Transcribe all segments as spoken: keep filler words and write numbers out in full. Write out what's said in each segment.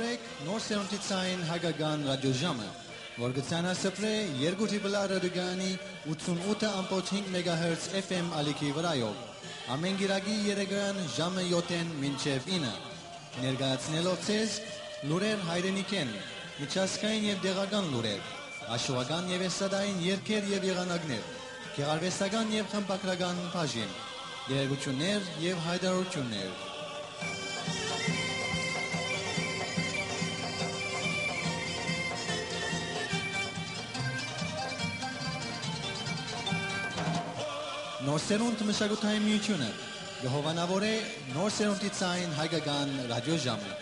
Նոր սերունդի ցային հայկական ռադիոժամը, որ կը ցանասփռէ երկու Triple R ռադիոկայանի ութսունութ ըմբոց հինգ մեգահերց F M ալիքի վրայով, ամէն կիրակի երեկոյեան ժամը յոթ մինչեւ ինը, ներկայացնելով ձեզ լուրեր հայրենիքէն, միջազգային եւ տեղական լուրեր, հաշուական եւ էստրադային երգեր եւ եղանակներ, գեղարուեստական եւ խմբագրական բաժին, տեղեկութիւններ եւ յայտարարութիւններ։ Նոր սերունդ մշակութային միութիւնը կը հովանաւորէ նոր սերունդի ցային հայկական ռադիոժամը։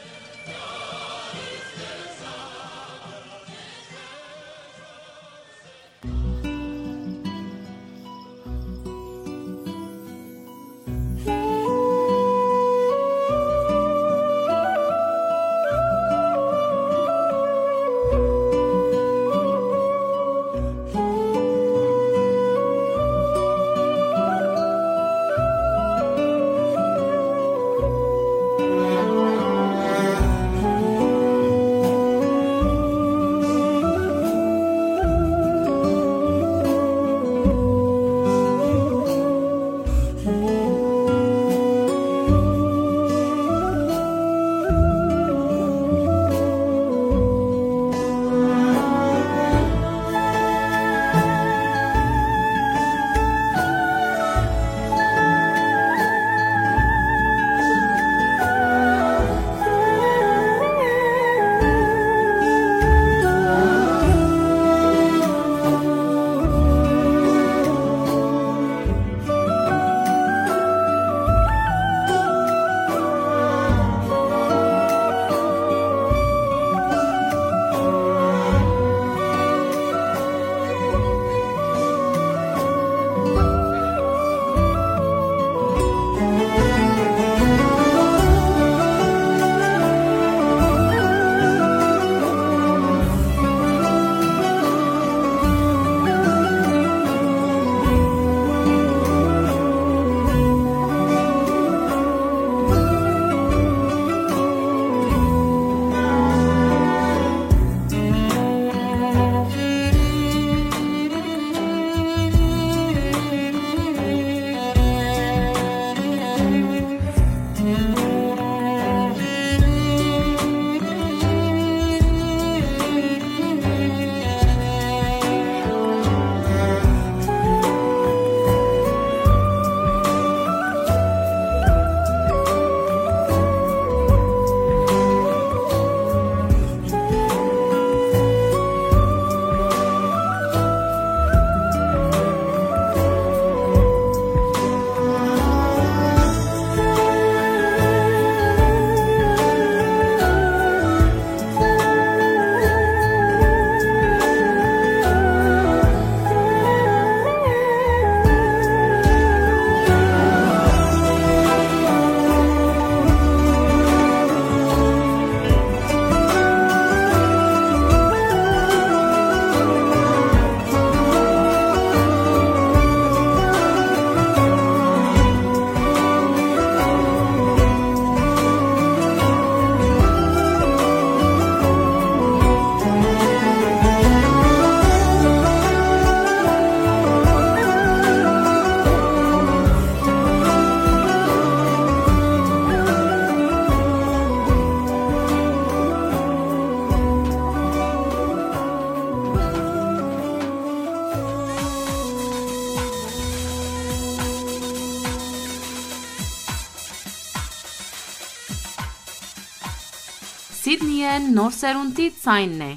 Սիդնիէն նոր սերունդի ցայնն է։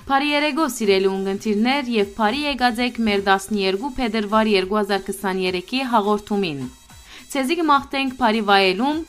Բարի երեկո, սիրելի ունգընտիրներ, եւ բարի եկած եք մեր տասներկու փետրուար երկու հազար քսաներեքի հաղորդումին։ Ձեզի կը մաղթենք բարի վայելում։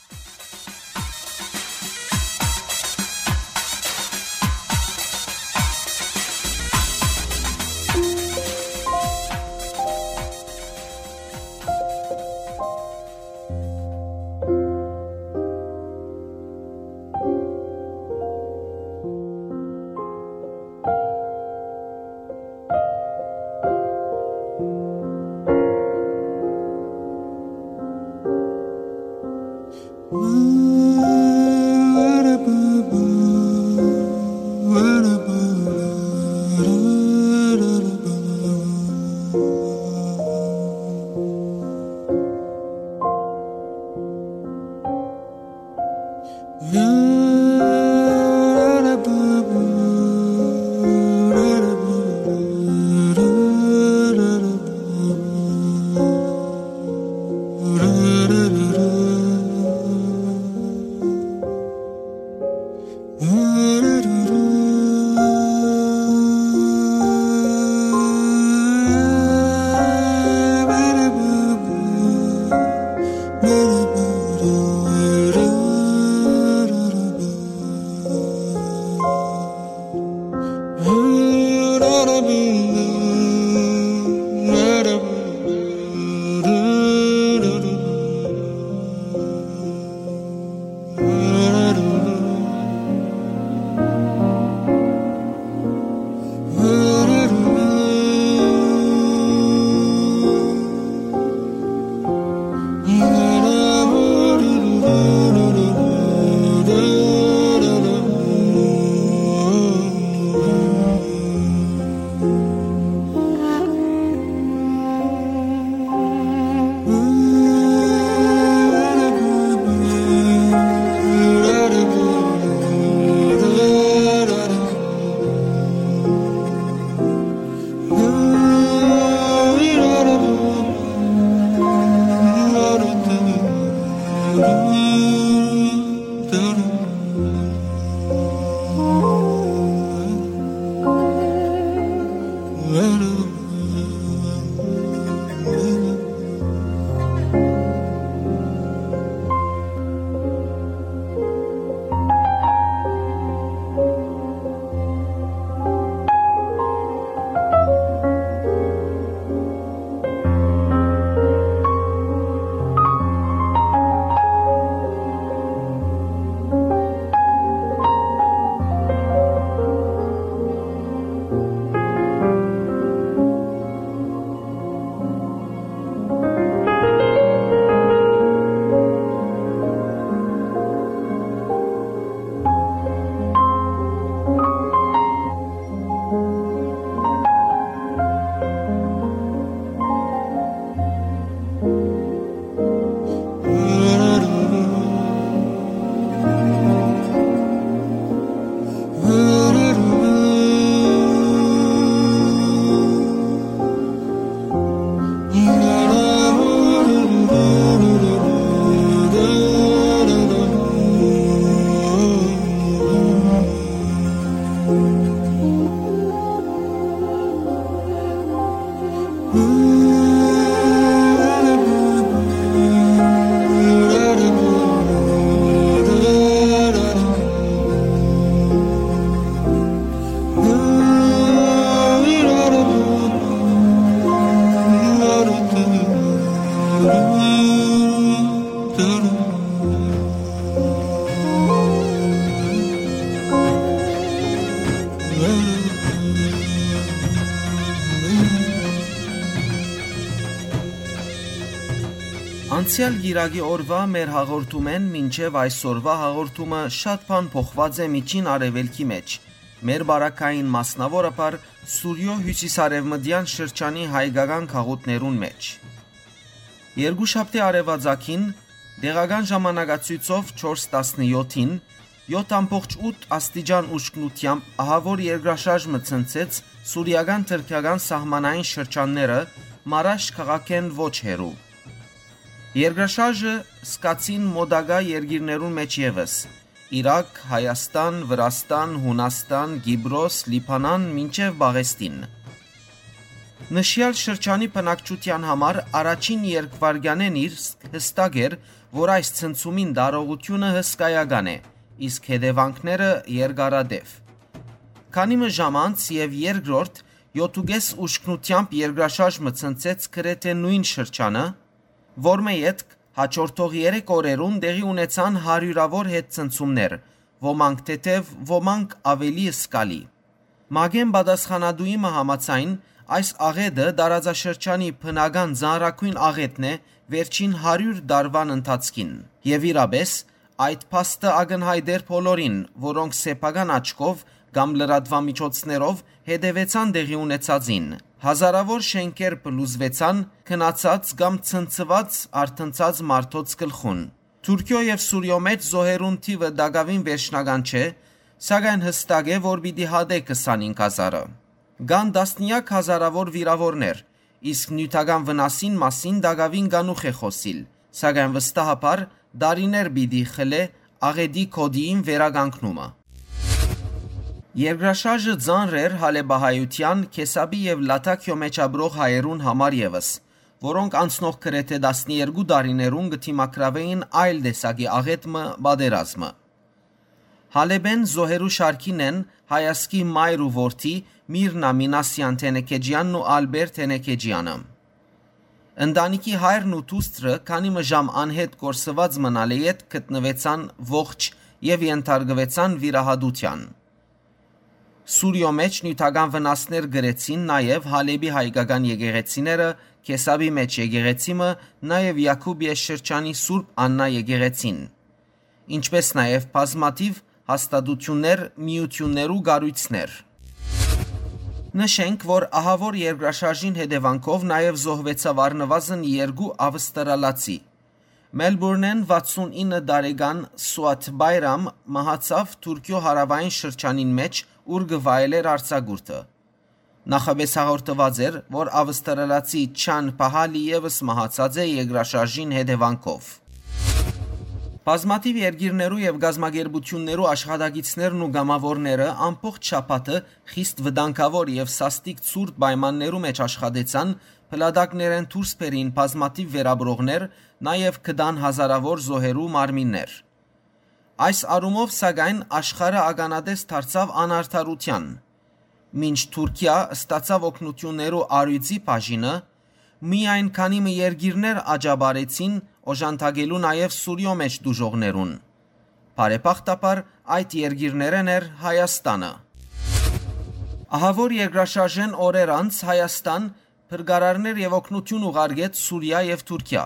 Անցեալ կիրակի օրուայ մեր հաղորդումէն մինչեւ այսօրուայ հաղորդումը շատ բան փոխուած է Միջին Արեւելքի մէջ, մեր պարագային, մասնաւորաբար Սուրիոյ հիւսիսարեւմտեան շրջանի հայկական գաղութներուն մէջ։ Երկուշաբթի արեւածագին, տեղական ժամանակացոյցով չորս տասնեօթին, յոթ ամբողջ ութ աստիճան ուժգնութեամբ ահաւոր երկրաշարժ մը ցնցեց սուրիական-թրքական սահմանային շրջանները Մարաշ քաղաքէն ոչ հեռու։ Երկրաշարժը զգացին մօտակայ երկիրներուն մէջ եւս՝ Իրաք, Հայաստան, Վրաստան, Յունաստան, Կիպրոս, Լիբանան, մինչեւ Պաղեստին։ Նշեալ շրջանի բնակչութեան համար առաջին երկվայրկեանէն իր հստակ էր, որ այս ցնցումին տարողութիւնը հսկայական է, իսկ հետեւանքները՝ երկարատեւ։ Քանի մը ժամ անց եւ երկրորդ յոթ ու կէս ուժգնութեամբ երկրաշարժ մը ցնցեց գրեթէ նոյն շրջանը, որմէ ետք հաջորդող երեք օրերուն տեղի ունեցան հարիւրաւոր հետ ցնցումներ, ոմանք թեթեւ, ոմանք աւելի զգալի։ ՄԱԿ-ին պատասխանատուի մը համաձայն, այս աղէտը տարածաշրջանի բնական ծանրագոյն աղէտն է վերջին հարիւր տարուան ընթացքին։ Եւ իրապէս, այդ փաստը ակնյայտ էր բոլորին, որոնք սեփական աչքով կամ լրատուամիջոցներով հետեւեցան տեղի ունեցածին։ Հազարաւոր շէնքեր փլուզուեցան, քնացած կամ ցնցուած, արթնցած մարդոց գլխուն։ Թուրքիոյ եւ Սուրիոյ մէջ զոհերուն թիւը տակաւին վերջնական չէ, սակայն հստակ է, որ պիտի հատէ քսանհինգ հազարը։ Կան տասնեակ հազարաւոր վիրաւորներ, իսկ նիւթական վնասին մասին տակաւին կանուխ է խօսիլ, սակայն վստահաբար տարիներ պիտի խլէ աղէտի գօտիին վերականգնումը։ Երկրաշարժը ծանր էր հալէպահայութեան, Քեսապի եւ Լաթաքիոյ մէջ ապրող հայերուն համար եւս, որոնք անցնող գրեթէ տասներկու տարիներուն կը դիմագրաւէին այլ տեսակի աղէտ մը՝ պատերազմը։ Հալէպէն զոհերու շարքին են հայազգի մայր ու որդի Միրնա Մինասեան Թենեքեջեանն ու Ալպեր Թենեքեջեանը։ Ընտանիքի հայրն ու դուստրը քանի մը ժամ անհետ կորսուած մնալէ յետ գտնուեցան ողջ եւ ենթարկուեցան վիրահատութեան։ Սուրիոյ մէջ նիւթական վնասներ կրեցին նաեւ Հալէպի հայկական եկեղեցիները, Քեսապի մէջ եկեղեցի մը, նաեւ Յակուբիա շրջանի Սուրբ Աննա եկեղեցին, ինչպէս նաեւ բազմաթիւ հաստատութիւններ, միութիւններ ու կառոյցներ։ Նշենք, որ ահաւոր երկրաշարժին հետեւանքով նաեւ զոհուեցաւ առնուազն երկու ավստրալացի։ Մելբուրնէն վաթսուն ինը տարեկան Սուատ Բայրամ մահացաւ Թուրքիոյ հարաւային շրջանին մէջ, ուր կը վայելէր արձակուրդը։ Նախապէս հաղորդուած էր, որ ավստրալացի Չան Պահալի եւս մահացած է երկրաշարժին հետեւանքով։ Բազմաթիւ երկիրներու եւ կազմակերպութիւններու աշխատակիցներն ու կամաւորները ամբողջ շաբաթը խիստ վտանգաւոր եւ սաստիկ ցուրտ պայմաններու մէջ աշխատեցան, փլատակներէն դուրս բերին բազմաթիւ վերապրողներ, նաեւ գտան հազարաւոր զոհերու մարմիններ։ Այս առումով, սակայն, աշխարհը ականատես դարձաւ անարդարութեան։ Մինչ Թուրքիա ստացաւ օգնութիւններու առիւծի բաժինը, միայն քանի մը երկիրներ աջաբարեցին օժանդակելու նաեւ Սուրիոյ մէջ տուժողներուն։ Բարեբախտաբար, այդ երկիրներէն էր Հայաստանը։ Ահաւոր երկրաշարժէն օրեր անց Հայաստան փրկարարներ եւ օգնութիւն ուղարկեց Սուրիա եւ Թուրքիա։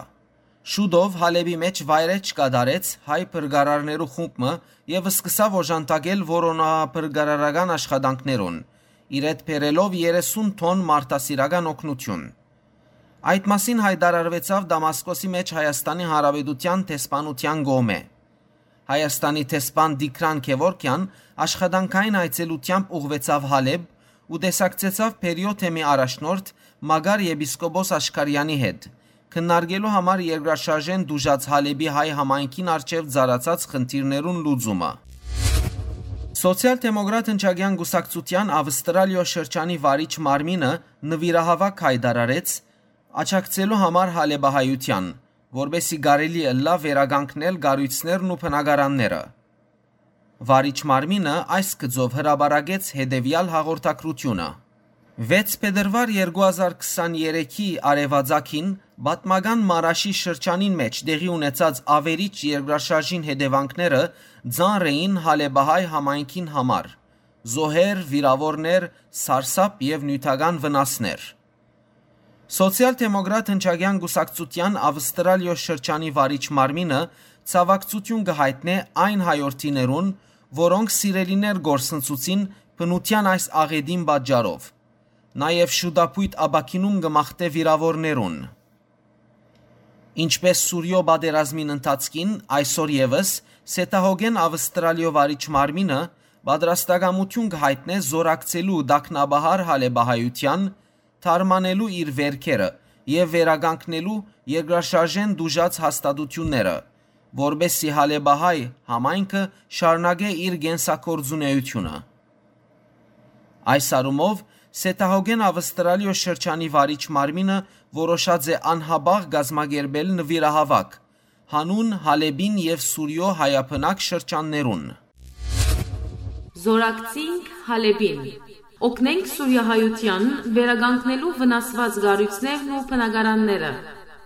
Շուտով Հալէպի մէջ վայրէջք կատարեց հայ փրկարարներու խումբ մը եւ սկսաւ օժանդակել որոնափրկարարական աշխատանքներուն, իրետ բերելով երեսուն թոն մարդասիրական օգնութիւն։ Այդ մասին յայտարարուեցաւ Դամասկոսի մէջ Հայաստանի Հանրապետութեան դեսպանութեան կողմէ։ Հայաստանի դեսպան Տիգրան Գևորգեան աշխատանքային այցելութեամբ ուղղուեցաւ Հալէպ ու տեսակցեցաւ Բերիոյ թեմի առաջնորդ Մակար եպիսկոպոս Աշքարեանի հետ, քննարկելու համար երկրաշարժէն տուժած Հալէպի հայ համայնքին առջեւ ծառացած խնդիրներուն լուծումը։ Սոցիալ-դեմոկրատ հնչակեան կուսակցութեան Ավստրալիոյ շրջանի վարիչ մարմինը նուիրահաւաք յայտարարեց աջակցելու համար հալէպահայութեան, որպէսզի կարելի ըլլայ վերականգնել կառոյցներն ու բնակարանները։ Վարիչ մարմինը այս գծով հրապարակեց հետեւեալ հաղորդագրութիւնը։ Վեց փետրուար երկու հազար քսաներեքի արեւածագին պատմական Մարաշի շրջանին մէջ տեղի ունեցած ավերիչ երկրաշարժին հետեւանքները ծանր էին հալէպահայ համայնքին համար. զոհեր, վիրաւորներ, սարսափ եւ նիւթական վնասներ։ Սոցիալ-դեմոկրատ հնչակեան կուսակցութեան Ավստրալիոյ շրջանի վարիչ մարմինը ցաւակցութիւն կը յայտնէ այն հայորդիներուն, որոնք սիրելիներ կորսնցուցին բնութեան այս աղէտին պատճառով։ Նաեւ շուտափոյթ ապաքինում կը մաղթէ վիրաւորներուն։ Ինչպէս Սուրիոյ պատերազմին ընթացքին, այսօր եւս Սեթահոգեն Ավստրալիոյ վարիչ մարմինը պատրաստակամութիւն կը յայտնէ զօրակցելու տագնապահար հալէպահայութեան, թարմանելու իր վերքերը եւ վերականգնելու երկրաշարժէն տուժած հաստատութիւնները, որպէսզի հալէպահայ համայնքը շարունակէ իր կենսագործունեութիւնը։ Այս առումով, Սեթահոգեն Ավստրալիոյ շրջանի վարիչ մարմինը որոշած է անհապաղ կազմակերպել նուիրահաւաք, յանուն Հալէպին եւ Սուրիոյ հայաբնակ շրջաններուն։ Զորակցինք Հալէպին։ Օգնենք սուրիահայութեան, վերականգնելու վնասուած կառոյցներն ու բնակարանները։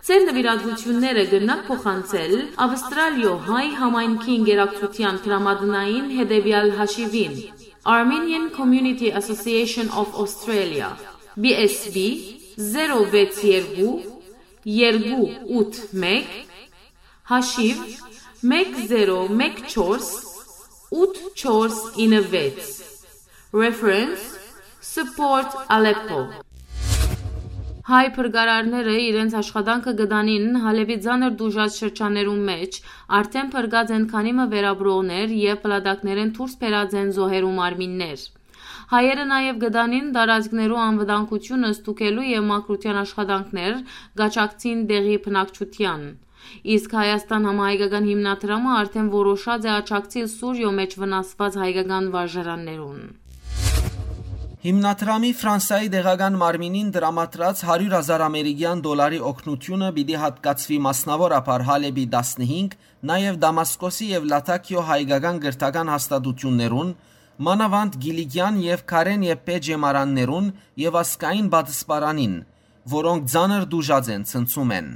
Ձեր նուիրատուութիւնները կրնաք փոխանցել Ավստրալիոյ հայ համայնքի ընկերակցութեան դրամատնային հետեւեալ հաշիւին. Armenian Community Association of Australia, B S B, zero վեց երկու երկու ութ մեկ, հաշիւ մեկ զերո մեկ չորս ութ չորս ինը վեց։ Reference, Support Aleppo։ Հայ փրկարարները իրենց աշխատանքը կը տանին Հալէպի ծանր տուժած շրջաններուն մէջ, արդէն փրկած են քանի մը վերապրողներ եւ փլատակներէն դուրս բերած են զոհերու մարմիններ։ Հայերը նաեւ կը տանին տարածքներու անվտանգութիւնը ստուգելու եւ մաքրութեան աշխատանքներ, կաջակցին տեղի բնակչութեան։ Իսկ Հայաստան համահայկական հիմնադրամը արդէն որոշած է աջակցիլ Սուրիոյ մէջ վնասուած հայկական վարժարաններուն։ Հիմնադրամի Ֆրանսայի տեղական մարմինին տրամադրած հարիւր հազար ամերիկեան դոլարի օգնութիւնը պիտի յատկացուի մասնաւորաբար Հալէպի տասնհինգ, նաեւ Դամասկոսի եւ Լաթաքիո հայկական կրթական հաստատութիւններուն, մանաւանդ Կիլիկեան եւ Քարէն Եփփէ ջեմարաններուն եւ ազգային պատսպարանին, որոնք ծանր տուժած են, ցնցում են։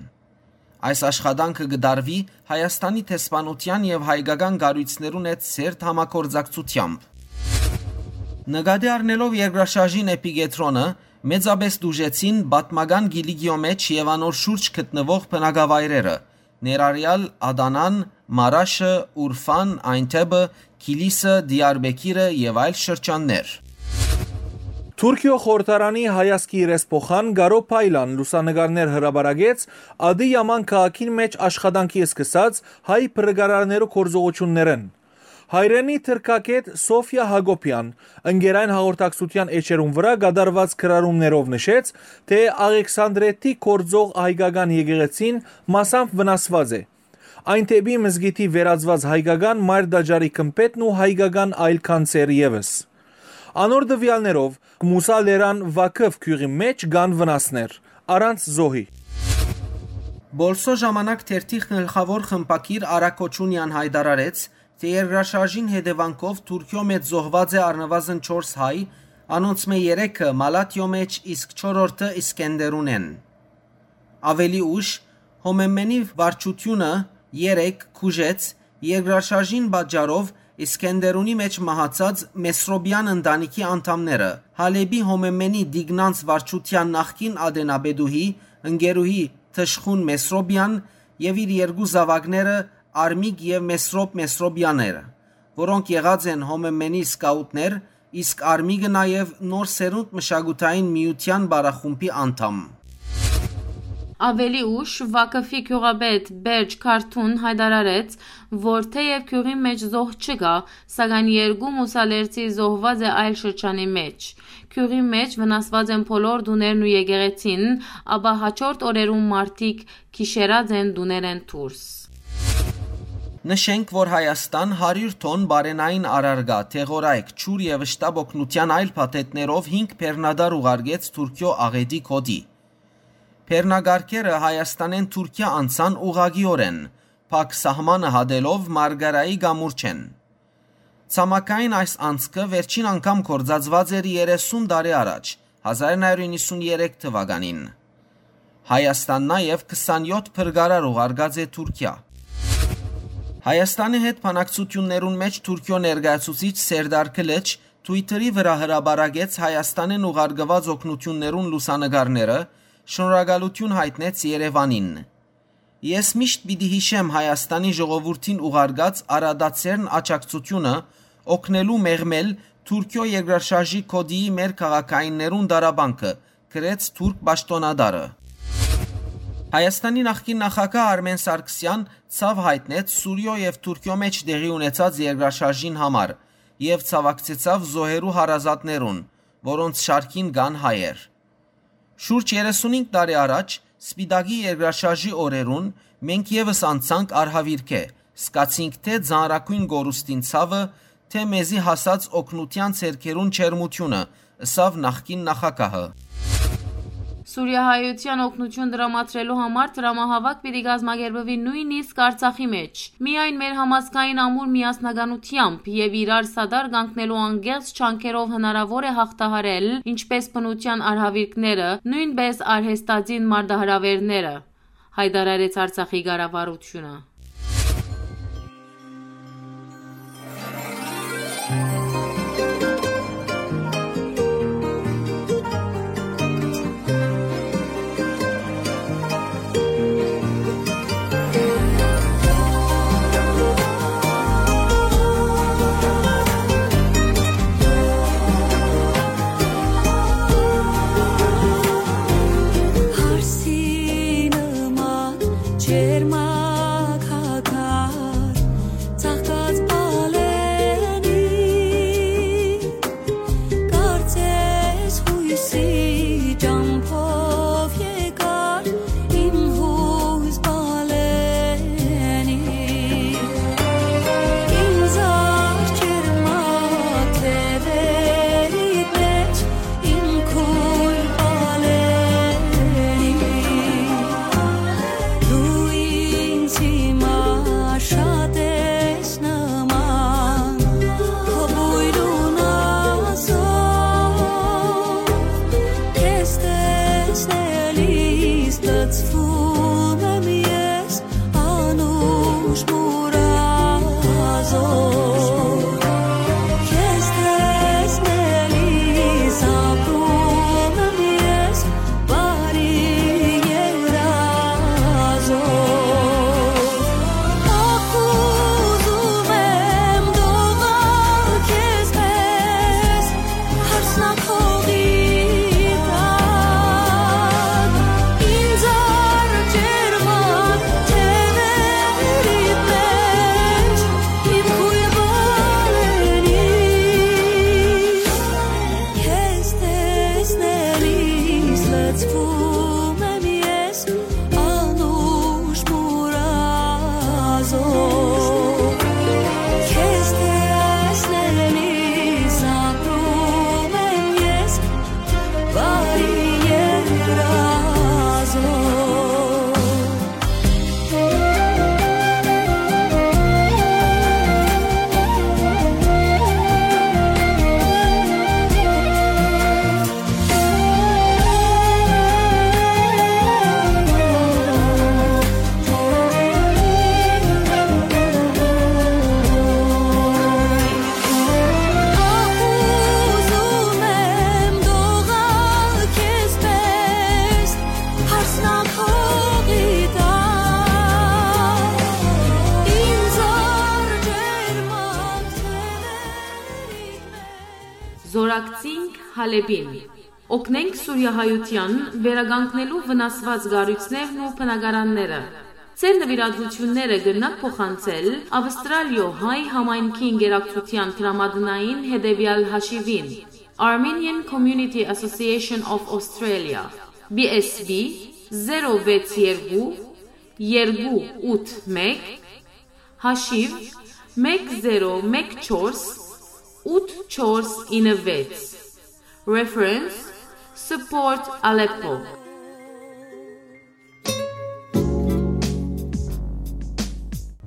Այս աշխատանքը կը տարուի Հայաստանի դեսպանութեան եւ հայկական կառոյցներուն հետ սերտ համագործակցութեամբ։ Նկատի առնելով երկրաշարժին էպիկեդրոնը, մեծապէս տուժեցին պատմական Կիլիկիոյ մէջ եւ անոր շուրջ գտնուող բնակավայրերը, ներառեալ Ադանան, Մարաշը, Ուրֆան, Այնթեբը, Քիլիսը, Դիարբեքիրը եւ այլ շրջաններ։ Թուրքիոյ խորհրդարանի հայազգի իրեսփոխան Գարո Փայլան լուսանկարներ հրապարակեց Ադի Յաման քաղաքին մէջ աշխատանքի սկսած հայ փրկարարներու գործողութիւններէն։ Հայրենի թրքագէտ Սոֆիա Հակոբեան ընկերային հաղորդակցութեան էջերուն վրայ կատարուած գրառումներով նշեց, թէ Աղեքսանդրետի գործող հայկական եկեղեցին մասամբ վնասուած է։ Այնթեբի մզկիթի վերածուած հայկական մայր տաճարի գմբէթն ու հայկական այլ գանձեր եւս։ Անոր տուեալներով, Մուսա Լերան Վաքֆ գիւղի մէջ կան վնասներ, առանց զոհի։ Բոլսո ժամանակ թերթի գլխաւոր խմբագիր Արագ Օչունեան յայտարարեց, թէ երկրաշարժին հետեւանքով Թուրքիոյ մէջ զոհուած է առնուազն չորս հայ, անոնցմէ երեքը Մալաթիոյ մէջ, իսկ չորրորդը Իսկենդերունէն։ Աւելի ուշ, Հոմեմենի վարչութիւնը երեկ քուժեց երկրաշարժին պատճառով Իսկենդերունի մէջ մահացած Մեսրոպեան ընտանիքի անդամները, Հալէպի Հոմեմենի Տիկնանց վարչութեան նախկին ատենապետուհի, ընկերուհի Թշխուն Մեսրոպեան եւ իր երկու զաւակները՝ Արմիկ եւ Մեսրոպ Մեսրոպեաները, որոնք եղած են Հոմեմենի սկաուտներ, իսկ Արմիկը նաեւ Նոր Սերունդ մշակութային միութեան պարախումբի անդամ։ Աւելի ուշ Վաքֆի գիւղապետ Բերջ Քարթուն յայտարարեց, որ թէեւ գիւղին մէջ զոհ չկայ, սակայն երկու մուսալերցի զոհուած է այլ շրջանի մէջ։ Գիւղի մէջ վնասուած են բոլոր տուներն ու եկեղեցին, ապա հաջորդ օրերուն մարդիկ գիշերած են տուներէն դուրս։ Նշենք, որ Հայաստան հարիւր թոն բարենային առարկայ, դեղորայք, ջուր եւ շտապօգնութեան այլ փաթեթներով հինգ բեռնատար ուղարկեց Թուրքիոյ աղէտի գօտի։ Բեռնակառքերը Հայաստանէն Թուրքիա անցան ուղղակիօրէն, փակ սահմանը հատելով Մարգարայի կամուրջէն։ Ցամաքային այս անցքը վերջին անգամ գործածուած էր երեսուն տարի առաջ, հազար նոյ հարիւր իննսուն երեք թուականին։ Հայաստան նաեւ քսանյոթ փրկարար ուղարկած է Թուրքիա։ Հայաստանի հետ բանակցութիւններուն մէջ Թուրքիոյ ներկայացուցիչ Սերդար Քլիչ Twitter-ի վրայ հրապարակեց Հայաստանէն ուղարկուած օգնութիւններուն լուսանկարները, շնորհակալութիւն յայտնեց Երեւանին։ «Ես միշտ պիտի յիշեմ Հայաստանի ժողովուրդին ուղարկած առատաձեռն աջակցութիւնը՝ օգնելու մեղմել Թուրքիոյ երկրաշարժի գօտիի մեր քաղաքայիններուն տառապանքը», գրեց թուրք պաշտօնատարը։ Հայաստանի նախկին նախագահ Արմեն Սարգսեան ցաւ յայտնեց Սուրիոյ եւ Թուրքիոյ մէջ տեղի ունեցած երկրաշարժին համար եւ ցաւակցեցաւ զոհերու հարազատներուն, որոնց շարքին կան հայեր։ Շուրջ երեսունհինգ տարի առաջ, Սպիտակի երկրաշարժի օրերուն, մենք եւս անցանք արհավիրքէ, զգացինք թէ ծանրագոյն կորուստին ցաւը, թէ մեզի հասած օգնութեան ձեռքերուն ջերմութիւնը, ըսաւ նախկին նախագահը։ Սուրիահայութեան օգնութիւն տրամադրելու համար տրամահաւաք պիտի կազմակերպուի նոյնիսկ Արցախի մէջ։ Միայն մեր համազգային ամուր միասնականութեամբ եւ իրար սատար կանգնելու անկեղծ ջանքերով հնարաւոր է յաղթահարել ինչպէս բնութեան արհավիրքները, նոյնպէս արհեստածին մարտահրաւէրները, յայտարարեց Արցախի կառավարութիւնը։ Սվում եմ ես անուշ մուրազով, քեզ տեսնելիս ապրում եմ ես բարի երազով։ Ախ, ուզում եմ դողալ քեզ պես, հարսնաքողի տակ, ինձ արջերմակ թեւերիդ մէջ, իմ քոյր բալենի, քեզ տեսնելիս լցվում եմ ես անուշ մուրազով, քեզ տեսնելիս ապրում եմ ես բարի երազով։ Ախ, ուզում եմ դողալ քեզ պես, հարսնաքողի տակ, ինձ արջերմակ թեւերիդ մէջ։ Զօրակցինք Հալէպին։ Օգնենք սուրիահայութեան վերականգնելու վնասուած կառոյցներն ու բնակարանները։ Ձեր նուիրատուութիւնները կրնաք փոխանցել Ավստրալիոյ հայ համայնքի ընկերակցութեան դրամատնային հետեւեալ հաշիւին, Armenian Community Association of Australia, B S B zero վեց երկու երկու ութ մէկ, հաշիւ մէկ զերո մէկ չորս ութ չորս ինը վեց։ Reference, Support Aleppo.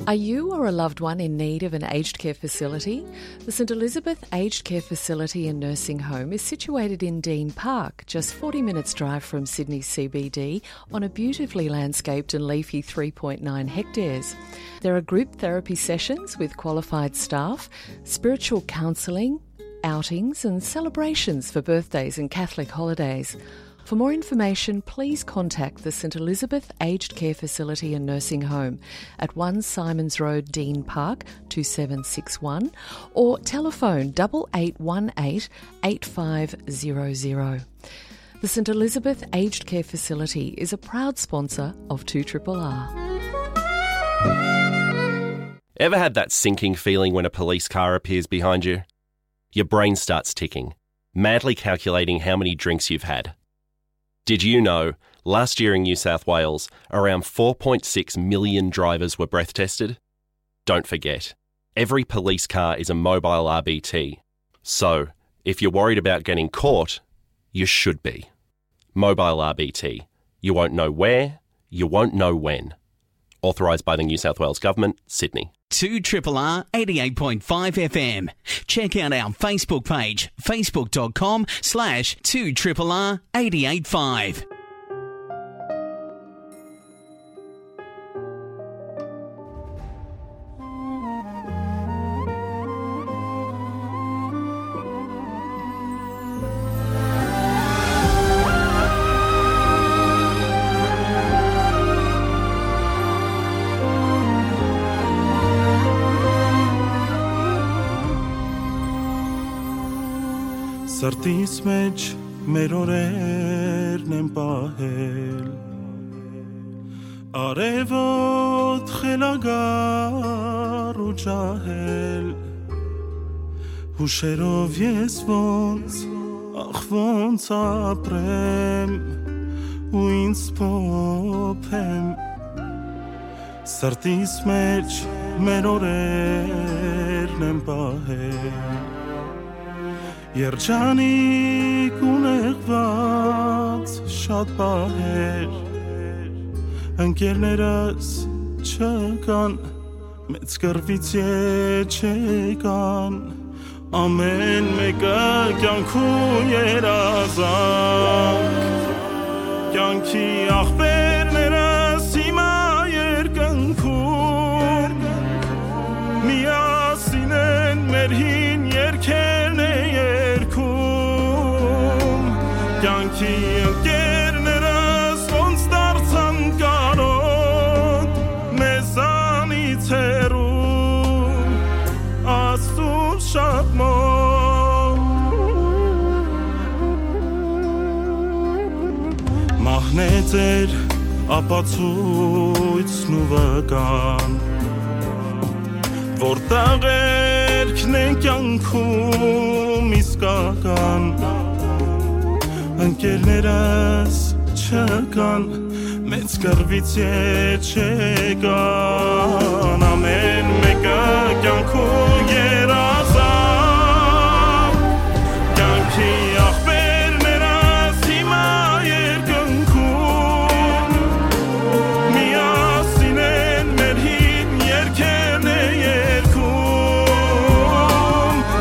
Are you or a loved one in need of an aged care facility? The St Elizabeth Aged Care Facility and Nursing Home is situated in Dean Park, just forty minutes drive from Sydney C B D, on a beautifully landscaped and leafy three point nine hectares. There are group therapy sessions with qualified staff, spiritual counselling, outings and celebrations for birthdays and Catholic holidays. For more information, please contact the St Elizabeth Aged Care Facility and Nursing Home at one Symonds Road, Dean Park, two seven six one, or telephone double eight one eight eight five zero zero. The St Elizabeth Aged Care Facility is a proud sponsor of two triple R. Ever had that sinking feeling when a police car appears behind you? Your brain starts ticking, madly calculating how many drinks you've had. Did you know, last year in New South Wales, around four point six million drivers were breath tested? Don't forget, every police car is a mobile R B T. So, if you're worried about getting caught, you should be. Mobile R B T. You won't know where, you won't know when. Authorised by the New South Wales Government, Sydney. Two triple R eighty-eight point five F M. Check out our Facebook page, facebook dot com slash two triple R eight eight five. Սրտիս մէջ մեր օրերն են պահել, արեւոտ խելագար ու ջահել, հուշերով ես ոնց, ախ, ոնց ապրեմ ու ինձ փոփեմ, սրտիս մէջ մեր օրերն են պահել։ Երջանիկ ու նեղված շատ պահեր, ընկերներս չկան, մեծ կռվից ետ չեկան, ամեն մեկը կյանքու երազանք, կյանքի ախպերն Կյանքի ընկերներս ոնց դարձան կարոտ, մեզանից հեռու, Աստուծուն շատ մոտ։ Մահն է ձեր ապացոյցն ու վկան, որ տաղերքն է կյանքում իսկական։ Ընկերներս չկան, մեծ կռուից ետ չեկան, ամեն մեկը կյանքու երազան։ Կյանքի աղբերներս հիմա երկնքում, միասին են մեր հին երկերն է երգում։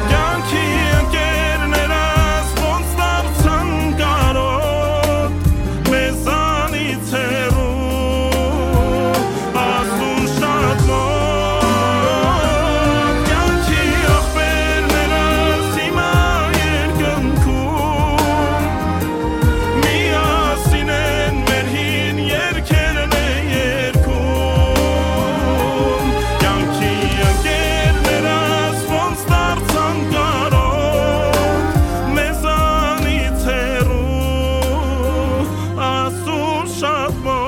Կյանքի ընկերներս ոնց դարձան կարոտ, մեզանից հեռու, Աստուն շատ մոտ։ Կյանքի աղբերներս հիմա երկնքում, միասին են մեր հին երկերն է երգում։ Կյանքի ընկերներս ոնց դարձան կարոտ, մեզանից հեռու, Աստուն շատ մոտ։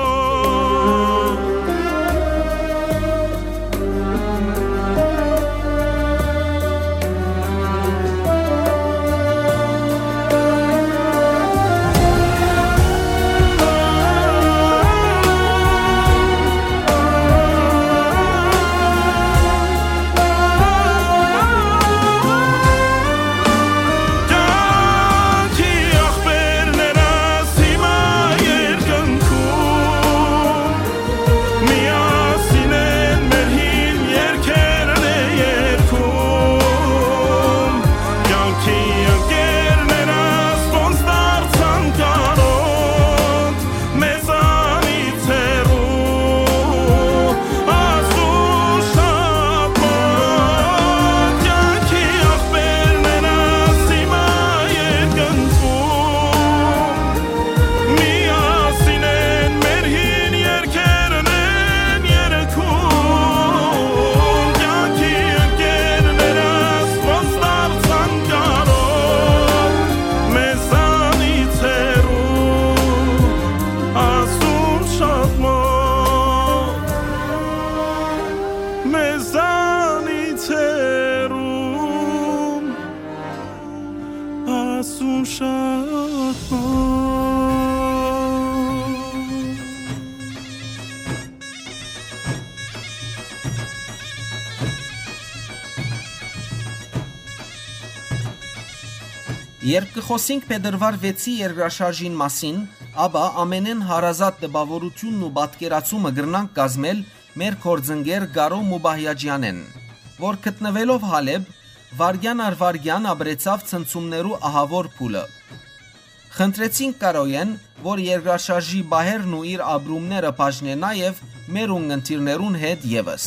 Կյանքի աղբերներս հիմա երկնքում, միասին են մեր հին երկերն է երգում։ Կյանքի ընկերներս ոնց դարձան կարոտ, մեզանից հեռու, Աստուն շատ մոտ։ Կյանքի աղբերներս հիմա երկնքում, միասին են մեր հին երկերն են երգում։ Կյանքի ընկերներս ոնց դարձան կարոտ, մեզանից հեռու, Աստուն շատ մոտ, մեզանից հեռու, Աստուն շատ մոտ։ Երբ կը խօսինք փետրուար վեցի երկրաշարժին մասին, ապա ամենէն հարազատ տպաւորութիւնն ու պատկերացումը կրնանք կազմել մեր գործընկեր Կարո Մուբահիաջեանէն, որ գտնուելով Հալեբ, վայրկեան առ վայրկեան ապրեցաւ ցնցումներու ահաւոր փուլը։ Խնդրեցինք Կարոյէն, որ երկրաշարժի պահերն ու իր ապրումները բաժնէ նաեւ մեր ունգընտիրներուն հետ եւս։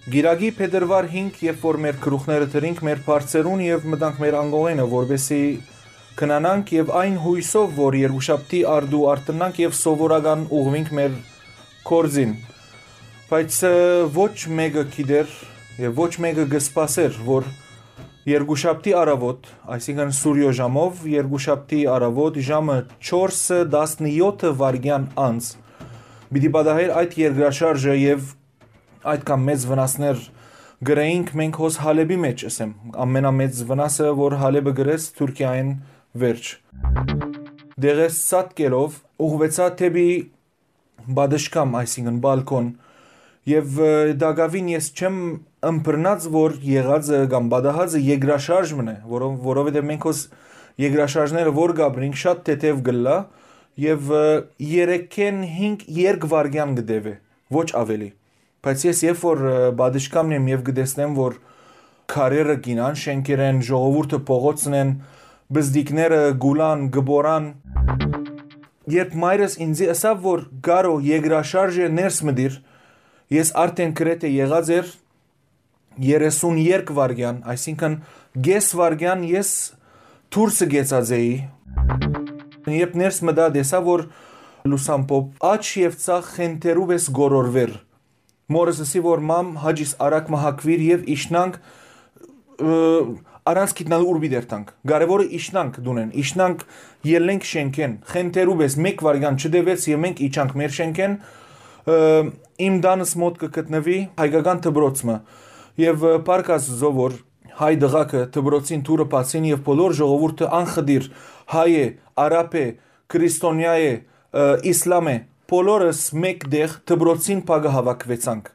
Կիրակի փետրուար հինգ, երբ որ մեր գլուխները դրինք մեր բարձերուն եւ մտանք մեր անկողենը, որպեսզի քնանանք եւ այն յոյսով, որ երկուշաբթի արդու արթնանք եւ սովորական ուղղուինք մեր գործին։ Բայց, ը, ոչ մէկը գիտեր եւ ոչ մէկը կը սպասէր, որ երկուշաբթի առավոտ, այսինքն՝ Սուրիոյ ժամով, երկուշաբթի առավոտ ժամը չորսը տասնեօթը վայրկեան անց, պիտի պատահէր այդ երկրաշարժը եւ այդքան մեծ վնասներ կրեինք մենք հոս Հալեբի մէջ, ըսեմ, ամենամեծ վնասը, որ Հալեբը կրեց Թուրքիայէն վերջ։ Դեղեսցատկելով ուղղուեցայ դէպի պատշգամ, այսինքն՝ բալկոն, եւ, ը, տակաւին ես չեմ ըմբռնած, որ եղածը կամ պատահածը երկրաշարժ մըն է, որով-, որովհետեւ մենք հոս երկրաշարժները որ կապրինք, շատ թեթեւ կ'ըլլայ եւ, ը, երեքէն հինգ երկվայրկեան կը տեւէ, ոչ աւելի։ Բայց ես երբ որ, ը, պատշգամն եմ եւ կը տեսնեմ, որ քարերը կ'իյնան շէնքերէն, ժողովուրդը փողոցն են, բզդիկները կ'ուլան, կը պորան, երբ մայրս ինծի ըսաւ, որ Կարո, երկրաշարժ է, ներս մտիր, ես արդէն գրեթէ եղած էր երեսուն երկու վայրկեան, այսինքն՝ կէս վայրկեան ես դուրսը կեցած էի։ Երբ ներս մտայ, տեսայ, որ լուսամբով աջ եւ ձախ խենթերու պէս գորորուեր։ Մօրս ըսի, որ մամ, հաճիս արագ մը հագուիր եւ իջնանք, ը, առանց գիտնալ ուր պիտի երթանք։ Կարեւորը իջնանք տունէն, իջնանք, ելլենք շէնքէն, խենթերու պէս մեկ վայրկեան չտեւեց եւ մենք իջանք մեր շէնքէն, ը, իմ տանս մօտ կը գտնուի հայկական դպրոց մը։ Եւ, ը, փառք Աստուծոյ, որ հայ տղաքը դպրոցին դուռը բացին եւ բոլոր ժողովուրդը անխտիր հայ է, արաբ է, քրիստոնեայ է, ը, իսլամ է, բոլորս մէկ տեղ դպրոցին փակը հաւաքուեցանք։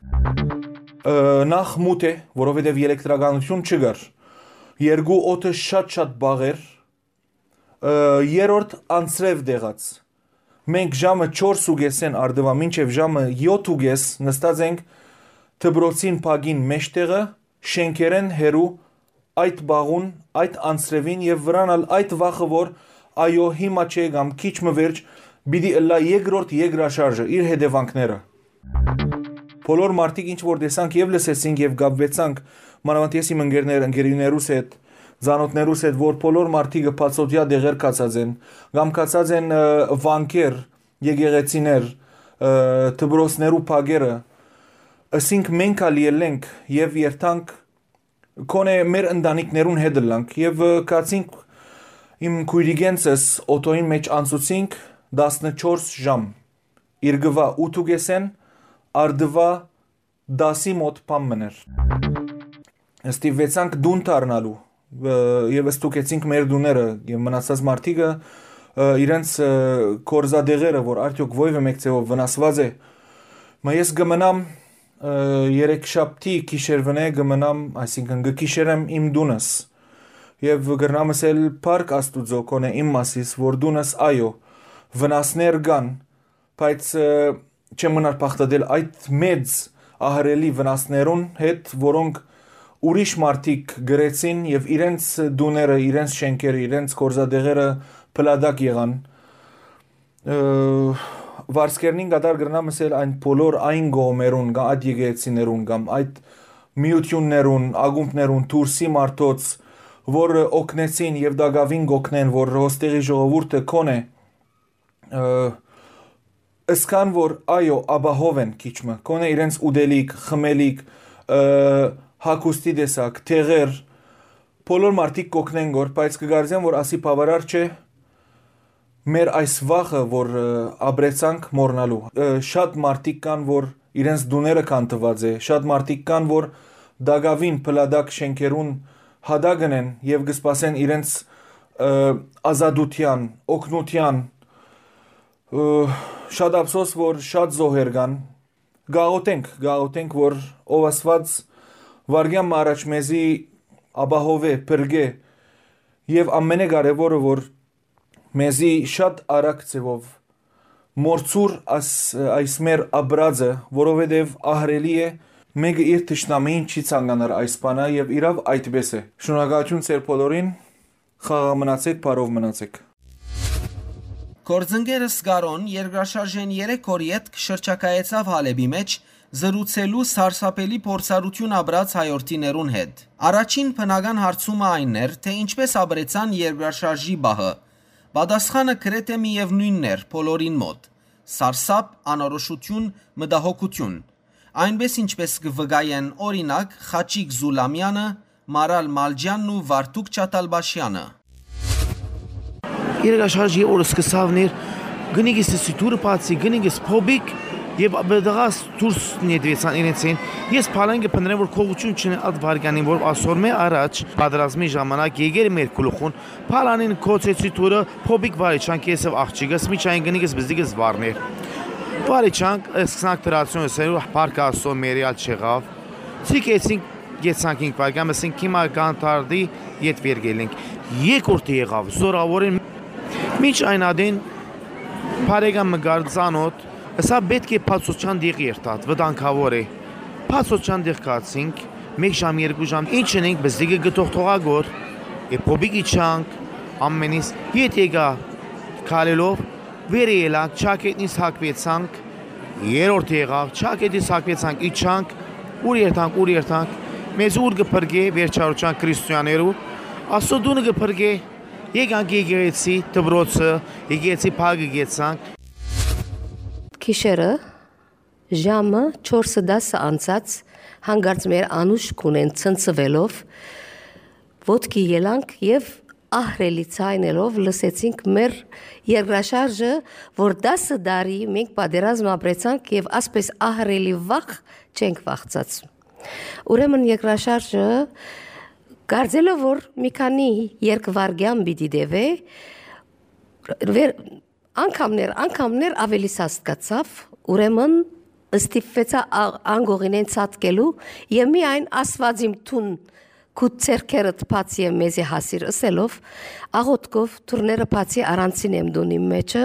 Ը, նախ մութ է, որովհետեւ ելեկտրականութիւն չկար։ Երկու օդը շատ-շատ բաղ էր, ը, երրորդ անձրեւ դեղած։ Մենք ժամը չորս ու կեսէն առտուայ մինչեւ ժամը յոթ ու կես նստած ենք դպրոցին փակին մէջտեղը, շէնքերէն հեռու, այդ բաղուն, այդ անձրեւին եւ վրան ալ այդ վախը, որ այո, հիմա չէ կամ քիչ մը վերջ պիտի ըլլայ երկրորդ երկրաշարժը, իր հետեւանքները։ Բոլոր մարդիկ ինչ որ տեսանք եւ լսեցինք եւ կապուեցանք, մանաւանդ ես իմ ընկերներ, ընկերուներուս հետ, ծանօթներուս հետ, որ բոլոր մարդիկը բացօթեայ տեղեր գացած են, կամ գացած են, ը, վանքեր, եկեղեցիներ, ը, դպրոցներու փակերը, ըսինք մենք ալ ելլենք եւ երթանք, գոնե մեր ընտանիքներուն հետ ըլլանք եւ, ը, գացինք իմ քոյրիկենցս օթոյին մէջ անցուցինք տասնչորս ժամ, երկուայ ութ ու կեսէն, առտուայ տասի մօտ բան մըն էր։ Ստիպուեցանք տուն դառնալու, ը, եւ ստուգեցինք մեր տուները եւ մնացած մարդիկը, ը, իրենց, ը, կորզատեղերը, որ արդեօք ոեւէ մէկ ձեւով վնասուած է։ Մը ես կը մնամ, ը, երեքշաբթի գիշերվնէ կը մնամ, այսինքն կը գիշերեմ իմ տունս։ Եւ կրնամ ըսել փառք Աստուծոյ, գոնե իմ մասիս, որ տունս, այո, վնասներ կան, բայց, ը, չեմ մնար բաղդատել այդ մեծ ահռելի վնասներուն հետ, որոնք ուրիշ մարդիկ կրեցին եւ իրենց տուները, իրենց շէնքերը, իրենց կորզատեղերը փլատակ եղան։ Ը, վարձկերնին կատար կրնամ ըսել այն բոլոր այն կողմերուն կամ այդ եկեղեցիներուն կամ այդ միութիւններուն, ակումբներուն, դուրսի մարդոց, որ օգնեցին եւ տակաւին կօգնեն, որ հոստեղի ժողովուրդը կոնե, ը, ըսկան որ այո, ապահով են քիչ մը, կոնե իրենց ուտելիք, խմելիք, ը, հագուստի տեսակ, տեղեր, բոլոր մարդիկ կօգնեն գոր, բայց կգարձեմ որ ասի բավարար չէ մեր այս վախը, որ, ը, ապրեցանք մոռնալու։ Ը, շատ մարդիկ կան, որ իրենց տուները քանդուած է, շատ մարդիկ կան, որ տակաւին փլատակ շէնքերուն հատակն են եւ կը սպասեն իրենց, ը, ազատութեան, օգնութեան։ Ը, շատ ափսոս, որ շատ զոհեր կան։ Գաղութենք, գաղութենք, որ ով Աստուած վարգեան մը առաջ մեզի ապահովէ, փրկէ եւ ամենակարեւորը, որ մեզի շատ արագ ձեւով մորցուր աս-, այս մեր ապրածը, որովհետեւ ահռելի է, մեկը իր թշնամիին չի ցանկանար այս բանը եւ իրաւ այդպես է։ Շնորհակալություն ձեր բոլորին, խաղաղ մնացեք, բարով մնացեք։ Գործընկերս Կարոն երկրաշարժէն երեք օր ետք շրջագայեցաւ Հալէպի մէջ, զրուցելու սարսափելի փորձառութիւն ապրած հայորդիներուն հետ։ Առաջին բնական հարցումը այն էր, թե ինչպես ապրեցան երկրաշարժի պահը։ Պատասխանը գրեթէ միեւնոյնն էր բոլորին մօտ. սարսափ, անորոշութիւն, մտահոգութիւն։ Այնպես ինչպես կը վկայեն, օրինակ, Խաչիկ Զուլամեանը, Մարալ Մալջյանն ու Վարդուկ Չաթալբաշյանը։ Երկրաշարժի օրը սկսաւ ներ, գնիկս սի դուռը բացի, գնիկս փոբիկ եւ աբդաղաս դուրս նետվեցան իրենց են։ Ես փալեն կը փնտրեմ, որ քողություն չունի այդ վարգանին, որ ասոր մե առաջ պատրաստմի ժամանակ եկեր մեր գլուխուն, փալանին կոչեցի դուռը, փոբիկ վարի չանք, ես եւ աղջիկս, միջային գնիկս բզդիկս վարներ։ Վարի չանք, սկսանք դրացիոն սերու պարկասո մերիալ չեղավ։ Ցիկ էցինք, գեցանք ինք վարգան, ասենք հիմա կան թարդի յետ վեր գելենք։ Երկրորդը եղավ, զորավորեն, մինչ այն ադին բարեկամ մը գար ծանոթ, սա պետք է բացոչան դեղ երթատ, վտանգավոր է։ Բացոչան դեղ գացինք, մեկ ժամ, երկու ժամ, ինչ ընենք, բզդիկը գտող թողագոր, է փոբիկ իջանք, ամենից յետ եկա քալելով, վեր ելանք, չակետնից հակվեցանք, երրորդ եղավ, չակետնից հակվեցանք, իջանք, ուր երթանք, ուր երթանք, մեզ ուր կը փրկե վերջարության քրիստոնյաներու, Աստծո դունը կը փրկե, Եկանք եկեղեցի դպրոցը, եկեղեցի փակը գեցանք։ Գիշերը ժամը չորսը տասը անցած, հանկարծ մեր անուշ քունեն ցնցուելով, ոտքի ելանք եւ ահռելի ձայնելով լսեցինք մեր երկրաշարժը, որ տասը տարի մենք պատերազմ ապրեցանք եւ ասպէս ահռելի վախ չենք վախցած։ Ուրեմն երկրաշարժը, կարծելով որ մի քանի երկվարգեան պիտի տեւէ, վեր-, անգամներ, անգամներ ավելի սաստկացաւ, ուրեմն ստիպվեցայ ա-, անկողինեն ցատկելու եւ միայն Աստուած իմ թուն քու ձեռքերդ բաց եւ մեզի հասիր ըսելով, աղոթքով դուռները բացի առանցին եմ տուն իմ մեջը,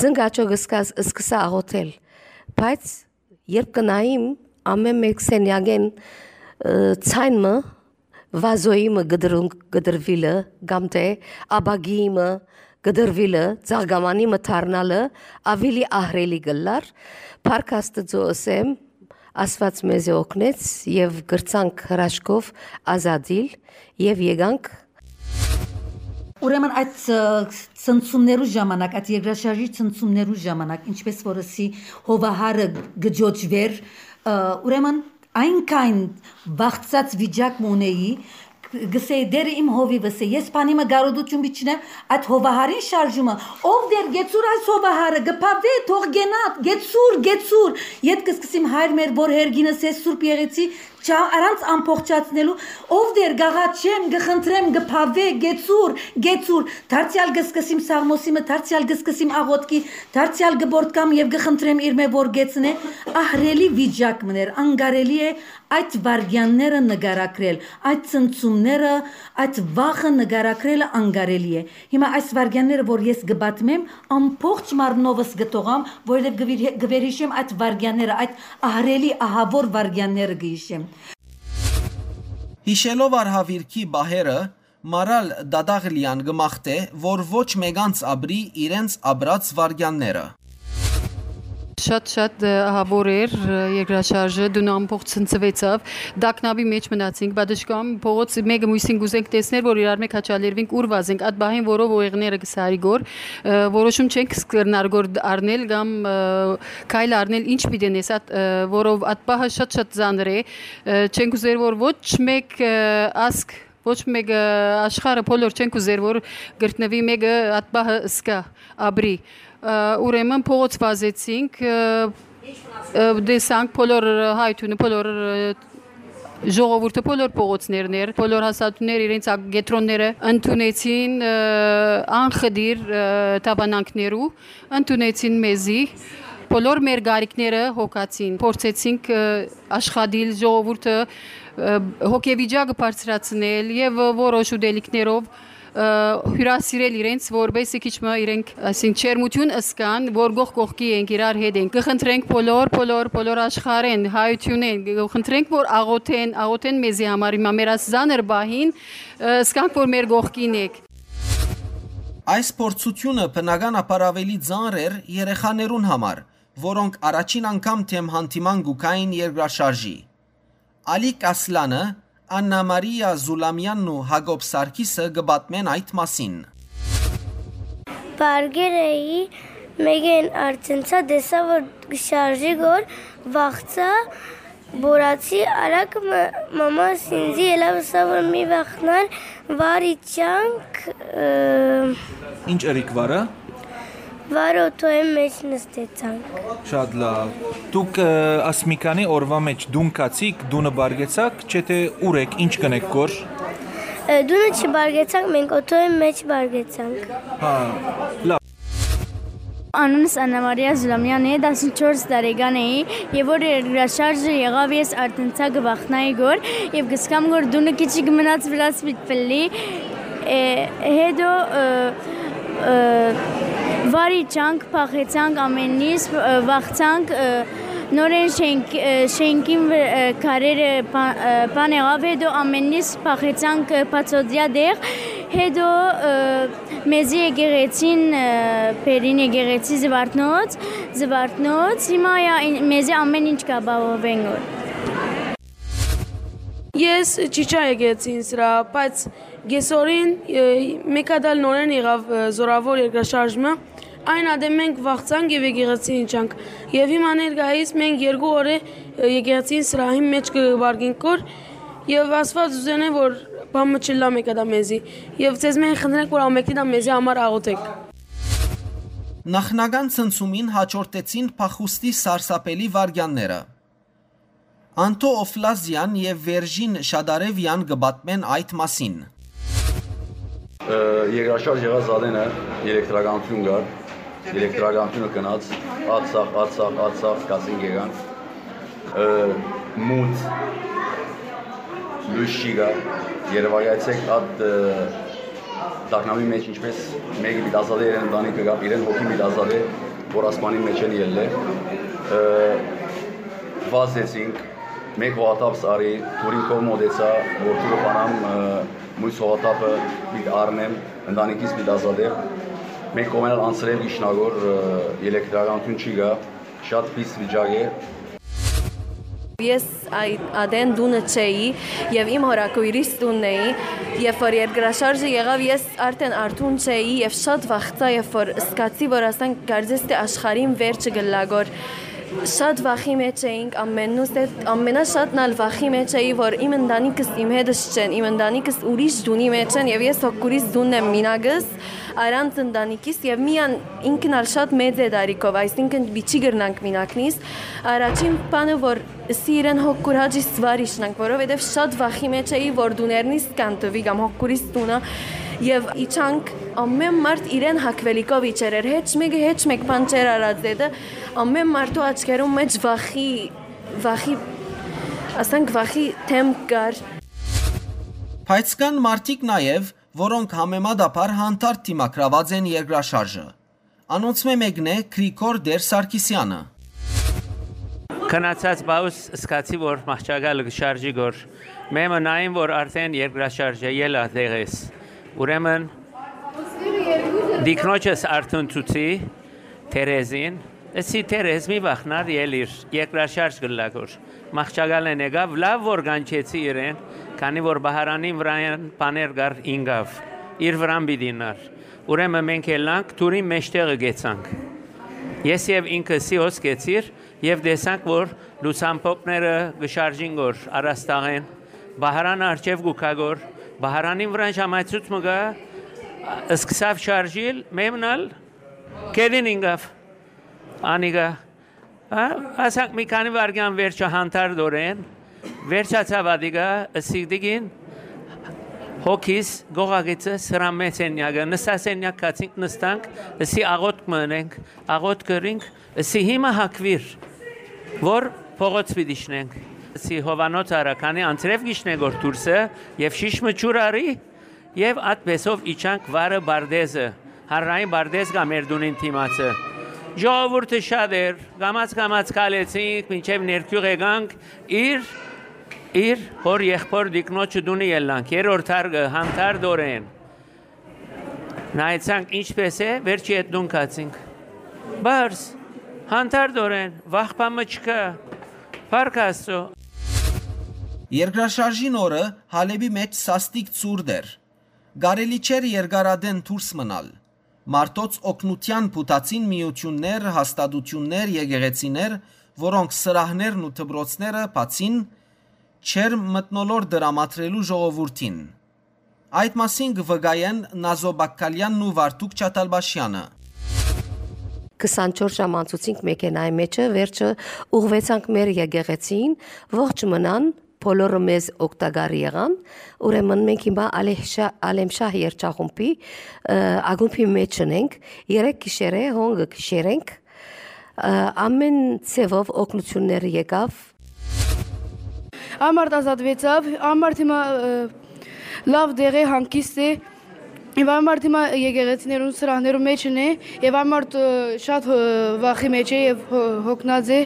ծնկաչոք սկաս-, սկսա աղոթել, բայց երբ կնայիմ ամէն մէկ սենեակեն, ը, ցայն մը, վազոյի մը կտրուն-, կտրուիլը, կամ թէ աբագիի մը կտրուիլը, ծաղկամանի մը դառնալը, ավելի ահռելի կ'ըլլար, փառք Աստուծոյ ըսեմ, Աստուած մեզի օգնեց եւ կրցանք հրաշքով ազատիլ եւ եկանք։ Ուրեմն այդ, ը, ցնցումներու ժամանակ, այդ երկրաշարժի ցնցումներու ժամանակ, ինչպես որ ըսի հովահարը կ'ճոճուէր, ը, ուրեմն այնքան վախցած վիճակ մը ունէի, կ-, կ'ըսէի, «Տէրը իմ հովիվս է, ես բանի մը կարօտու չունեմ, այդ հովահարին շարժումը, ով Տէր, գեցուր այս հովահարը, կը բաւէ, թող գնայ, գեցուր, գեցուր»։ Ետ կը սկսիմ Հայր մեր որ հերգինս ես Սուրբ Եղեցի, չա-, առանց ամբողջացնելու, «Ով Տէր, կ'աղաչեմ, կը խնդրեմ, կը բաւէ, գեցուր, գեցուր»։ Դարձեալ կը սկսիմ սաղմոսի մը, դարձեալ կը սկսիմ աղոթքի, դարձեալ կը պոռթկամ եւ կը խնդրեմ իրմէ որ գեցնէ։ Ահռելի վիճակ մըն էր, անկարելի է այդ վայրկեանները նկարագրել, այդ ցնցումները, այդ վախը նկարագրելը անկարելի է։ Հիմա այս վայրկեանները որ ես կը պատմեմ, ամբողջ մարմնովս կը թողամ, որովհետեւ կը վիր-, կը վերհիշեմ այդ վայրկեանները, այդ ահռելի, ահաւոր վայրկեանները կը հիշեմ։ Յիշելով արհաւիրքի պահերը, Մարալ Դադաղլեան կը մաղթէ, որ ոչ մեկանց ապրի իրենց ապրած վայրկեանները։ Շատ-շատ, ը, ահաւոր էր, ը, երկրաշարժը, տունը ամբողջ ցնցուեցաւ, տագնապի մէջ մնացինք, պատշգամ, փողոց մէկը մոյսին կ'ուզենք տեսնել, որ իրար մէ քաչալերուինք, ուր վազենք, այդ պահին որով ուղեղները կը սարի գոր, ը, որոշում չենք կրնար գոր դ-, առնել կամ, ը, քայլ առնել, ինչ պիտի նես, այդ, ը, որով այդ պահը շատ-շատ ծանր է, ը, չենք ուզեր, որ ոչ մէկ, ը, ազգ, ոչ մէկ, ը, աշխարհը բոլոր չենք ուզեր, որ գտնուի մէկը այդ պահը սկա, ապրի։ Ը, ուրեմն փողոց վազեցինք, ը, ը, տեսանք բոլոր, ը, հայ թունը, բոլոր, ը, ժողովուրդը, բոլոր փողոցներն էր, բոլոր հաստատունները իրենց ակ-, կեդրոնները ընդունեցին, ը, անխտիր, ը, դավանանքներու, ընդունեցին մեզի, բոլոր մեր գարիքները հոգացին, փորձեցինք, ը, աշխատիլ, ժողովուրդը, ը, հոգեվիճակը բարձրացնել եւ որոշ ուտելիքներով, ը, հիւրասիրել իրենց, որպեսզի քիչ մը իրենք, այսինքն, ջերմութիւն ըսկան, որ կողք կողքի ենք, իրար հետ ենք։ Կը խնդրենք բոլոր, բոլոր, բոլոր աշխարհէն, հայութիւնէն, կը խնդրենք, որ աղոթեն, աղոթեն մեզի համար հիմա մեր այս զանր պահին, ը, ըսկանք, որ մեր կողքին եք։ Այս փորձութիւնը բնականաբար ավելի ծանր էր երեխաներուն համար, որոնք առաջին անգամ դէմ հանդիման կու գային երկրաշարժի։ Ալիկ Ասլանը, Աննա Մարիա Զուլամյանն ու Յակոբ Սարգիսը կը պատմեն այդ մասին։ Պարկեր էի, մէկէն արտընցա, տեսա որ կը շարժի գոր, վախցայ, բորացի, արագ մը մամաս ինձի ելաւ ըսա որ մի վախնար, վարի չանք, ը, Ինչ ըրիք վարը։ Վարը օթոյի մէջ նստեցանք։ Շատ լավ։ Դուք, ը, աս մի քանի օրվա մէջ տուն գացիք, տունը պարգեցաք, չէ՞ թե ուր եք, ինչ կ'ընեք գոր։ Ը, տունը չպարգեցանք, մենք օթոյի մէջ պարգեցանք։ Հա, լավ։ Անունս Աննա Մարիա Զուլամյան է, տասնչորս տարեկան էի, եւ որ երկրաշարժը եղաւ, ես արտընցա կը վախնայի գոր, եւ կ'սկամ գոր տունը քիչիկ մնաց վրաց պիտի պլլի, է, հետո, ը, ը, վարի չանք, փախեցանք ամենից, ը, վախցանք, ը, նորեն շենք-, ը, շենքին վր-, ը, քարերը պա-, ը, պան եղաւ, հետո ամենից փախեցանք, ը, բացօթյա տեղ, հետո, ը, մեզի եկեղեցին, ը, բերին եկեղեցի Զվարթնոց, Զվարթնոց, հիմա ա-, ին-, մեզի ամեն ինչ կ'ապահովեն գոր։ Ես չիչա եկեցի ինձ վրա, բայց Կեսօրին, ը, մէկ հատ ալ նորէն եղաւ, ը, զօրաւոր երկրաշարժ մը։ Այն ատեն մենք վախցանք եւ եկեղեցին իջանք։ Եւ հիմա ներկայիս մենք երկու օրը, ը, եկեղեցին սրահին մէջ կը պառկենք կոր, եւ Աստուած ուզենէ, որ բան մը չըլլայ մէկ հատ ալ մեզի։ Եւ ձեզմէ խնդրենք, որ ամէնքնին ալ մեզի համար աղօթէք։ Նախնական ցնցումին հաջորդեցին փախուստի սարսափելի վայրկեանները։ Անտո Օֆլազեան եւ Վերժին Շադարեվեան կը պատմեն այդ մասին։ Ը, երկրաշարժ եղած ատենը էլեկտրականություն կար, էլեկտրականությունը գնաց, ատ սաղ, ատ սաղ, ատ սաղ, կասին կեկանք, ը, մութ, լոյս չի գար, երևակայեցէք ատ, ը, տագնապի մէջ ինչպես մէկը պիտի ազատէ իրեն ընտանիքը կամ իրեն հոգին պիտի ազատէ, որ ասպանի մէջ են ելլէ, ը, վազեցինք, մէկ հողաթափս արի, դուրին քով մոտեցայ, որ դուրը բանամ, ը, մոյս հողաթափը պիտի առնեմ, ընտանիքիս պիտի ազատեմ։ Մէկ կողմէն ալ անցրել գիշնագոր, ը, էլեկտրականություն չի գա, շատ պիս վիճակ է։ Ես այդ ատեն տունը չէի եւ իմ հորաքոյրիս տունն էի, երբ որ երկրաշարժը եղաւ, ես արդեն արթուն չէի եւ շատ վախցայ, երբ որ սկացի, որ ասենք կարծես թէ աշխարհին վերջը գլագոր։ Շատ վախի մէջ էինք ամենուս հետ, ամենաշատն ալ վախի մէջ էի, որ իմ ընտանիքս իմ հետս չեն, իմ ընտանիքս ուրիշ տունի մէջ են եւ ես հոգուրիս տունն եմ մինակս, առանց ընտանիքիս եւ միան ինքն ալ շատ մեծ է տարիքով, այսինքն պիչի կրնանք մինակնիս։ Առաջին բանը, որ սի իրեն հոգուր հաճի սվարիշնանք, որովհետեւ շատ վախի մէջ էի, որ տուներնիս կանտվի կամ հոգուրիս տունը եւ իջանք, ամեն մարդ իրեն հակվելիքով իջեր էր, հեչ մեկը հեչ մեկ բան չէր արած դետը, ամեն մարդու աչքերուն մէջ վախի, վախի, ասենք վախի դեմք կար։ Բայց կան մարդիկ նաեւ, որոնք համեմատաբար հանդարտ դիմագրաված են երկրաշարժը։ Անոնցմէ մէկն է Գրիգոր Տեր Սարգսեանը։ Քնացած բաուս սկացի, որ մահճակալը կը շարժի գոր։ Մեմը նային, որ արդեն երկրաշարժ է, ելա դեղես։ Ուրեմն, դիկնոջս արդեն ցուցի, Թերեզին, ըսի Թերեզ, մի վախնար, ելիր, երկրաշարժ կլլա գոր։ Մահճակալեն եկաւ, լաւ որ կանչեցի իրեն, քանի որ Բահարանին վրայեն բաներ կար ինկաւ, իր վրան պիտի նար։ Ուրեմն մենք ելանք, դուրին մեջտեղը կեցանք։ Ես եւ ինքը սի հոս կեցիր եւ տեսանք, որ լուսամփոփները կը շարժին գոր առաստաղեն, Բահարանը արջեւ կու գայ գոր, Բահարանին վրան ժամայցուց մը գայ, սկսաւ շարժիլ, մեմն ալ կեդին ինկաւ, անիկա, հա, ասանք մի քանի վայրկեան վերջը հանդարտորեն, վերջացաւ ատիկա, ըսի տիկին, հոգիս, գողագիծը, սրամե սենյակը, նստասենյակ գացինք, նստանք, ըսի աղօթք մը ընենք, աղօթք կրինք, ըսի հիմա հակվիր, որ փողոց պիտի իջնենք, ըսի Հովանոց արա, քանի անցրեւ գիշնե գոր դուրսը, եւ շիշ մը ջուր արի, եւ ատպեսով իջանք վարը Բարդեզը, հանրային Բարդեզ կայ մեր տունին դիմացը։ Ժողովուրդը շատ էր, կամաց-կամաց քալեցինք, մինչեւ ներքիւղ եկանք, իր, իր հօր եղբոր տիկնոջը տունը ելանք, երրորդ հարկը, հանդարտորեն։ Նայեցանք ինչպես է, վերջի հետ տուն գացինք։ Բարձ, հանդարտորեն, վախ բան մը չկայ, փառք Աստծո։ Երկրաշարժին օրը Հալէպի մէջ սաստիկ ցուրտ էր։ Կարելի չէր երկար ատեն դուրս մնալ։ Մարդոց օգնութեան փութացին միութիւններ, հաստատութիւններ, եկեղեցիներ, որոնք սրահներն ու դպրոցները բացին, չէր մթնոլորտ տրամադրելու ժողովուրդին։ Այդ մասին կը վկայեն Նազո Բակքալեանն ու Վարդուկ Չաթալպաշեանը։ Քսանչորս ժամ անցուցինք մեքենայի մէջը, վերջը ուղղուեցանք մեր եկեղեցին, ողջ մնան, բոլորը մեզ օգտակար եղան, ուրեմն մենք հիմա Ալեհշա-, Ալեմշահ երգչախումբի, ը, ակումբի մէջ ենք, երեք գիշեր է, հոն կը գիշերենք, ը, ամեն ձևով օգնություններ եկաւ։ Ամարտ ազատվեցաւ, ամարտ հիմա, ը, լաւ տեղ է, հանգիստ է, եւ ամարտ հիմա եկեղեցիներուն սրահներու մէջն է, եւ ամարտ, ը, շատ, ը, վախի մէջ է եւ հո-, հոգնած է։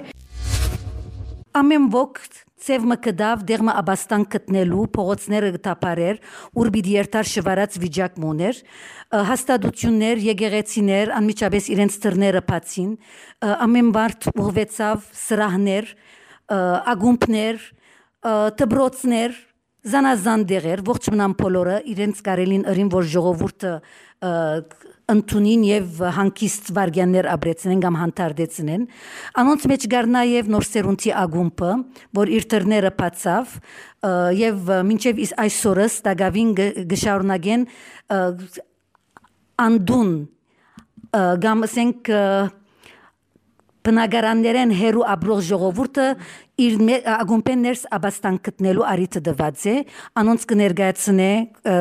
Ամեն ոք ձեւ մը գտաւ, դեղ մը ապաստան գտնելու, փողոցները կը թափարէր, ուր պիտի երթար շվարած վիճակ մը ունէր, ը, հաստատություններ, եկեղեցիներ անմիջապես իրենց դռները բացին, ը, ամեն մարդ ուղղուեցաւ սրահներ, ը, ակումբներ, ը, դպրոցներ, զանազան դեղեր, ողջ մնան բոլորը իրենց կարելին ըրին, որ ժողովուրդը, ը, ընդունին եւ հանգիստ վարգեաններ ապրեցնեն կամ հանդարտեցնեն։ Անոնց մէջ կար նաեւ Նոր Սերունդի ակումբը, որ իր դռները բացաւ, ը, եւ, ը, մինչեւ իս-, այսօրս տակաւին գ-, կը շարունակեն, ը, անդուն, ը, կամ, ասենք, ը, բնակարաններէն հեռու ապրող ժողովուրդը իր մե-, ակումբէն ներս աբաստան գտնելու առիթը տուած է, անոնց կը ներկայացնէ, ը,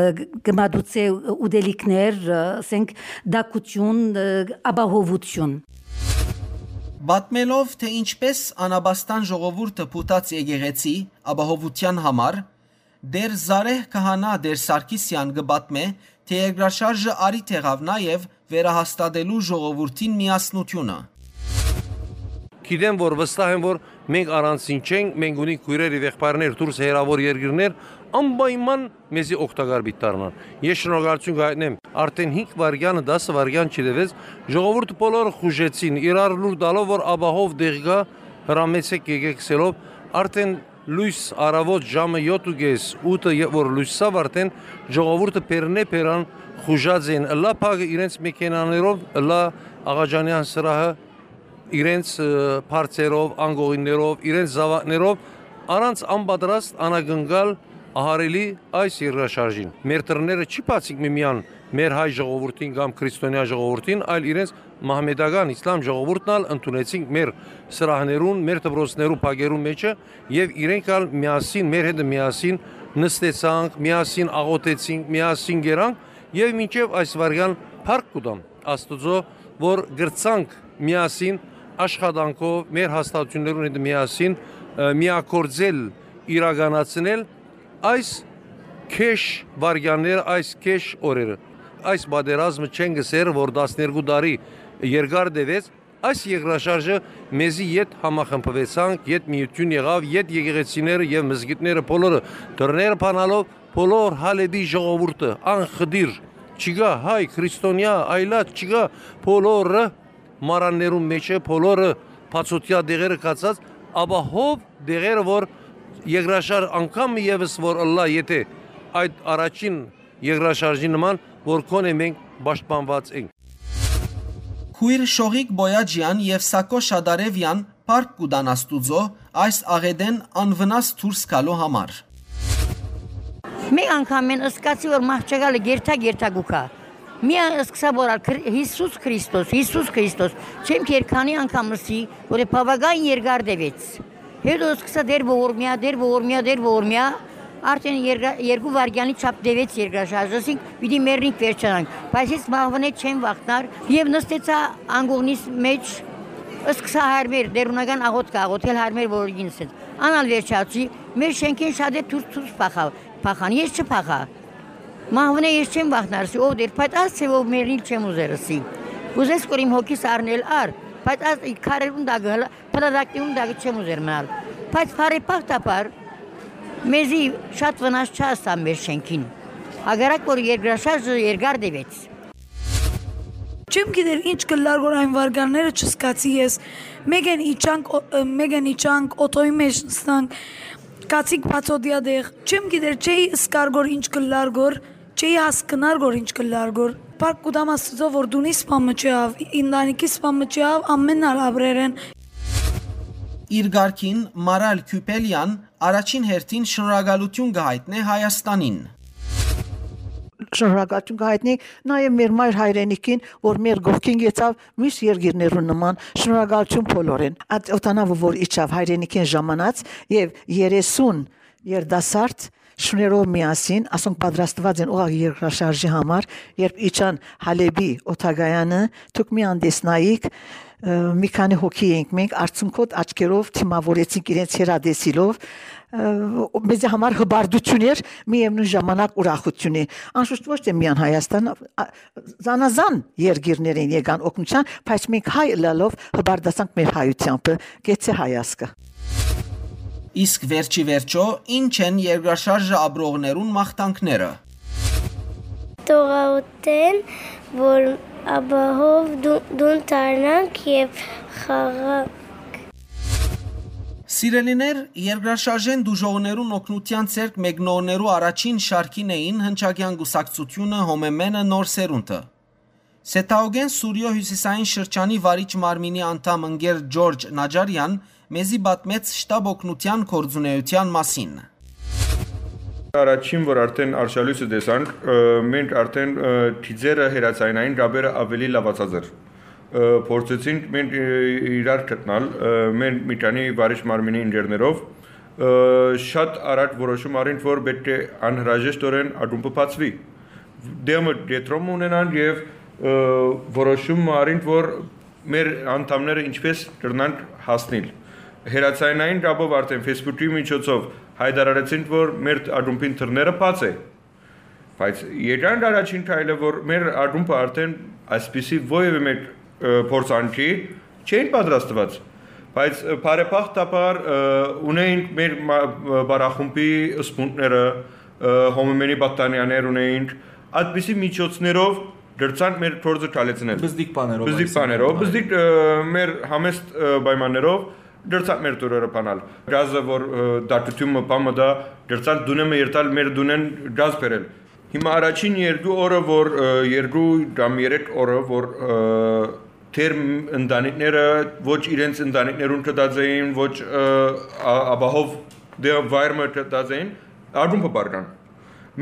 կը մատուցէ ուտելիքներ, ը, ասենք, տաքութիւն, ը, ապահովութիւն։ Պատմելով, թե ինչպես անաբաստան ժողովուրդը փութաց եկեղեցի ապահովութեան համար, Տէր Զարեհ քահանայ Տէր Սարգիսեան կը պատմէ, թէ երկրաշարժը առիթ եղաւ նաեւ վերահաստատելու ժողովուրդին միասնութիւնը։ Գիտեմ, որ վստահ եմ, որ մենք առանձին չենք, մենք ունենք քոյրեր եւ եղբայրներ դուրս հեռաւոր երկիրներ, անպայման մեզի օգտակար պիտի դառնան։ Ես շնորհակալութիւն կայտնեմ, արդեն հինգ վայրկեանը, դասը վայրկեան չտեւեց, ժողովուրդը բոլորը խուժեցին, իրար լուր տալով, որ ապահով տեղ կայ, հրամեցեք, եկեք գսելով, արդեն լոյս, առաւօտ ժամը յոթ ու կէս, ութը, երբ որ լոյս ցաւ, արդեն ժողովուրդը բերնէ բերան խուժած են, ըլլայ փակը իրենց մեքենաներով, ըլլայ Աղաջանեան սրահը իրենց, ը, բարձերով, անկողիններով, իրենց զաւակներով, առանց անպատրաստ անակնկալ ահարելի այս երկրաշարժին։ Մեր դռները չի բացինք միմիան, մեր հայ ժողովուրդին կամ քրիստոնեայ ժողովուրդին, այլ իրենց մահմետական իսլամ ժողովուրդն ալ ընդունեցինք մեր սրահներուն, մեր դպրոցներու փակերուն մէջը, եւ իրենք ալ միասին, մեր հետ միասին նստեցանք, միասին աղօթեցինք, միասին գերանք, եւ մինչեւ այս վայրկեան փառք կու տամ Աստուծոյ, որ կրցանք միասին աշխատանքով, մեր հաստատութիւններուն հետ միասին, ը, միագործել, իրականացնել այս քեշ վայրկեանները, այս քեշ օրերը։ Այս պատերազմը չենք ըսեր, որ տասներկու տարի երկար տեւեց, այս երկրաշարժը մեզի ետ համախմբուեցանք, ետ միութիւն եղաւ, ետ եկեղեցիները եւ մզկիթները բոլորը դռները բանալով, բոլոր Հալէպի ժողովուրդը անխտիր, չկայ հայ, քրիստոնեայ, այլայ չկայ, բոլորը մարաններուն մէջը, բոլորը բացօթեայ տեղերը գացած, ապահով տեղերը, որ երկրաշարժ անգամ եւս որ ըլլայ, եթէ այդ առաջին երկրաշարժի նման, որ գոնե մենք պաշտպանուած ենք։ Քոյր Շողիկ Բոյաջեան եւ Սակո Շադարեւեան փառք կու տան Աստուծոյ այս աղէտէն անվնաս դուրս գալու համար։ Մէկ անգամ մեն ըսկացի, որ մահճակալը գերթա-գերթա կու գայ։ Միան ըսկսա, որ ալ Քրի-, Յիսուս Քրիստոս, Յիսուս Քրիստոս, չեմ քեր քանի անգամ ըսի, որ բաւական երկար տեւեց։ Հետո ըսկսա դեր ողորմեայ, դեր ողորմեայ, դեր ողորմեայ, արդեն երկա-, երկու վայրկեանի չափ տեւեց երկրաշարժը, ասինք պիտի մեռնինք, վերջանանք, բայց ես մահվնէ չեմ վախնար եւ նստեցա անկողնիս մէջ, ըսկսա հայրմեր, դերունական աղօթք աղօթել հայրմեր, որ ինձ հետ անալ վերջացի, մեր շենքին շատ է դուրս դուրս փախա-, փախան, ես չփախա։ Մահվնէ ես չեմ վախնար, ասի, ով դեր, բայց Աստծո ով մեռնիլ չեմ ուզեր, ասի։ Ուզես կոր իմ հոգիս առնել առ, բայց Աստծո քարերուն տակը հլը, փլատակներուն տակը չեմ ուզեր մնալ։ Բայց բարեբախտաբար մեզի շատ վնաս չհասան մեր շենքին։ Հակառակ որ երկրաշարժը երկար տևեց։ Չեմ գիտեր ինչ կլար որ այն վարգանները չսկացի ես։ Մեկեն իջանք, ո-, մեկեն իջանք, օթոյի մեջ նստանք, կացիկ բացօդյա տեղ։ Չեմ գիտեր, չէի սկար գոր ինչ կլար գոր, չէի հասկնար գոր ինչ կլար գոր։ Փառք կուտամ Աստծո որ դունի սպամը չհավ, ինտանիքի սպամը չհավ, ամեն ալ ապրեր են։ Իր գարկին Մարալ Քյուպելյան առաջին հերթին շնորհակալություն կհայտնէ Հայաստանին։ Շնորհակալություն կհայտնի նաև մեր մայր հայրենիքին, որ մեր կողքին գեցավ մյուս երկիրներուն նման, շնորհակալություն բոլորին։ Այդ օտանավը որ իջավ հայրենիքին ժամանած, և երեսուն երիտասարդ շուներով միասին, ասոնք պատրաստված են ուղղակի երկրաշարժի համար, երբ իջան Հալեբի օդակայանը, դուք մի անտեսնայիք, ը, մի քանի հոգի էինք մենք, արցունքոտ աչքերով դիմավորեցինք իրենց հեռատեսիլով, ը, մեզի համար հպարտություն էր, միևնույն ժամանակ ուրախություն է։ Անշուշտ ոչ թե միան Հայաստան, ա, զանազան երկիրներ են եկան օգնության, բայց մենք հայ ըլալով հպարտացանք մեր հայութեամբը, գեցե հայ ազգը։ Իսկ վերջի վերջո, ի՞նչ են երկրաշարժը ապրողներուն մաղթանքները։ Տողաուտեն, որ ապահով դու-, դուն դառնանք և խաղանք։ Սիրելիներ, երկրաշարժէն դուժողներուն օգնութեան ձեռք մեկնողներու առաջին շարքին էին Հնչակեան կուսակցութիւնը, Հոմեմենը, Նոր Սերունդը։ Սեթաուկէն Սուրիոյ հիւսիսային շրջանի վարիչ մարմինի անդամ ընկեր Ջորջ Նաջարեան մեզի պատմեց շտապ օգնութեան գործունեութեան մասին։ Առաջին, որ արդեն արշալոյսը տեսանք, ը, մենք արդեն, ը, դիզերը, հեռաձայնային կապերը աւելի լաւացած էր։ Ը, փորձեցինք մենք, ը, իրար գտնալ, ը, մեր մի քանի վարիչ մարմինի ընկերներով, ը, շատ առաջ որոշում առինք, որ պէտք է անհրաժեշտօրէն ակումբը բացուի։ Դեմը կեդրոմ ունենան եւ, ը, որոշում առինք, որ մեր անդամները ինչպես կրնանք հասնիլ։ Հեռաձայնային կապով արդեն Facebook-ի միջոցով հայտարարեցինք, որ մեր ակումբին դռները բաց է։ Բայց եկանք առաջին քայլը, որ մեր ակումբը արդեն այսպիսի որեւէ մէկ, ը, փորձանքի չէին պատրաստուած։ Բայց, ը, բարեբախտաբար, ը, ունեինք մեր մա-, ը, բարախումբի սպունդները, ը, Հոմեմենի պատանիաներ ունեինք, այդպիսի միջոցներով դրցանք մեր գործը քալեցնել։ Բզդիկ բաներով, Բզդիկ այսինքն, բաներով, այո։ Բզդիկ, ը, մեր համեստ, ը, պայմաններով դրցանք մեր տուրերը բանալ։ Գազը, որ, ը, դատությունը բան մտա, դրցանք դունեմը երթալ, մեր դունեն գազ բերել։ Հիմա առաջին երկու օրը, որ, ը, երկու կամ երեք օրը, որ, ը, թեր ընտանիքները ոչ իրենց ընտանիքներուն գտած էին, ոչ, ը, ա-, ապահով դե-, վայրը գտած էին, ակումբը բարկան։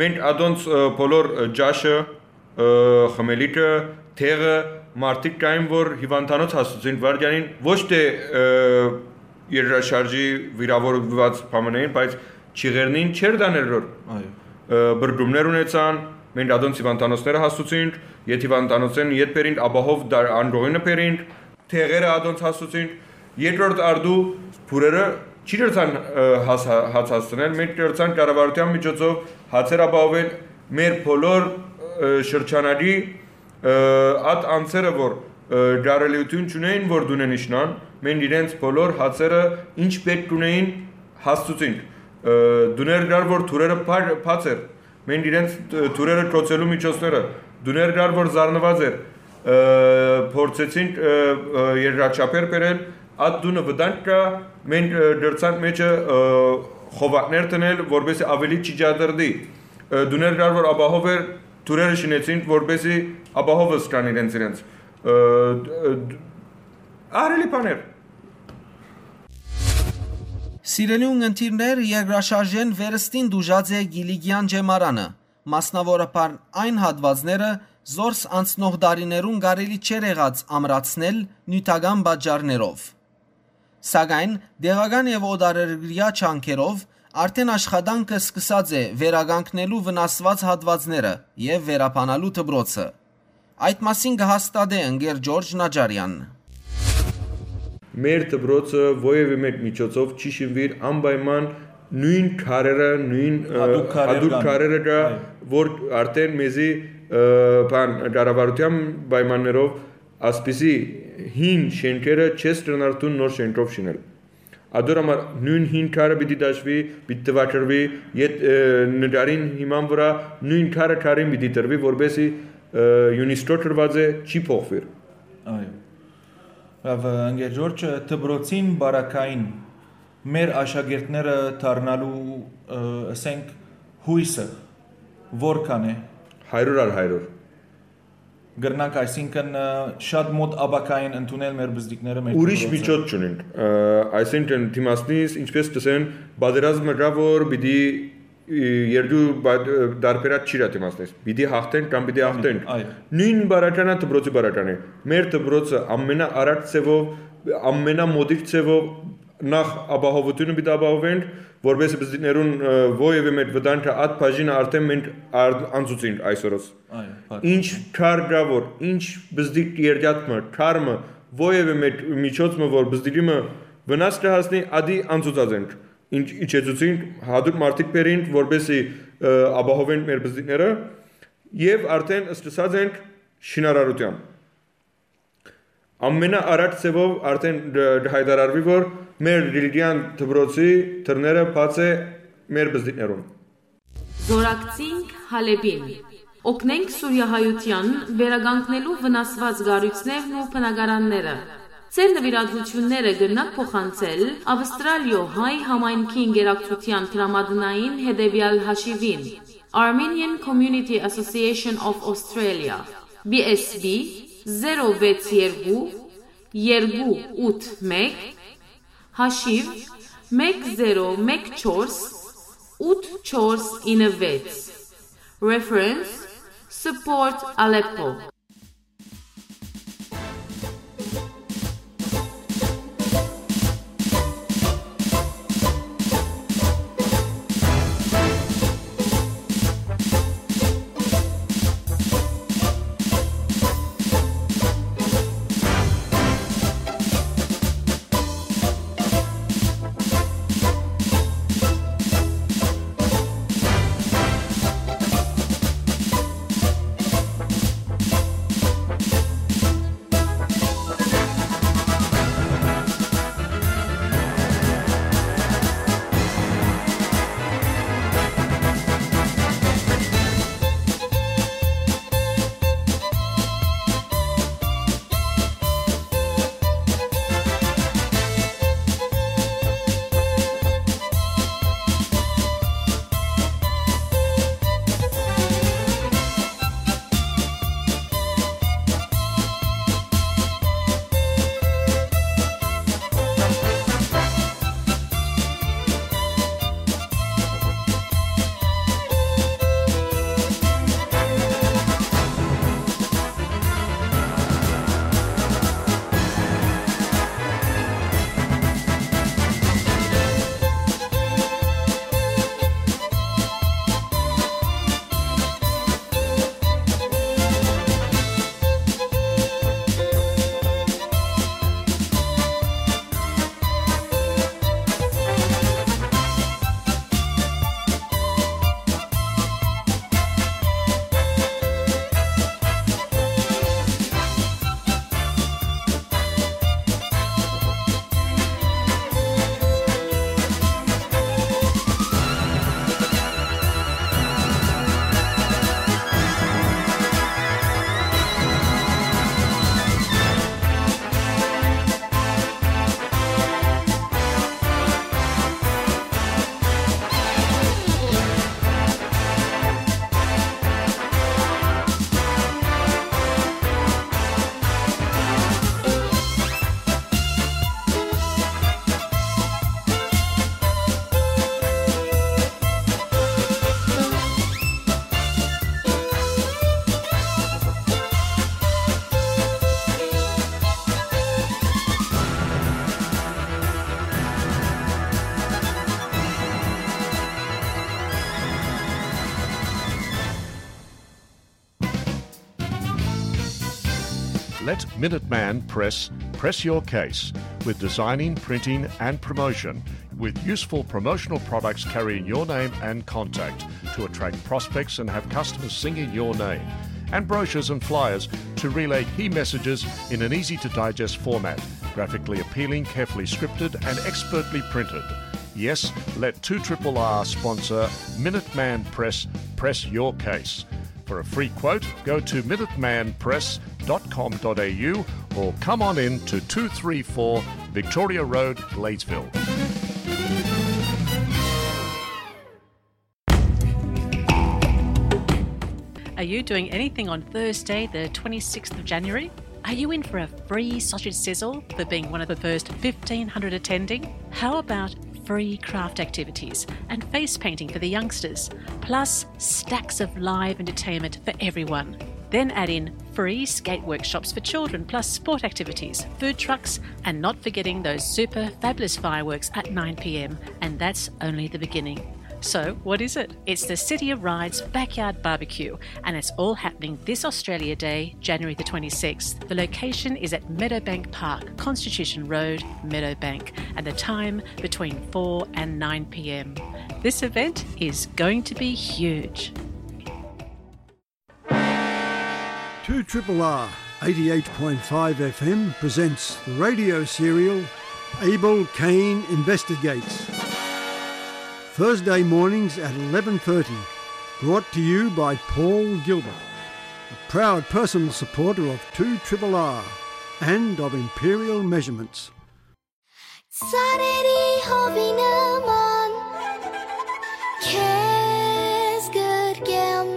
Մենք ադոնց, ը, բոլոր, ը, ճաշը, ը, խմելիքը, տեղը, մարդիկ կային, որ հիվանդանոց հասցուցին վարդյանին, ոչ թե, ը, երկրաշարժի վիրավորված բամն էին, բայց չիղերնին չեր տաներ, որ, այո, ը, բրդումներ ունեցան, մենք ադոնց հիվանդանոցները հասցուցինք, ետ հիվանդանոցեն ետ բերինք, ապահով դար-, անդողինը բերինք, տեղերը ադոնց հասցուցինք, երկրորդ արդու փուրերը չի դրցան, ը, հաց-, հաց հասցնել, մենք դրցան կառավարութեան միջոցով հացեր ապահովել մեր բոլոր, ը, շրջանագի, ը, այդ անձերը, որ, ը, կարելիություն չունեին, որ դունեն իջնան, մենք իրենց բոլոր հացերը ինչ պէտք ունեին, հասցուցինք։ Ը, դուներ կար, որ թուրերը բա-, բաց էր, մենք իրենց, ը, թուրերը կոցելու միջոցները, դուներ կար, որ զարնված էր, ը, փորձեցինք, ը, ը, երկրաչափեր բերել, այդ դունը վտանգ կա, մենք, ը, դրցանք մեջը, ը, խովակներ դնել, որպեսզի աւելի չի ջատերդի, ը, դուներ կար, որ ապահով էր, թուրերը շինեցին, որպեսզի ապահովս կան իրենց, իրենց, ը, ը, ահրելի բաներ։ Սիրելի ունգընտիրներ, երկրաշարժէն վերստին դուժած է Կիլիկեան ջեմարանը, մասնաւորաբար այն հատուածները, զորս անցնող տարիներուն կարելի չէր եղած ամրացնել նիւթական պատճառներով։ Սակայն տեղական եւ օտարերկրեայ ջանքերով արդեն աշխատանքը սկսած է վերականգնելու վնասուած հատուածները եւ վերաբանալու դպրոցը։ Այդ մասին կը հաստատէ ընկեր Ջորջ Նաջարեան։ Մեր դպրոցը որեւէ մէկ միջոցով չի շինուիր անպայման նոյն քարերը, նոյն, ը, հատուկ քարեր հատուկ կան, քարերը կա, այո, որ արդեն մեզի, ը, բան, կառավարութեան պայմաններով ասպիսի հին շենքերը չես կրնար դուն նոր շենքով շինել։ Ադոր համար նոյն հին քարը պիտի դաշուի, պիտի տվակրուի, ետ, ը, նկարին հիման վրա նոյն քարը քարին պիտի տրուի, որպեսզի, ը, յունիսկոր դրուած է, չի փոխվիր։ Այո։ Լավ, ընկեր Ջորջ, դպրոցին բարակային մեր աշակերտները դառնալու, ը, ասենք, հույսը որքան է։ Հարյուր առ հարյուր։ Կրնանք, այսինքն, ը, շատ մոտ ապագային ընդունել մեր բզդիկները, մեր Ուրիշ դպրոցը։ Միջոց չունենք, ը, այսինքն դիմացնից, ինչպես կսեն, պատերազմը կա, որ պիտի, ը, երկու բա-, ը, դարբերած չի դիմացնես, պիտի հաղթենք կամ պիտի հաղթենք։ Այո։ Նույն բարականը դպրոցի բարական է, մեր դպրոցը ամենաառաջ ձևով, ամենամոդիկ ձևով նախ ապահովությունը պիտի ապահովենք, որպեսզի բզդիկներուն, ը, որևէ մէկ վտանգը, այդ բաժինը արդեն մենք արդ-, անցուցինք այսօրս։ Այո, բաց Ինչ է։ Քար կա, որ ինչ բզդիկ երկաթ մը, քար մը, որևէ մէկ միջոց մը, որ բզդիկի մը վնաս կը հասնի, ադի անցուցած ենք։ Ինչ իջեցուցինք, հատուկ մարդիկ բերինք, որպեսզի, ը, ապահովենք մեր բզդիկները, եւ արդեն սկսած ենք շինարարութեան։ Ամենաառաջ ձևով արդեն դ-, կհայտարարուի, որ մեր Կիլիկեան դպրոցի դռները բաց է մեր բզդիկներուն։ Զորակցինք Հալէպին։ Օգնենք սուրիահայութեան վերականգնելու վնասուած կառոյցներն ու բնակարանները։ Ձեր նուիրատուութիւնները կրնաք փոխանցել Ավստրալիոյ հայ համայնքի ընկերակցութեան դրամատնային հետեւեալ հաշիւին, Armenian Community Association of Australia, B S B, zero vets yergu, yergu ut mek, haşiv, mek zero mek çors, ut çors ine vets. Reference, Support Aleppo. Let Minuteman Press press your case with designing, printing, and promotion, with useful promotional products carrying your name and contact to attract prospects and have customers singing your name, and brochures and flyers to relay key messages in an easy to digest format, graphically appealing, carefully scripted, and expertly printed. Yes, let two triple R sponsor Minuteman Press press your case. For a free quote, go to minuteman press dot com dot A U or come on in to two three four Victoria Road, Gladesville. Are you doing anything on Thursday, the twenty-sixth of January? Are you in for a free sausage sizzle for being one of the first fifteen hundred attending? How about free craft activities and face painting for the youngsters, plus stacks of live entertainment for everyone? Then add in free skate workshops for children, plus sport activities, food trucks, and not forgetting those super fabulous fireworks at nine p.m. And that's only the beginning. So, what is it? It's the City of Rides Backyard Barbecue, and it's all happening this Australia Day, January the twenty-sixth. The location is at Meadowbank Park, Constitution Road, Meadowbank, and the time between four and nine p.m. This event is going to be huge. Two triple R, eighty-eight point five F M presents the radio serial Abel Cain Investigates. Thursday mornings at eleven thirty. Brought to you by Paul Gilbert, a proud personal supporter of two triple R. end of imperial measurements. Ծառերի հովի նման քեզ գրկեմ,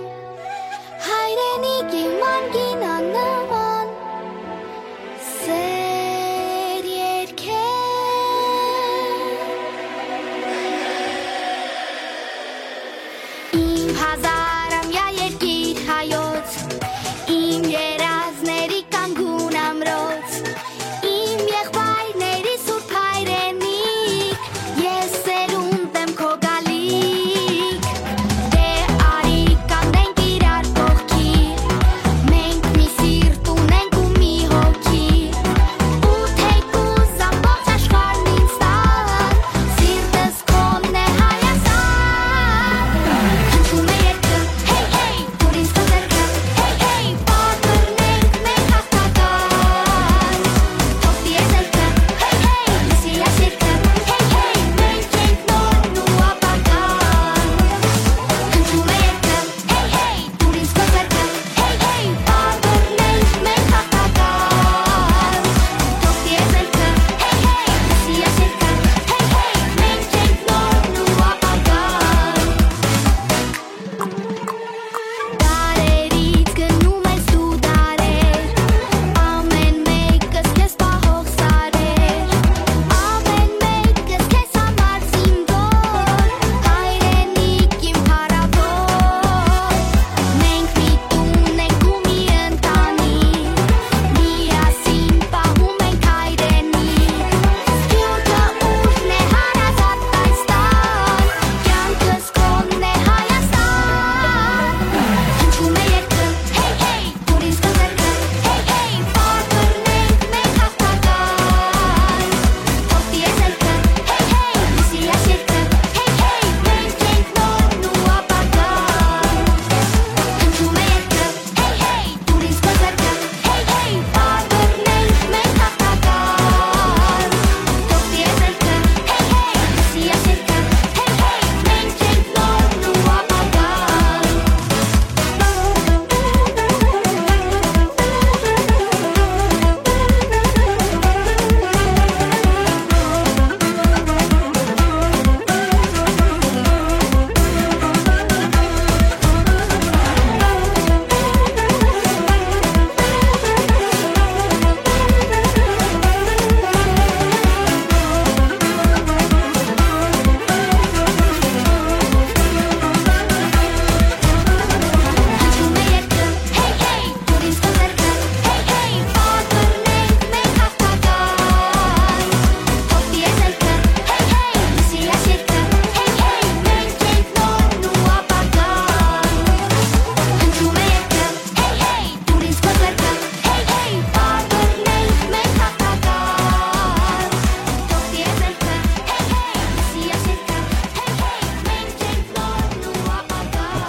հայրենիքի մանկին աննման սեր երկեմ։ Իմ հազարամյա երկիր հայոց, իմ երազների կանգուն ամրոց, իմ եղբայրների սուրբ հայրենիք, ես սերունդ եմ քո գալիք։ Դե արի կանգնենք իրար կողքի, մենք մի սիրտ ունենք ու մի հոգի, ու թեկուզ ամբողջ աշխարհն ինձ տան, սիրտս քոնն է Հայաստան։ Հնչում է երգը, հեյ, հեյ, դուր ինձ քո ձեռքը, հեյ, հեյ, պարբռնենք մենք հաղթական։ Թող դիեզերքը, հեյ, հեյ, լսի այս երգը, հեյ, հեյ, մենք ենք նորն ու ապագան։ Հնչում է երգը, հեյ, հեյ, դուր ինձ քո ձեռքը, հեյ, հեյ, պարբռնենք մենք հաղթական։ Թող դիեզերքը, հեյ, հեյ, լսի այս երգը, հեյ, հեյ, մենք ենք նորն ու ապագան։ Դարերից գնում ես դու դարեր, ամեն մեկս քեզ պահող սարեր, ամեն մեկս քեզ համար զինվոր, հայրենիք իմ փառաւոր։ Մենք միտում ենք ու մի ընտանիք, միասին պահում ենք հայրենիք, սփիւռքը ուժն է հարազատ այս տան, կյանքս Կոնն է Հայաստան, հնչում է երգը, հեյ, հեյ, դուր ինձ քո ձեռքը, հեյ, հեյ, պարբռնենք մենք հաղթական։ Թող դիեզերքը, հեյ, հեյ, լսի այս երգը, հեյ, հեյ, մենք ենք նորն ու ապագան։ Հնչում է երգը, հեյ, հեյ, դուր ինձ քո ձեռքը, հեյ, հեյ, պարբռնենք մենք հաղթական։ Թող դիեզերքը, հեյ, հեյ, լսի այս երգը, հեյ, հեյ, մենք ենք նորն ու ապագան։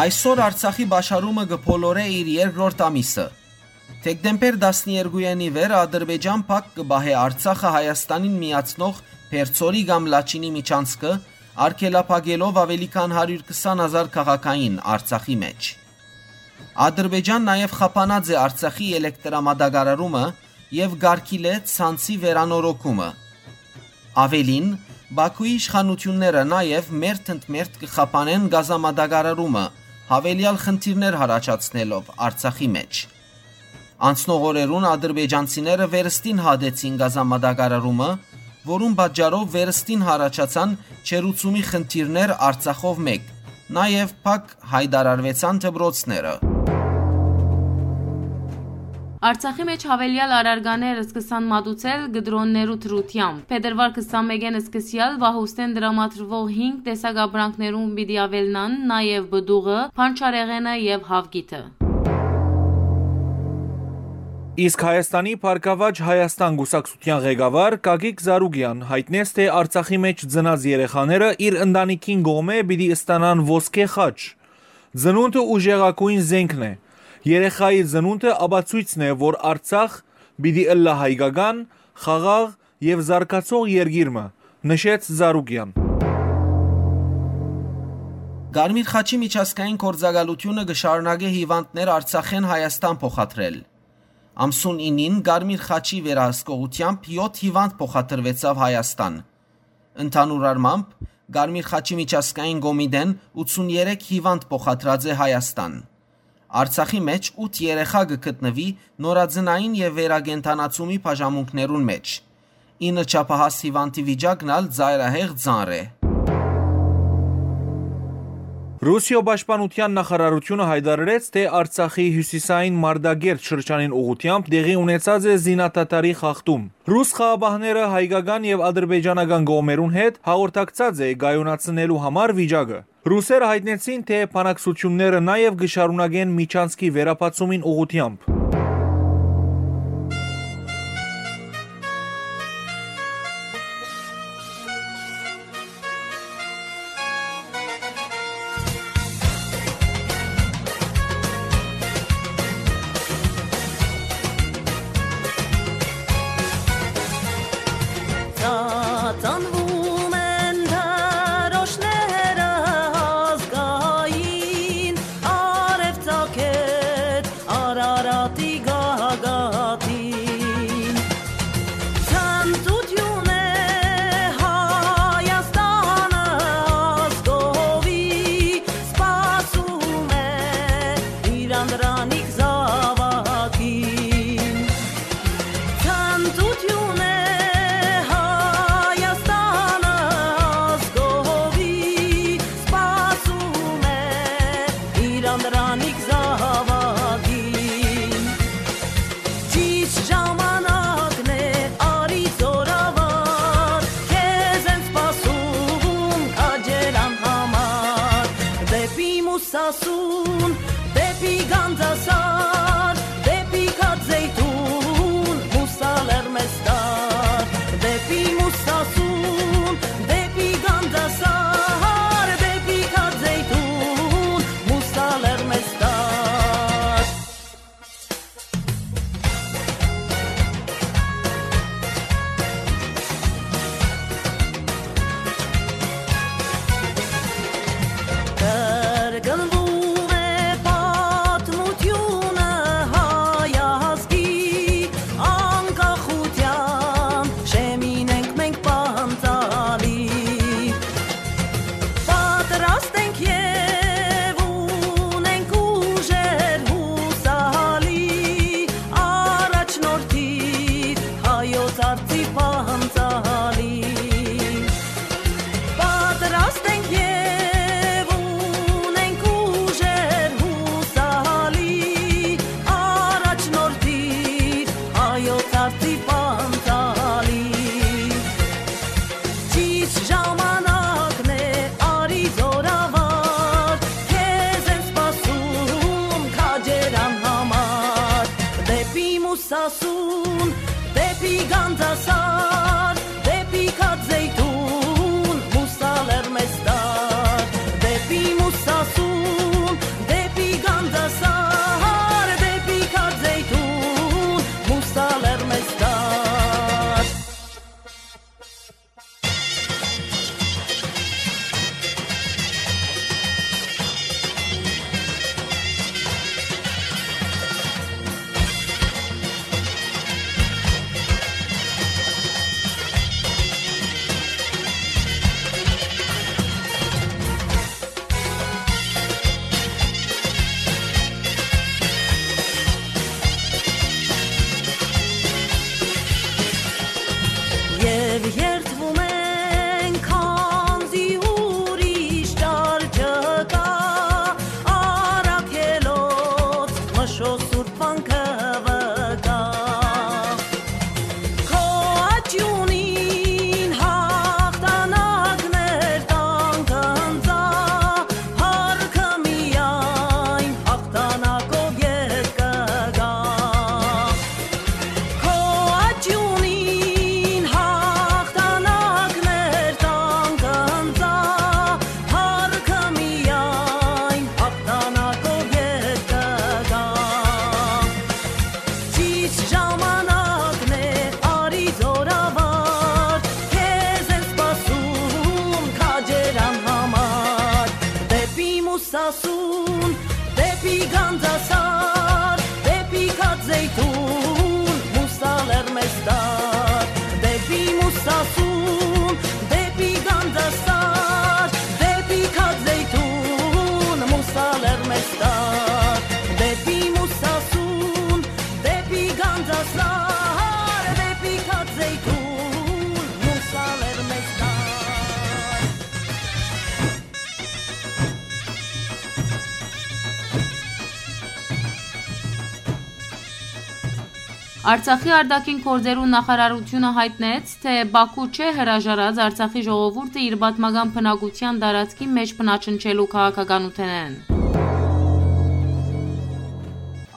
Այսօր Արցախի պաշարումը կը բոլորէ իր երկրորդ ամիսը։ Դեկտեմբեր տասներկուին ի վեր Ադրբեջան փակ կը պահէ Արցախը Հայաստանին միացնող Պերձորի կամ Լաչինի միջանցքը, արգելափակելով աւելի քան հարիւր քսան հազար քաղաքային Արցախի մէջ։ Ադրբեջան նաեւ խափանած է Արցախի էլեկտրամատակարարումը եւ կարգիլէ ցանցի վերանորոգումը։ Աւելին, Բաքուի իշխանութիւնները նաեւ մերթ ընդ մերթ կը խափանեն գազամատակարարումը, յաւելեալ խնդիրներ յառաջացնելով Արցախի մէջ։ Անցնող օրերուն ադրբեջանցիները վերստին հատեցին գազամատակարարումը, որուն պատճառով վերստին յառաջացան ջերուցումի խնդիրներ Արցախով մէկ, նաեւ փակ յայտարարուեցան դպրոցները։ Արցախի մէջ յաւելեալ առարկաներ սկսան մատուցել կտրոններու դրությամբ։ Փետրուար քսանմէկին սկսեալ պահուստէն տրամադրուող հինգ տեսակ ապրանքներուն պիտի աւելնան, նաեւ պտուղը, բանջարեղենը եւ հաւկիթը։ Իսկ Հայաստանի Բարգաւաճ Հայաստան կուսակցութեան ղեկավար Գագիկ Զարուկեան յայտնեց, թէ Արցախի մէջ ծնած երեխաները իր ընտանիքին կողմէ պիտի ստանան ոսկէ խաչ։ Ծնունդը ուժեղագոյն զէնքն է։ Երեխայի ծնունդը ապացոյցն է, որ Արցախ պիտի ըլլայ հայկական, խաղաղ եւ զարգացող երկիր մը, նշեց Զարուկեան։ Կարմիր խաչի միջազգային գործակալութիւնը կը շարունակէ հիւանդներ Արցախէն Հայաստան փոխադրել։ Ամսուն ինին Կարմիր խաչի վերահսկողութեամբ եօթ հիւանդ փոխադրուեցաւ Հայաստան։ Ընդհանուր առմամբ, Կարմիր խաչի միջազգային կոմիտեն ութսուններեք հիւանդ փոխադրած է Հայաստան։ Արցախի մէջ ութ երեխայ կը գտնուի նորածնային եւ վերակենդանացումի բաժանմունքներուն մէջ։ Ինը չափահաս հիւանդի վիճակն ալ ծայրահեղ ծանր է։ Ռուսիոյ պաշտպանութեան նախարարութիւնը յայտարարեց, թէ Արցախի հիւսիսային Մարտակերտ շրջանին ուղղութեամբ տեղի ունեցած է զինադադարի խախտում։ Ռուս խաղապահները հայկական եւ ադրբեջանական կողմերուն հետ հաղորդակցած է կայունացնելու համար վիճակը։ Ռուսերը յայտնեցին, թէ բանակցութիւնները նաեւ կը շարունակեն միջանցքի վերաբացումին ուղղութեամբ։ Ծանվում են դրոշները ազգային, արեւ ծագեց Արարատի գագաթին։ Ցնծութիւն է Հայաստանը ազգովի, սպասում է իր անդրանիկ զաւակին։ Ցնծութիւն է Հայաստանը ազգովի, սպասում է իր անդրանիկ զաւակին։ Ճիշտ ժամանակն է, արի զօրավար, քեզ են սպասում քաջերան համար։ Դէպի Մուսասուն, դէպի Գանձասար, դէպի Քաձեյթուն, Մուսա լեռ մեզ տար։ Դէպի Մուսասուն, դէպի Գանձասար, դէպի Քաձեյթուն, Մուսա լեռ մեզ տար։ Կրկնվում է պատմութիւնը հայ ազգի, անկախութեան շեմին ենք մենք Ասուն, դեպի Գանձասար, դեպի Քած Զեյթուն, Մուսա լեռ մեզ տար, դեպի Մուսասուն, դեպի Գանձասար, դեպի Քած Զեյթուն, Մուսա լեռ մեզ տար, դեպի Մուսասուն, դեպի Գանձասար, դեպի Քած Զեյթուն, Մուսա լեռ մեզ տար։ Արցախի արտաքին գործերու նախարարութիւնը յայտնեց, թէ Պաքու չէ հրաժարած Արցախի ժողովուրդը իր պատմական բնակութեան տարածքի մէջ բնաջնջելու քաղաքականութենէն։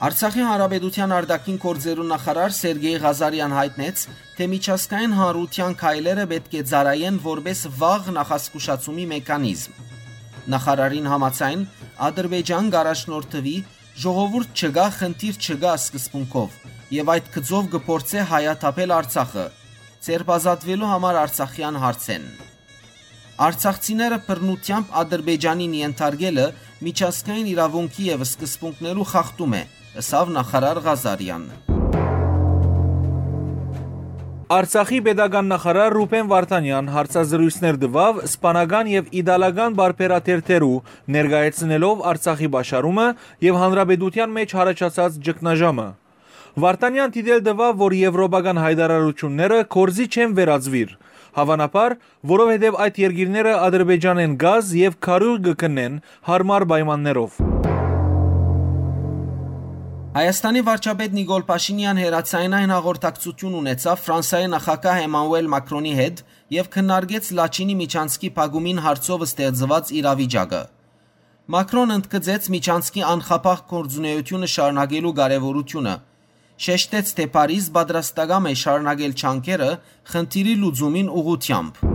Արցախի Հանրապետութեան արտաքին գործերու նախարար Սերգեյ Ղազարեան յայտնեց, թէ միջազգային հանրութեան քայլերը պէտք է ծառայեն որպէս վաղ նախազգուշացումի մեխանիզմ։ Նախարարին համաձայն, Ադրբեջան կ'առաջնորդուի «Ժողովուրդ չկայ, խնդիր չկայ» սկզբունքով եւ այդ գծով կը փորձէ հայաթափել Արցախը, ձերբազատուելու համար արցախեան հարցէն։ Արցախցիները բռնութեամբ Ադրբեջանին ենթարկելը միջազգային իրաւունքի եւ սկզբունքներու խախտում է, ըսաւ նախարար Ղազարեան։ Արցախի պետական նախարար Ռուբեն Վարդանեան հարցազրոյցներ տուաւ սպանական եւ իտալական պարբերաթերթերու, ներկայացնելով Արցախի պաշարումը եւ հանրապետութեան մէջ յառաջացած ճգնաժամը։ Վարդանեան դիտել տուաւ, որ եվրոպական յայտարարութիւնները գործի չեն վերածուիր, հաւանաբար, որովհետեւ այդ երկիրները Ադրբեջանէն կազ եւ քարիւղ կը գնեն յարմար պայմաններով։ Հայաստանի վարչապետ Նիկոլ Փաշինեան հեռաձայնային հաղորդակցութիւն ունեցաւ Ֆրանսայի նախագահ Էմանուել Մակրոնի հետ եւ քննարկեց Լաչինի միջանցքի փակումին հարցով ստեղծուած իրավիճակը։ Մակրոն ընդգծեց միջանցքի անխափաղ գործունեութիւնը շարունակելու կարեւորութիւնը, շեշտեց, թէ Փարիզ պատրաստակամ է շարունակել ջանքերը խնդիրի լուծումին ուղղութեամբ։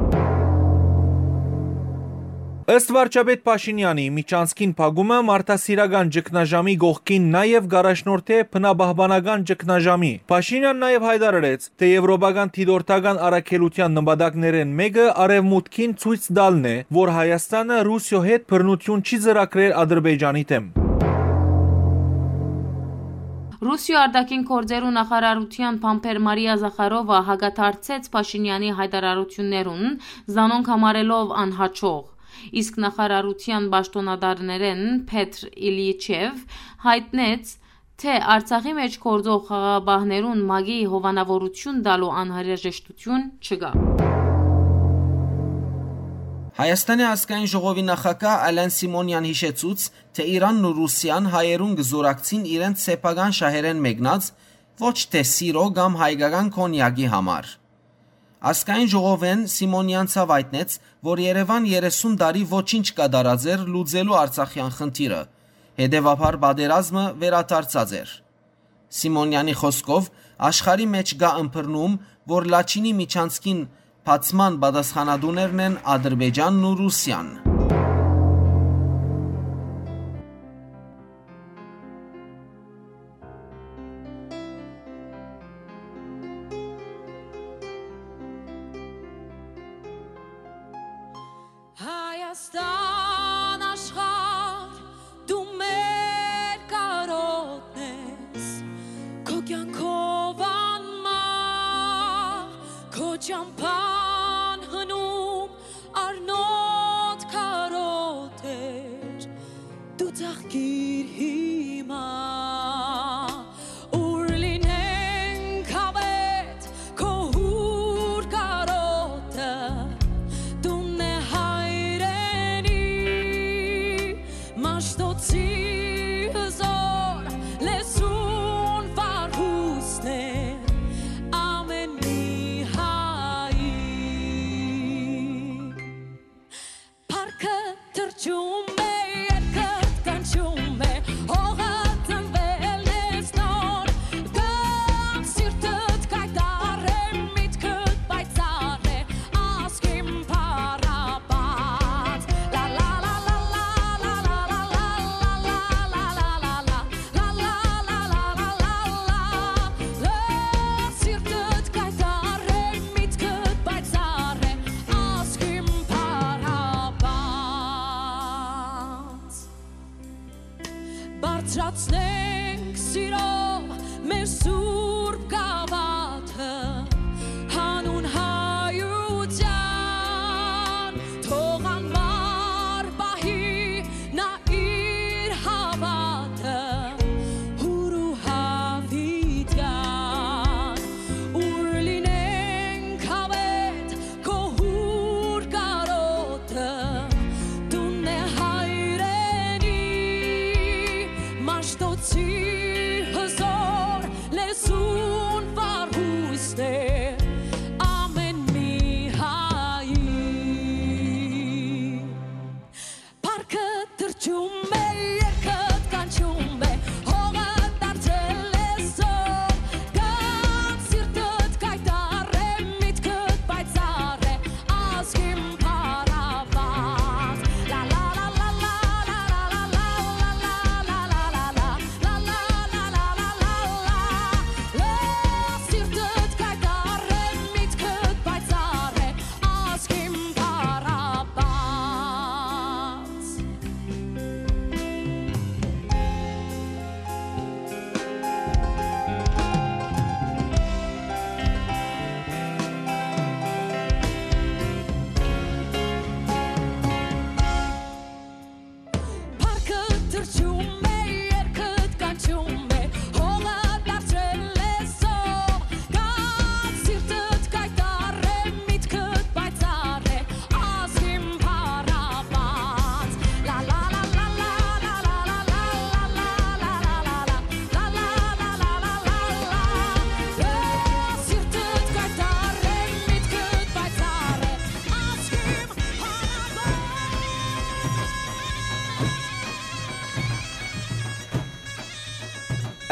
Ըստ վարչապետ Փաշինեանի, միջանցքին փակումը մարդասիրական ճգնաժամի կողքին նաեւ կ'առաջնորդէ բնապահպանական ճգնաժամի։ Փաշինեան նաեւ յայտարարեց, թէ եվրոպական դիտորդական առաքելութեան նպատակներէն մէկը արեւմուտքին ցոյց տալն է, որ Հայաստանը Ռուսիոյ հետ բռնութիւն չի ծրագրեր Ադրբեջանի դէմ։ Ռուսիոյ արտաքին գործերու նախարարութեան բանբեր Մարիա Զախարովա հակադարձեց Փաշինեանի յայտարարութիւններուն, զանոնք համարելով անհաջող։ Իսկ նախարարութեան պաշտօնատարներէն Փեթր Իլիչեւ յայտնեց, թէ Արցախի մէջ գործող խաղաղապահներուն ՄԱԿ-ի հովանաւորութիւն տալու անհրաժեշտութիւն չկայ։ Հայաստանի ազգային ժողովի նախագահ Ալեն Սիմոնեան յիշեցուց, թէ Իրանն ու Ռուսիան հայերուն կը զօրակցին իրենց սեփական շահերէն մեկնած, ոչ թէ սիրո կամ հայկական կոնյակի համար։ Ազգային ժողովէն Սիմոնեան ցաւ յայտնեց, որ Երեւան երեսուն տարի ոչինչ կատարած էր լուծելու արցախեան խնդիրը, հետեւաբար պատերազմը վերադարձած էր։ Սիմոնեանի խօսքով, աշխարհի մէջ կայ ըմբռնում, որ Լաչինի միջանցքին բացման պատասխանատուներն են Ադրբեջանն ու Ռուսիան։ Հայաստան աշխարհ, դու մեր կարօտն ես, քո կյանքով անմահ, քո ճամփան հնում, առնոտ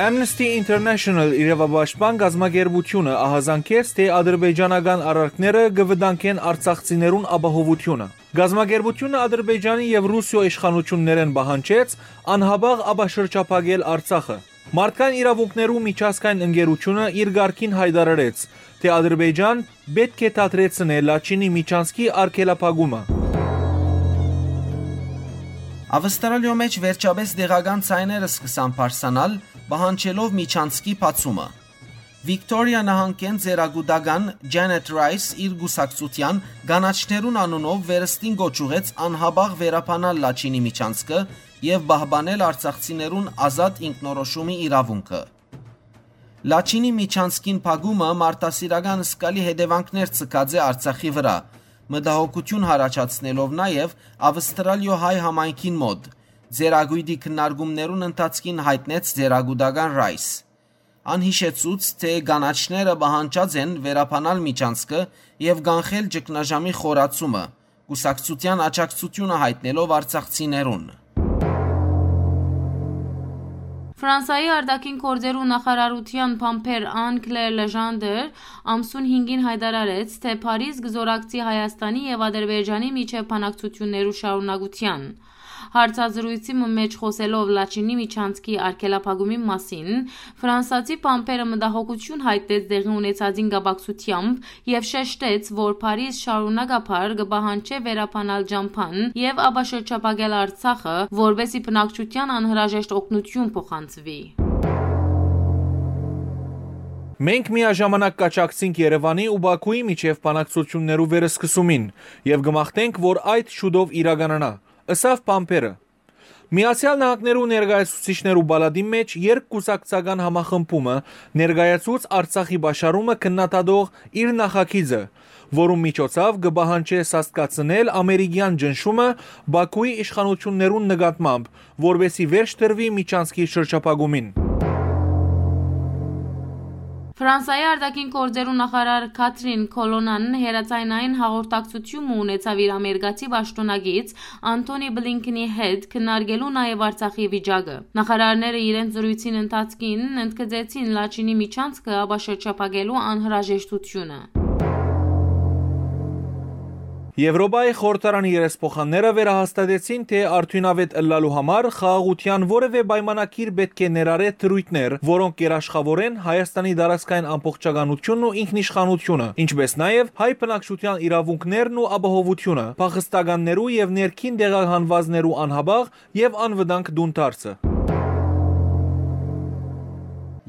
Amnesty International իրավապաշտպան կազմակերպութիւնը ահազանգեց, թէ ադրբեջանական արարքները կը վտանգեն արցախցիներուն ապահովութիւնը։ Կազմակերպութիւնը Ադրբեջանի եւ Ռուսիոյ իշխանութիւններէն պահանջեց անհապաղ ապաշրջափակել Արցախը։ Մարդկային իրաւունքներու միջազգային ընկերութիւնը իր կարգին յայտարարեց, թէ Ադրբեջան պէտք է դադրեցնէ Լաչինի միջանցքի արգելափակումը։ Ավստրալիոյ մէջ վերջապէս տեղական ձայներ սկսան բարձրանալ, պահանջելով միջանցքի բացումը։ Վիկտորիա նահանգէն ծերակուտական Ջանեթ Ռայս իր կուսակցութեան կանաչներուն անունով վերստին կոչ ուղղեց անհապաղ վերաբանալ Լաչինի միջանցքը եւ պահպանել արցախցիներուն ազատ ինքնորոշումի իրաւունքը։ Լաչինի միջանցքին փակումը մարդասիրական զգալի հետեւանքներ ձգած է Արցախի վրայ, մտահոգութիւն յառաջացնելով նաեւ Ավստրալիոյ հայ համայնքին մօտ, ծերակոյտի քննարկումներուն ընթացքին յայտնեց ծերակուտական Ռայս։ Ան յիշեցուց, թէ կանաչները պահանջած են վերաբանալ միջանցքը եւ կանխել ճգնաժամի խորացումը, կուսակցութեան աջակցութիւնը յայտնելով արցախցիներուն։ Ֆրանսայի արտաքին գործերու նախարարութեան բանբեր Ան Կլեր Լեժանդեր ամսուն հինգին յայտարարեց, թէ Փարիզ կը զօրակցի Հայաստանի եւ Ադրբեջանի միջեւ բանակցութիւններու շարունակութեան։ Հարցազրոյցի մը մէջ խօսելով Լաչինի միջանցքի արգելափակումի մասին, ֆրանսացի բանբերը մտահոգութիւն յայտնեց տեղի ունեցածին կապակցությամբ եւ շեշտեց, որ Փարիզ շարունակաբար կը պահանջէ վերաբանալ ճամբան եւ ապաշրջափակել Արցախը, որպէսզի բնակչութեան անհրաժեշտ օգնութիւն փոխանցուի։ Մենք միաժամանակ կաջակցենք Երեւանի ու Բաքուի միջեւ բանակցութիւններու վերսկսումին եւ կը մաղթենք, որ այդ շուտով իրականանայ, ըսաւ բանբերը։ Միացեալ Նահանգներու ներկայացուցիչներու պալատին մէջ երկկուսակցական համախմբումը ներկայացուց Արցախի պաշարումը քննադատող իր նախագիծը, որուն միջոցաւ կը պահանջէ սաստկացնել ամերիկեան ճնշումը Բաքուի իշխանութիւններուն նկատմամբ, որպէսզի վերջ տրուի միջանցքի շրջափակումին։ Ֆրանսայի արտաքին գործերու նախարար Քաթրին Քոլոնան հեռաձայնային հաղորդակցութիւն մը ունեցաւ իր ամերիկացի պաշտօնակից Անթոնի Բլինքնի հետ, քննարկելու նաեւ Արցախի վիճակը։ Նախարարները իրենց զրոյցին ընթացքին ընդգծեցին Լաչինի միջանցքը ապաշրջափակելու անհրաժեշտութիւնը։ Եվրոպայի խորհրդարանի երեսփոխանները վերահաստատեցին, թէ արդիւնաւէտ ըլլալու համար խաղաղութեան որեւէ պայմանագիր պէտք է ներառէ դրոյթներ, որոնք կ'երաշխաւորեն Հայաստանի տարածքային ամբողջականութիւնն ու ինքնիշխանութիւնը, ինչպէս նաեւ հայ բնակչութեան իրաւունքներն ու ապահովութիւնը, փախստականներու եւ ներքին տեղահանուածներու անհապաղ եւ անվտանգ տուն դարձը։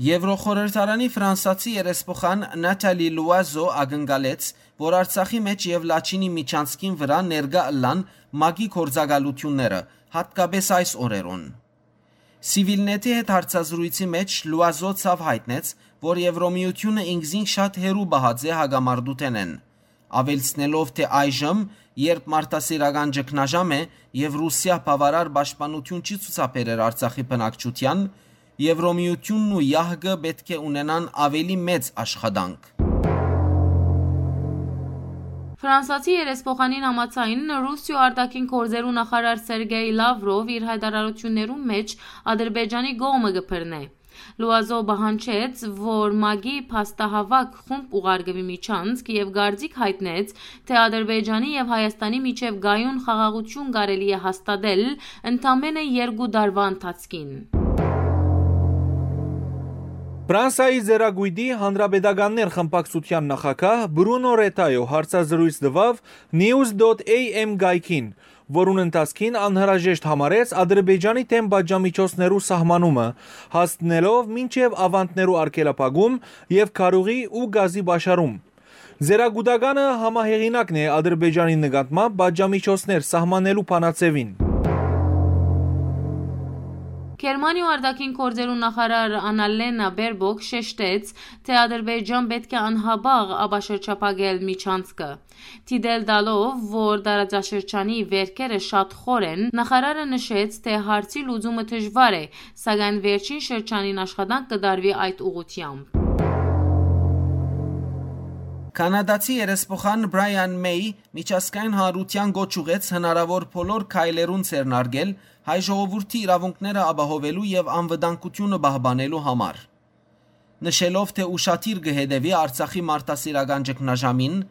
Եվրոխորհրդարանի ֆրանսացի երեսփոխան Նաթալի Լուազո ակնկալեց, որ Արցախի մէջ եւ Լաչինի միջանցքին վրայ ներկայ ըլլան ՄԱԿ-ի գործակալութիւնները, յատկապէս այս օրերուն։ Սիվիլնեթի հետ հարցազրոյցի մէջ Լուազո ցաւ յայտնեց, որ Եվրոմիութիւնը ինքզինք շատ հեռու պահած է հակամարտութենէն, աւելցնելով, թէ այժմ, երբ մարդասիրական ճգնաժամ է եւ Ռուսիա բաւարար պաշտպանութիւն չի ցուցաբերեր Արցախի բնակչութեան, Եվրոմիութիւնն ու յահկը պէտք է ունենան աւելի մեծ աշխատանք։ Ֆրանսացի երեսփոխանին համաձայն, Ռուսիոյ արտաքին գործերու նախարար Սերգեյ Լավրով իր յայտարարութիւններուն մէջ Ադրբեջանի կողմը կը բռնէ։ Լուազո պահանջեց, որ ՄԱԿ-ի փաստահաւաք խումբ ուղարկուի միջանցք եւ կարծիք յայտնեց, թէ Ադրբեջանի եւ Հայաստանի միջեւ կայուն խաղաղութիւն կարելի է հաստատել ընդամենը երկու տարուայ ընթացքին։ Ֆրանսայի Զերակույտի Հանրապետականներ խմբակցութեան նախագահ Բրունո Ռետայո հարցազրոյց տուաւ News dot A M կայքին, որուն ընթացքին անհրաժեշտ համարեց Ադրբեջանի դէմ պատժամիջոցներու սահմանումը, հասնելով մինչեւ աւանդներու արգելափակում եւ քարուղի ու գազի պաշարում։ Զերակուտականը համահեղինակն է Ադրբեջանի նկատմամբ պատժամիջոցներ սահմանելու բանաձեւին։ Գերմանիոյ արտաքին գործերու նախարար Անալենա Բերբոկ շեշտեց, թէ Ադրբեջան պէտք է անհապաղ ապաշրջափակել միջանցքը։ Դիտել տալով, որ տարածաշրջանի վերքերը շատ խոր են, նախարարը նշեց, թէ հարցի լուծումը դժուար է, սակայն վերջին շրջանին աշխատանք կը տարուի այդ ուղղությամբ։ Կանադացի երեսփոխան Brian May միջազգային հանրութեան կոչ ուղղեց հնարաւոր բոլոր քայլերուն ձեռնարկել հայ ժողովուրդի իրաւունքները ապահովելու եւ անվտանգութիւնը պահպանելու համար։ Նշելով, թէ ուշադիր կը հետեւի Արցախի մարդասիրական ճգնաժամին,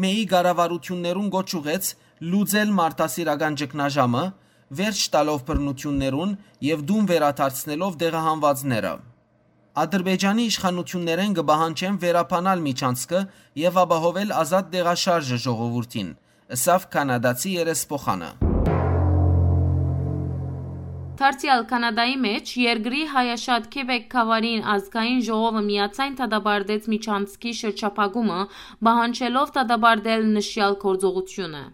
May-ի կառավարութիւններուն կոչ ուղղեց լուծել մարդասիրական ճգնաժամը, վերջ տալով բռնութիւններուն եւ տուն վերադարձնելով տեղահանուածները։ Ադրբեջանի իշխանութիւններէն կը պահանջեմ վերաբանալ միջանցքը եւ ապահովել ազատ տեղաշարժը ժողովուրդին, ըսաւ կանադացի երեսփոխանը։ Դարձեալ Կանադայի մէջ երկրի հայաշատ Քեբեկ գաւառին ազգային ժողովը միաձայն դատապարտեց միջանցքի շրջափակումը, պահանջելով դատապարտել նշեալ գործողութիւնը։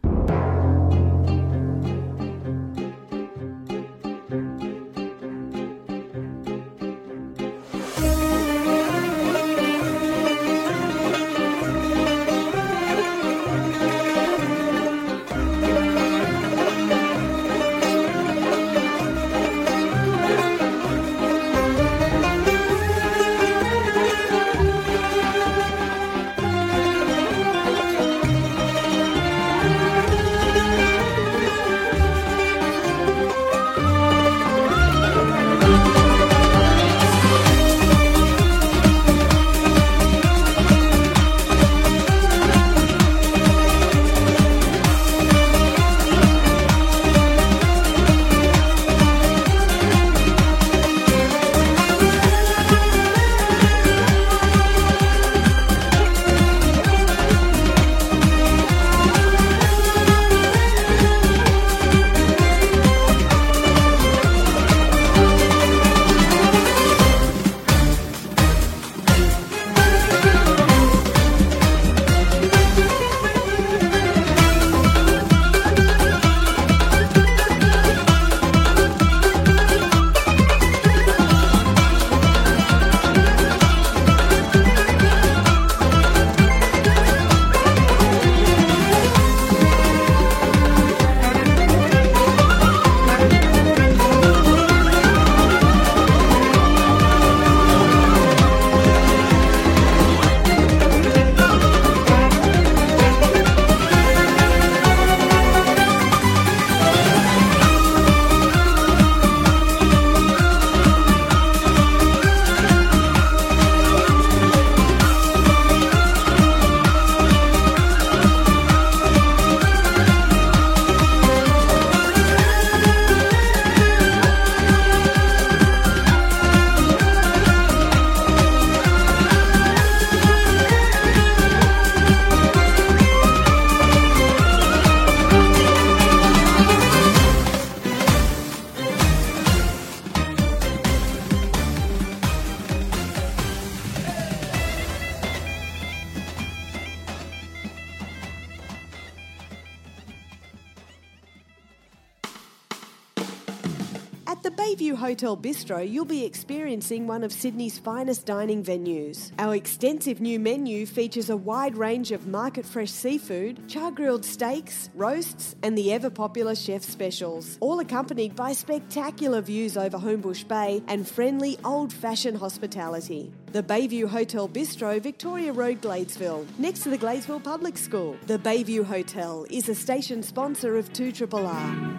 At the Bayview Hotel Bistro, you'll be experiencing one of Sydney's finest dining venues. Our extensive new menu features a wide range of market fresh seafood, char grilled steaks, roasts, and the ever popular chef specials, all accompanied by spectacular views over Homebush Bay and friendly old fashioned hospitality. The Bayview Hotel Bistro, Victoria Road, Gladesville, next to the Gladesville Public School. The Bayview Hotel is a station sponsor of two triple R.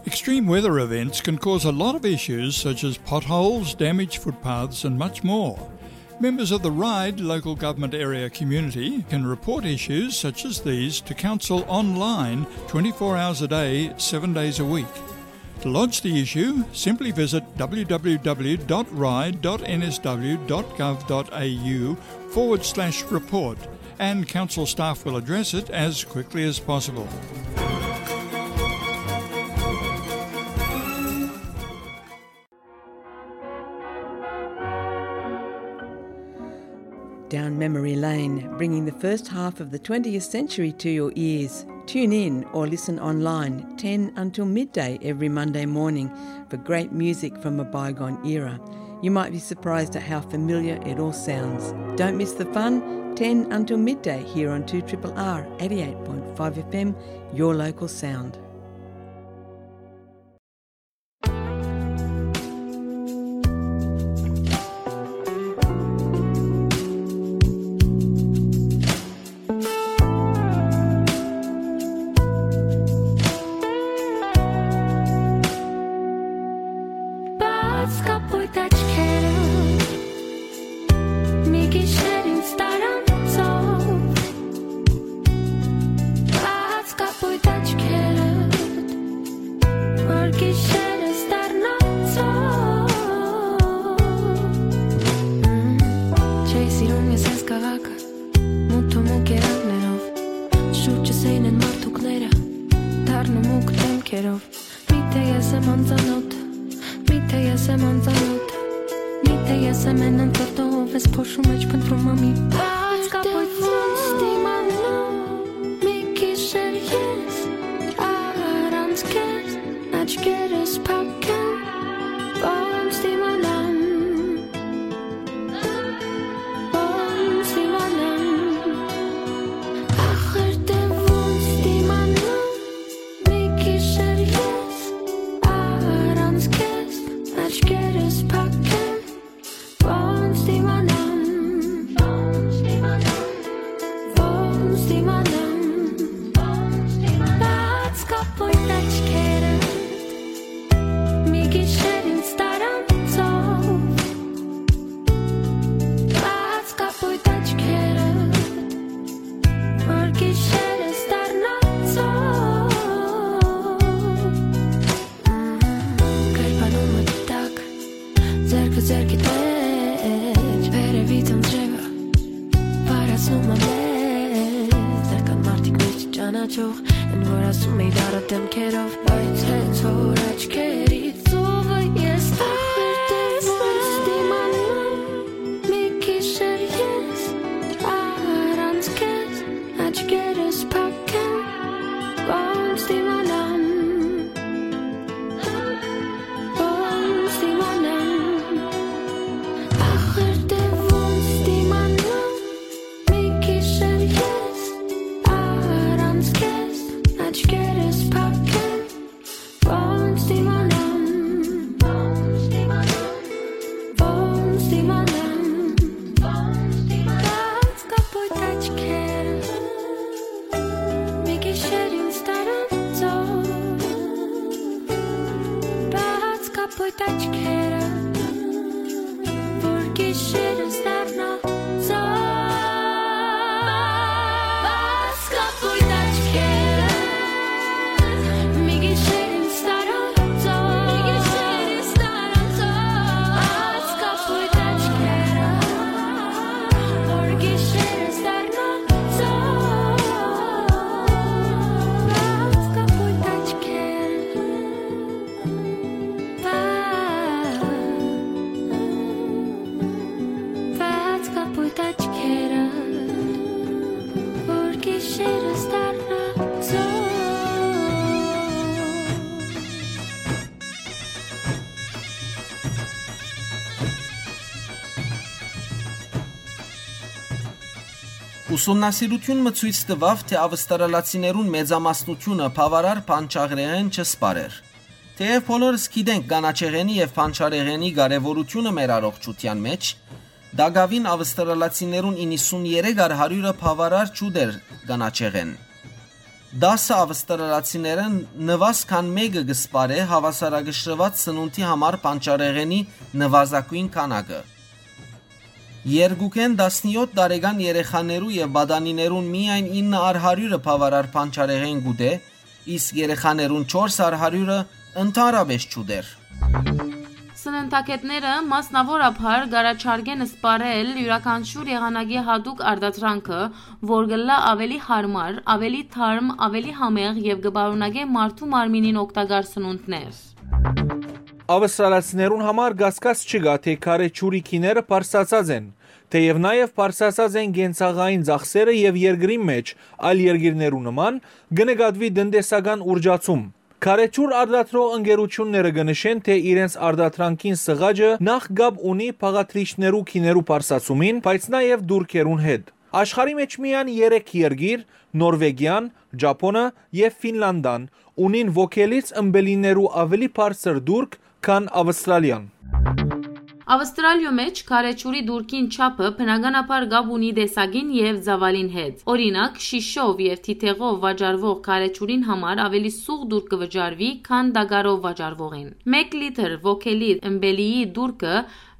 Extreme weather events can cause a lot of issues such as potholes, damaged footpaths, and much more. Members of the RIDE local government area community can report issues such as these to council online twenty-four hours a day, seven days a week. To lodge the issue, simply visit w w w dot ride dot n s w dot gov dot a u forward slash report, and council staff will address it as quickly as possible. Down memory lane, bringing the first half of the twentieth century to your ears. Tune in or listen online ten until midday every Monday morning for great music from a bygone era. You might be surprised at how familiar it all sounds. Don't miss the fun, ten until midday here on two triple R eighty-eight point five F M, your local sound. Սիրում ես այս քաղաքը, մութ ու մուկ երանգներով, շուրջս էին են մարդուկները, դառն ու մուկ դեմքերով։ Միթե ես եմ անծանոթ, միթե ես եմ անծանոթ, միթե ես եմ են անծանոթ, ով ես փոշու մեջ փնտրում ամի բաց կապոյտ ոնց դիմանամ, մի գիշեր ես առանց քեզ, աչքերս փակեմ, ոնց դիմանամ, ոնց դիմանամ, ախր դե ոնց դիմանամ, մի գիշեր ես առանց քեզ, աչքերս փակեմ, ոնց դիմանամ, ոնց դիմանամ, բաց կապոյտ աչքերը, մի գիշեր ինձ տարանցով, բաց կապոյտ աչքերը, որ գիշերս դառնանցով։ Կերպանումը տակ, ձեռքը ձեռքի տակ, վերևից անձրևը վարացնում է մեզ, դեռ կան մարդիկ մեզ չճանաչող, են որ ասում էին առատ դեմքերով, բայց հենց որ աչքերիցովը ես տեսնեմ, դիմանամ, մի գիշեր ես առանց քեզ, աչքերս փակեմ, ոնց դիմանամ, ոնց դիմանամ, ախր դե ոնց դիմանամ, մի գիշեր ես առանց քեզ, աչքերս փակեմ, ոնց դիմանամ, ոնց դիմանամ, բաց կապոյտ աչքերը, մի գիշեր ինձ տարանցով, բաց կապոյտ աչքերը, որ գիշերս դառնանցով, բաց կապոյտ աչքերը, մի գիշեր ինձ տարանցով, բաց կապոյտ աչքերը, որ գիշերս դառնանցով, բաց կապոյտ աչքերը, բաց, բաց կապոյտ աչքերը, որ գիշերս դառնանցով։ Ուսումնասիրութիւն մը ցոյց տուաւ, թէ ավստրալացիներուն մեծամասնութիւնը բաւարար բանջարեղէն չսպարեր։ Թէեւ բոլորս գիտենք կանաչեղէնի եւ բանջարեղէնի կարեւորութիւնը մեր առողջութեան մէջ, տակաւին ավստրալացիներուն իննսուններեք առ հարիւրը բաւարար չուտեր կանաչեղէն։ Տասը ավստրալացիներէն նուազ քան մէկը կը սպարէ հաւասարակշռուած սնունդի համար բանջարեղէնի նուազագոյն քանակը։ Երկուքէն տասնեօթ տարեկան երեխաներու եւ պատանիներուն միայն ինը առ հարիւրը բաւարար բանջարեղէն կ'ուտէ, իսկ երեխաներուն չորս առ հարիւրը ընդհանրապէս չուտեր։ Սննդագետները մասնաւորաբար կ'առաջարկեն սպառել իւրաքանչիւր եղանակի յատուկ արտադրանքը, որ կ'ըլլայ աւելի յարմար, աւելի թարմ, աւելի համեղ եւ կը պարունակէ մարդու մարմինին օգտակար սնունդներ։ Ավստրալացիներուն համար կասկած չկայ, թէ քարէ ջուրի գիները բարձրացած են, թէեւ նաեւ բարձրացած են կենցաղային ծախսերը եւ երկրին մէջ, այլ երկիրներու նման, կը նկատուի տնտեսական ուռճացում։ Քարէ ջուր արտադրող ընկերութիւնները կը նշեն, թէ իրենց արտադրանքին սղաճը նախ կապ ունի բաղադրիչներու գիներու բարձրացումին, բայց նաեւ տուրքերուն հետ։ Աշխարհի մէջ միայն երեք երկիր՝ Նորվեգիան, Ճապոնը եւ Ֆինլանդան, ունին ոգելից ըմպելիներու աւելի բարձր տուրք, քան Ավստրալիան։ Ավստրալիոյ մէջ քարէ ջուրի տուրքին չափը բնականաբար կապ ունի տեսակին եւ ծաւալին հետ։ Օրինակ, շիշով եւ թիթեղով վաճառուող քարէ ջուրին համար աւելի սուղ տուրք կը վճարուի, քան տակարով վաճառուողին։ Մէկ լիթր ոգելի ըմպելիի տուրքը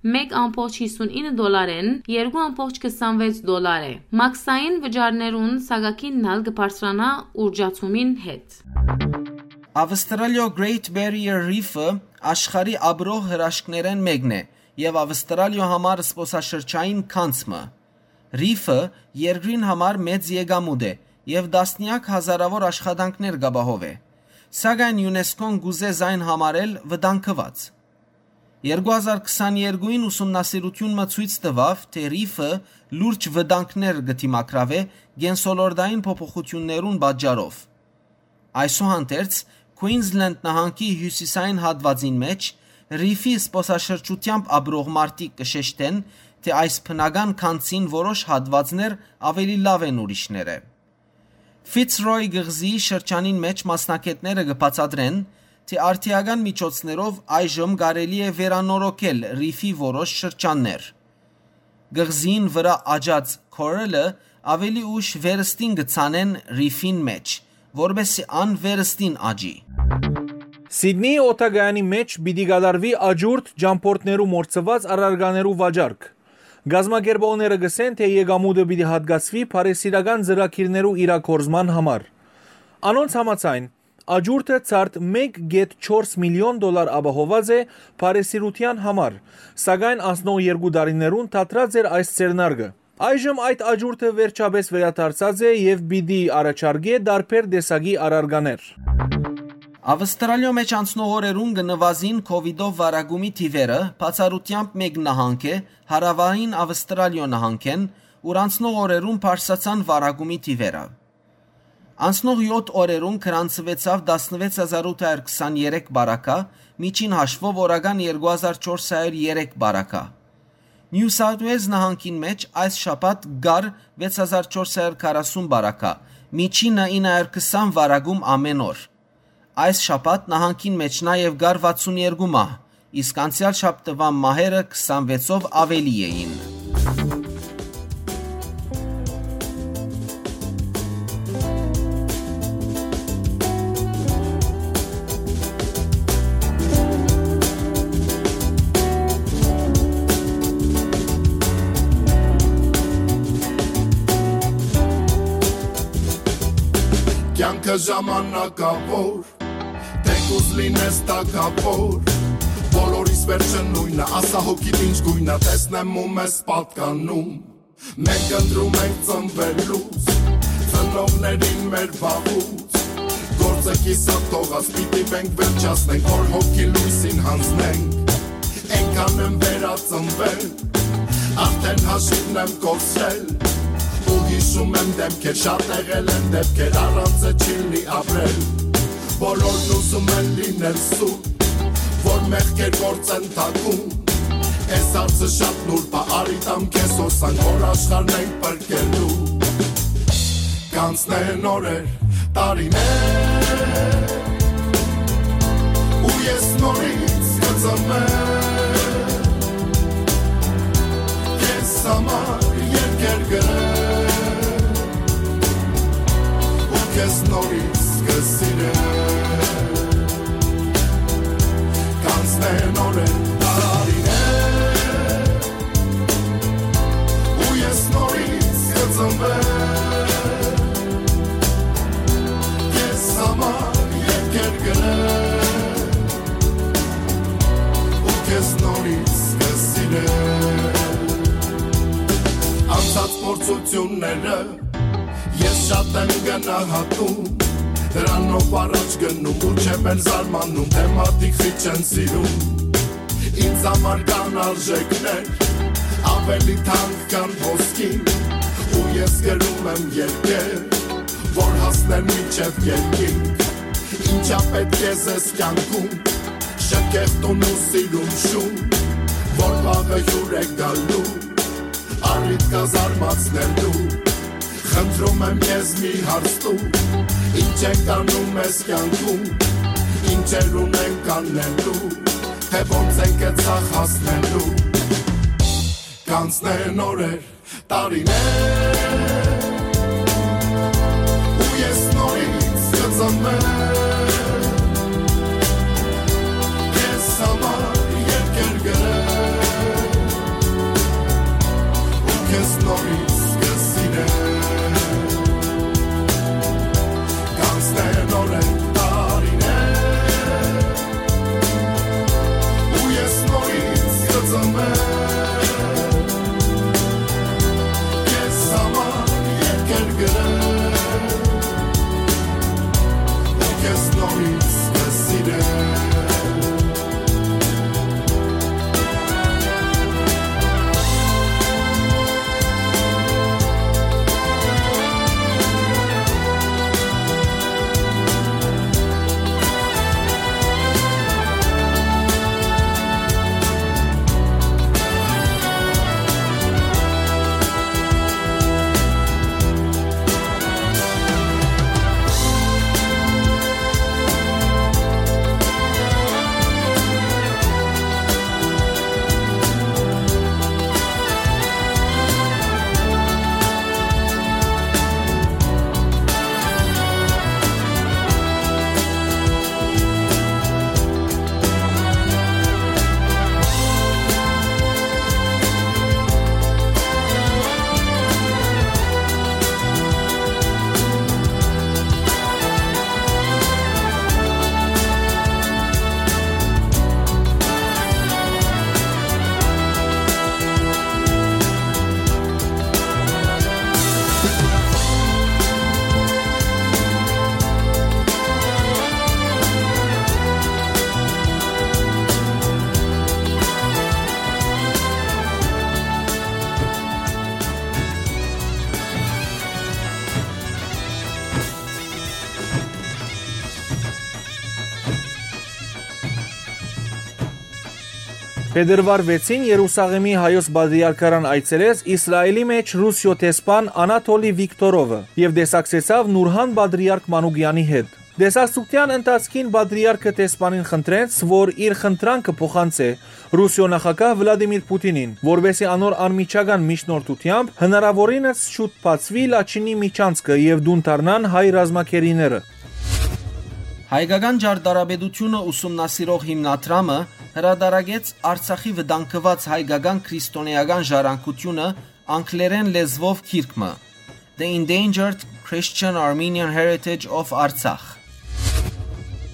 մէկ ամբողջ հիսունինը դոլարէն երկու ամբողջ քսանվեց դոլար է։ Մաքսային վճարներուն սակագինն ալ կը բարձրանայ ուռճացումին հետ։ Ավստրալիոյ Great Barrier Reef-ը աշխարհի ապրող հրաշքներէն մէկն է եւ Ավստրալիոյ համար զբօսաշրջային գանձ մը։ Ռիֆը երկրին համար մեծ եկամուտ է եւ տասնեակ հազարաւոր աշխատանքներ կ'ապահովէ, սակայն ЮՆԵՍԿՕ-ն կ'ուզէ զայն համարել վտանգուած։ Երկու հազար քսաներկուին ուսումնասիրութիւն մը ցոյց տուաւ, թէ Ռիֆը լուրջ վտանգներ կը դիմագրաւէ կենսոլորտային փոփոխութիւններուն պատճառով։ Այսուհանդերձ, Քուինզլենդ նահանգի հիւսիսային հատուածին մէջ Ռիֆի զբօսաշրջութեամբ ապրող մարդիկ կը շեշտեն, թէ այս բնական գանձին որոշ հատուածներ աւելի լաւ են ուրիշներէ։ Ֆիցրոյ կղզիի շրջանին մէջ մասնագէտները կը բացատրեն, թէ արդիական միջոցներով այժմ կարելի է վերանորոգել Ռիֆի որոշ շրջաններ։ Կղզիին վրայ աճած քորելը աւելի ուշ վերստին կը ցանեն Ռիֆին մէջ, որպէսզի ան վերստին աճի։ Սիդնիի օդակայանի մէջ պիտի կատարուի աճուրդ ճամբորդներու մոռցուած առարկաներու վաճառք։ Կազմակերպողները կ'ըսեն, թէ եկամուտը պիտի հատկացուի բարեսիրական ծրագիրներու իրագործման համար։ Անոնց համաձայն, աճուրդը ցարդ մէկ կէտ չորս միլիոն դոլար ապահոված է բարեսիրութեան համար, սակայն անցնող երկու տարիներուն դադրած էր այս ձեռնարկը։ Այժմ այդ աճուրդը վերջապէս վերադարձած է եւ պիտի առաջարկէ տարբեր տեսակի առարկաներ։ Ավստրալիոյ մէջ անցնող օրերուն կը նուազին քովիդով վարակումի թիվերը, բացառութեամբ մէկ նահանգ է, Հարաւային Ավստրալիոյ նահանգէն, ուր անցնող օրերուն բարձրացան վարակումի թիվերը։ Անցնող յոթ օրերուն գրանցուեցաւ տասնուեց հազար ութ հարյուր քսաներեք բարակայ, միջին հաշուով օրական երկու հազար չորս հարյուր երեք բարակայ։ Նիու Սաութ Ուէլզ նահանգին մէջ այս շաբաթ կար վեց հազար չորս հարյուր քառասուն բարակայ, միջինը ինը հարյուր քսան վարակում ամէն օր։ Այս շաբաթ նահանգին մէջ նաեւ կար վաթսուն երկու մահ, իսկ անցեալ շաբթուան մահերը քսանվեցով աւելի էին։ Կյանքը ժամանակաւոր, թեկուզ լինես թագաւոր, բոլորիս վերջը նոյնը, ասա հոգիդ ինչ գոյնը, տեսնեմ ու մեզ պատկանում։ Մենք ընտրում ենք ծնվելուց, ծնողներին մեր վաղուց, գործը կիսատ թողած, պիտի մենք վերջացնենք, որ հոգի լույսին հանձնենք։ Այնքան եմ վերածնվել, արդեն հաշիվն եմ կորցրել, ու հիշում եմ դեմքեր, շատ եղել են դեպքեր, առանց է չի լինի ապրել, բոլորն ուզում են լինել սուտ, որ մեղքեր գործեն թաքուն, այս հարցը շատ նուրբ է, արի տամ քեզ հոսանք, որ աշխարհն ենք պրկելու։ Կանցնեն օրեր, տարիներ, ու ես նորից կծնվեմ, քեզ համար երկեր գրեմ, ու քեզ նորից կսիրեմ։ Կանցնեն օրեր, տարիներ, ու ես նորից կծնվեմ, քեզ համար երկեր գրեմ, ու քեզ նորից կսիրեմ։ Անցած փորձությունները ես շատ եմ գնահատում, դրանով առաջ գնում ու չեմ էլ զարմանում, թե մարդիկ քիչ են սիրում։ Ինձ համար կան արժեքներ, ավելի թանկ քան ոսկին, ու ես գրում եմ երկեր, որ հասնեն մինչև երկինք։ Ինչա պետք է զես կյանքում, շքեղ տուն ու սիրուն շուն, որ վաղը հյուր է գալու, առիթ կա զարմացնելու։ Խնդրում եմ, քեզ մի հարց տու, ինչ ենք անում այս կյանքում, ինչեր ունենք անելու, թե ոնց ենք այդ սաղ հասնելու։ Կանցնեն օրեր, տարիներ, ու ես նորից կծնվեմ, քեզ համար երկեր գրեմ, ու քեզ նորից կսիրեմ։ Կանցնեն օրեր, տարիներ, ու ես նորից կծնվեմ, Փետրուար վեցին Երուսաղէմի հայոց պատրիարքարան այցելեց Իսրայէլի մէջ Ռուսիոյ դեսպան Անատոլի Վիկտորովը եւ տեսակցեցաւ Նուրհան պատրիարք Մանուկեանի հետ։ Տեսակցութեան ընթացքին պատրիարքը դեսպանին խնդրեց, որ իր խնդրանքը փոխանցէ Ռուսիոյ նախագահ Վլադիմիր Պուտինին, որպէսզի անոր անմիջական միջնորդութեամբ հնարաւորինս շուտ բացուի Լաչինի միջանցքը եւ տուն դառնան հայ ռազմագերիները։ Հայկական ճարտարապետութիւնը ուսումնասիրող հիմնադրամը հրադարագեց Արցախի վտանգուած հայկական քրիստոնէական ժառանգութիւնը անգլերէն լեզուով գիրք մը, The Endangered Christian Armenian Heritage of Artsakh։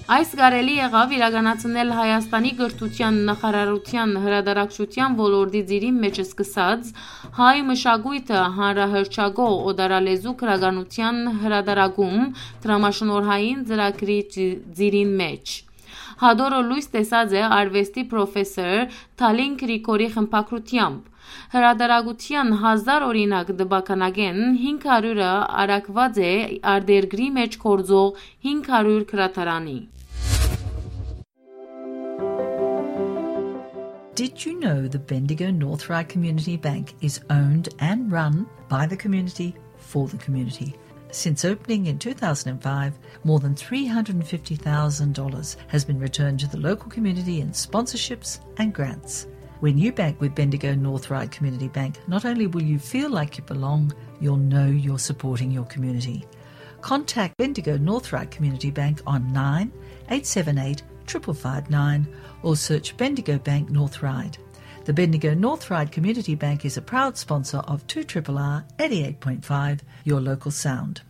Այս կարելի եղաւ իրականացնել Հայաստանի կրթութեան նախարարութեան հրատարակչութեան ոլորտի ծիրին մէջ սկսած հայ մշակոյթը հանրահռչակող օտարալեզու գրականութեան հրատարակում դրամաշնորհային ծրագրի ծի-, ծիրին մէջ։ Հատորը լոյս տեսած է արուեստի պրոֆեսոր Թալին Գրիգորի խմբագրութեամբ։ Հրատարակութեան հազար օրինակ տպականակէն հինգ հարիւրը առաքուած է արտերկրի մէջ գործող հինգ հարիւր գրադարանի։ Did you know the Bendigo North Ryde Community Bank is owned and run by the community for the community? Since opening in two thousand and five, more than three hundred and fifty thousand dollars has been returned to the local community in sponsorships and grants. When you bank with Bendigo North Ryde Community Bank, not only will you feel like you belong, you'll know you're supporting your community. Contact Bendigo North Ryde Community Bank on nine eight seven eight triple five nine or search Bendigo Bank North Ryde. The Bendigo North Ryde Community Bank is a proud sponsor of two triple R eighty-eight point five, your local sound.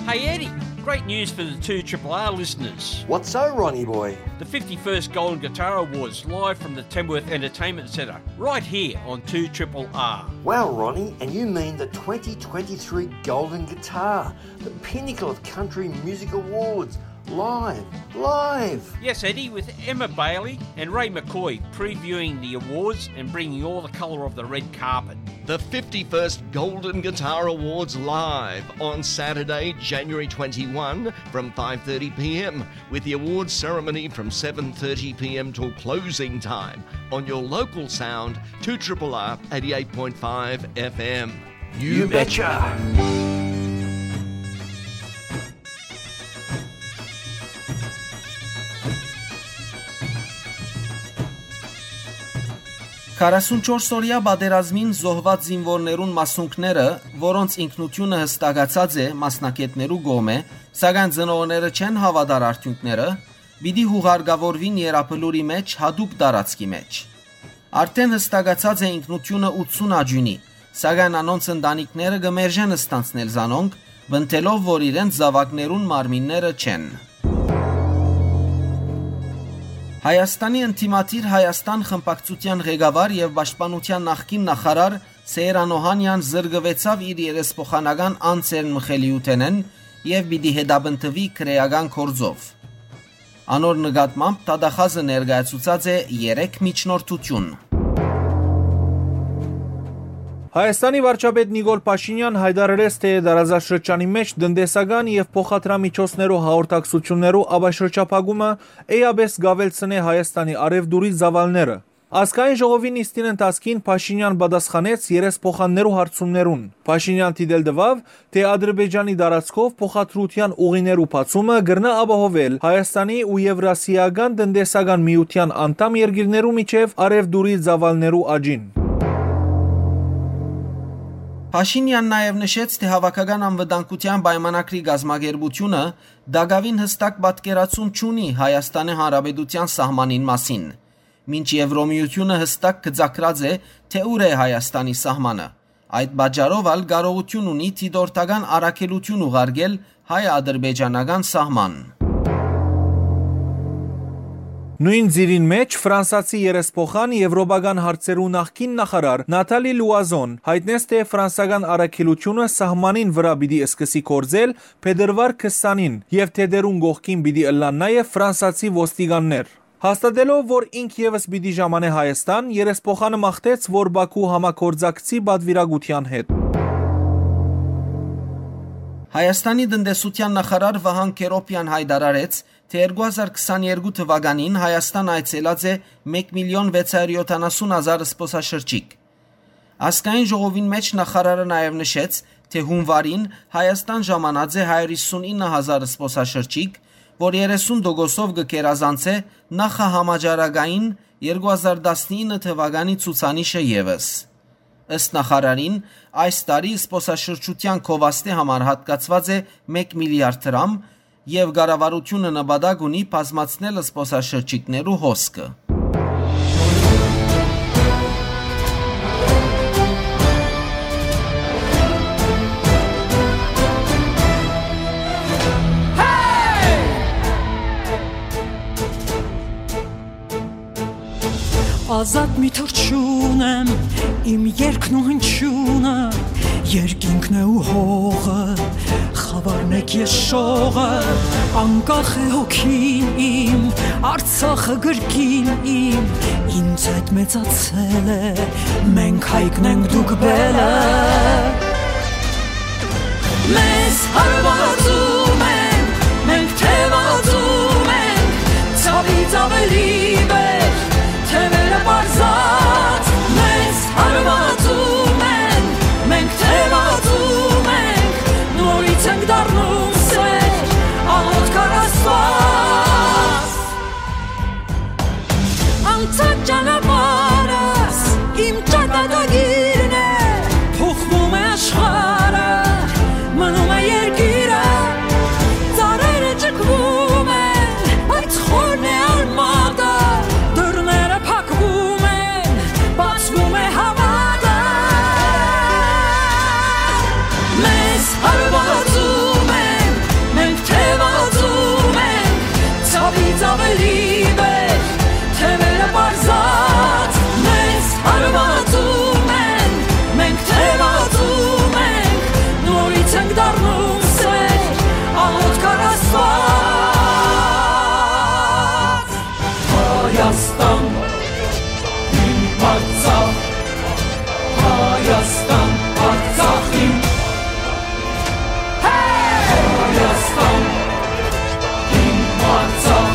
Hey Eddie, great news for the two triple R listeners. What's so, Ronnie boy? The fifty-first Golden Guitar Awards live from the Tamworth Entertainment Centre, right here on two triple R. Wow, Ronnie, and you mean the twenty twenty-three Golden Guitar, the pinnacle of country music awards, live, live! Yes, Eddie, with Emma Bailey and Ray McCoy previewing the awards and bringing all the colour of the red carpet. The fifty-first Golden Guitar Awards live on Saturday, January twenty-one, from five thirty p.m., with the awards ceremony from seven thirty p.m. till closing time on your local sound, two triple R eighty-eight point five F M. You betcha. Քառասունչորս օրեայ պատերազմին զոհուած զինուորներուն մասունքները, որոնց ինքնութիւնը յստակացած է մասնագէտներու կողմէ, սակայն ծնողները չեն հաւատար արդիւնքները, պիտի յուղարկաւորուին Եռաբլուրի մէջ յատուկ տարածքի մէջ։ Արդէն յստակացած է ինքնութիւնը ութսուն աճիւնի, սակայն անոնց ընտանիքները կը մերժեն ստանձնել զանոնք, պնդելով, որ իրենց զաւակներուն մարմինները չեն։ Հայաստանի ընդդիմադիր Հայաստան խմբակցութեան ղեկավար եւ պաշտպանութեան նախկին նախարար Սեյրան Օհանեան զրկուեցաւ իր երեսփոխանական անձերն մխելիութենէն եւ պիտի հետապնդուի քրէական գործով։ Անոր նկատմամբ դատախազը ներկայացուցած է երեք միջնորդութիւն։ Հայաստանի վարչապետ Նիկոլ Փաշինեան յայտարարեց, թէ տարածաշրջանի մէջ տնտեսական եւ փոխադրամիջոցներու հաղորդակցութիւններու ապաշրջափակումը էապէս կ'աւելցնէ Հայաստանի առեւտուրի ծաւալները։ Ազգային ժողովի նիստին ընթացքին Փաշինեան պատասխանեց երեսփոխաններու հարցումներուն։ Փաշինեան դիտել տուաւ, թէ Ադրբեջանի տարածքով փոխադրութեան ուղիներու բացումը կրնայ ապահովել Հայաստանի ու Եվրասիական տնտեսական միութեան անդամ երկիրներու միջեւ առեւտուրի ծաւալներու աճին։ Փաշինեան նաեւ նշեց, թէ Հաւաքական անվտանգութեան պայմանագրի կազմակերպութիւնը տակաւին յստակ պատկերացում չունի Հայաստանի Հանրապետութեան սահմանին մասին, մինչ Եվրոմիութիւնը յստակ գծագրած է, թէ ուր է Հայաստանի սահմանը։ Այդ պատճառով ալ կարողութիւն ունի դիտորդական առաքելութիւն ուղարկել հայ-ադրբեջանական սահման։ Նոյն ծիրին մէջ ֆրանսացի երեսփոխան, եվրոպական հարցերու նախկին նախարար Նաթալի Լուազոն յայտնեց, թէ ֆրանսական առաքելութիւնը սահմանին վրայ պիտի սկսի գործել փետրուար քսանին եւ թէ դերուն կողքին պիտի ըլլան նաեւ ֆրանսացի ոստիկաններ։ Հաստատելով, որ ինք եւս պիտի ժամանէ Հայաստան, երեսփոխանը մաղթեց, որ Բաքու համագործակցի պատվիրակութեան հետ։ Հայաստանի տնտեսութեան նախարար Վահան Քերոպեան յայտարարեց, թէ երկու հազար քսաներկու թուականին Հայաստան այցելած է մէկ միլիոն վեց հարիւր յոթանասուն հազար զբօսաշրջիկ։ Ազգային ժողովին մէջ նախարարը նաեւ նշեց, թէ հունուարին Հայաստան ժամանած է հարիւր հիսունինը հազար զբօսաշրջիկ, որ երեսուն տոկոսով կը գերազանցէ նախահամաճարակային երկու հազար տասնինը թուականի ցուցանիշը եւս։ Ըստ նախարարին, այս տարի զբօսաշրջութեան գովազդի համար յատկացուած է մէկ միլիարդ դրամ, եւ կառավարութիւնը նպատակ ունի բազմացնել զբօսաշրջիկներու հոսքը։ Ազատ մի թռչուն եմ, իմ երկն ու հնչիւնը, երկինքն է ու հողը, խաւարն է ես շողը, անկախ է հոգին իմ, Արցախը գրկին իմ, ինձ հետ մեծացել է, մենք հայկն ենք, դուք բելը։ Մեզ հարվածում են, մենք թևածում ենք, ցավից ավելի վեր, թևերը պարզած, մեզ հարվածում են, մենք թևածում ենք, նորից ենք դառնում սեր, աղոթք առ Աստված։ Անցած ճանապարհս իմ ճակատագիրն է, փոխվում է աշխարհը, մնում է երկիրը, ծառերը ճկվում են, բայց խորն է արմատը, դռները փակվում են, բացվում է հավատը։ Մեզ հարվածում են, մենք թևածում ենք, ցավից ավելի վեր, թևերը պարզած, մեզ հարվածում են, մենք թևածում ենք, նորից ենք դառնում սեր, աղոթք առ Աստված։ Հայաստան, իմ Արցախ, Հայաստան, Արցախ իմ։ Հայաստան, իմ Արցախ,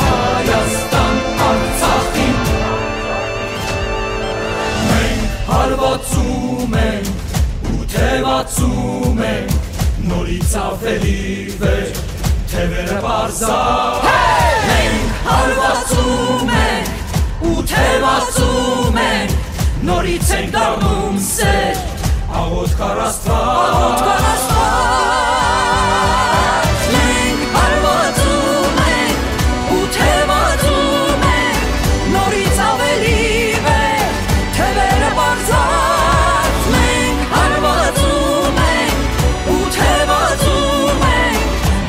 Հայաստան, Արցախ իմ։ Մենք հարվածում ենք ու թևածում ենք, նորից ավելի վեր, թևերը պարզա։ Մենք հարվածում ենք ու թևածում ենք, նորից ենք դառնում սեր, աղոթք առ Աստված։ Աղոթք առ Աստված։ Մենք հարվածում ենք ու թևածում ենք, նորից ավելի վեր, թևերը պարզած, մենք հարվածում ենք ու թևածում ենք,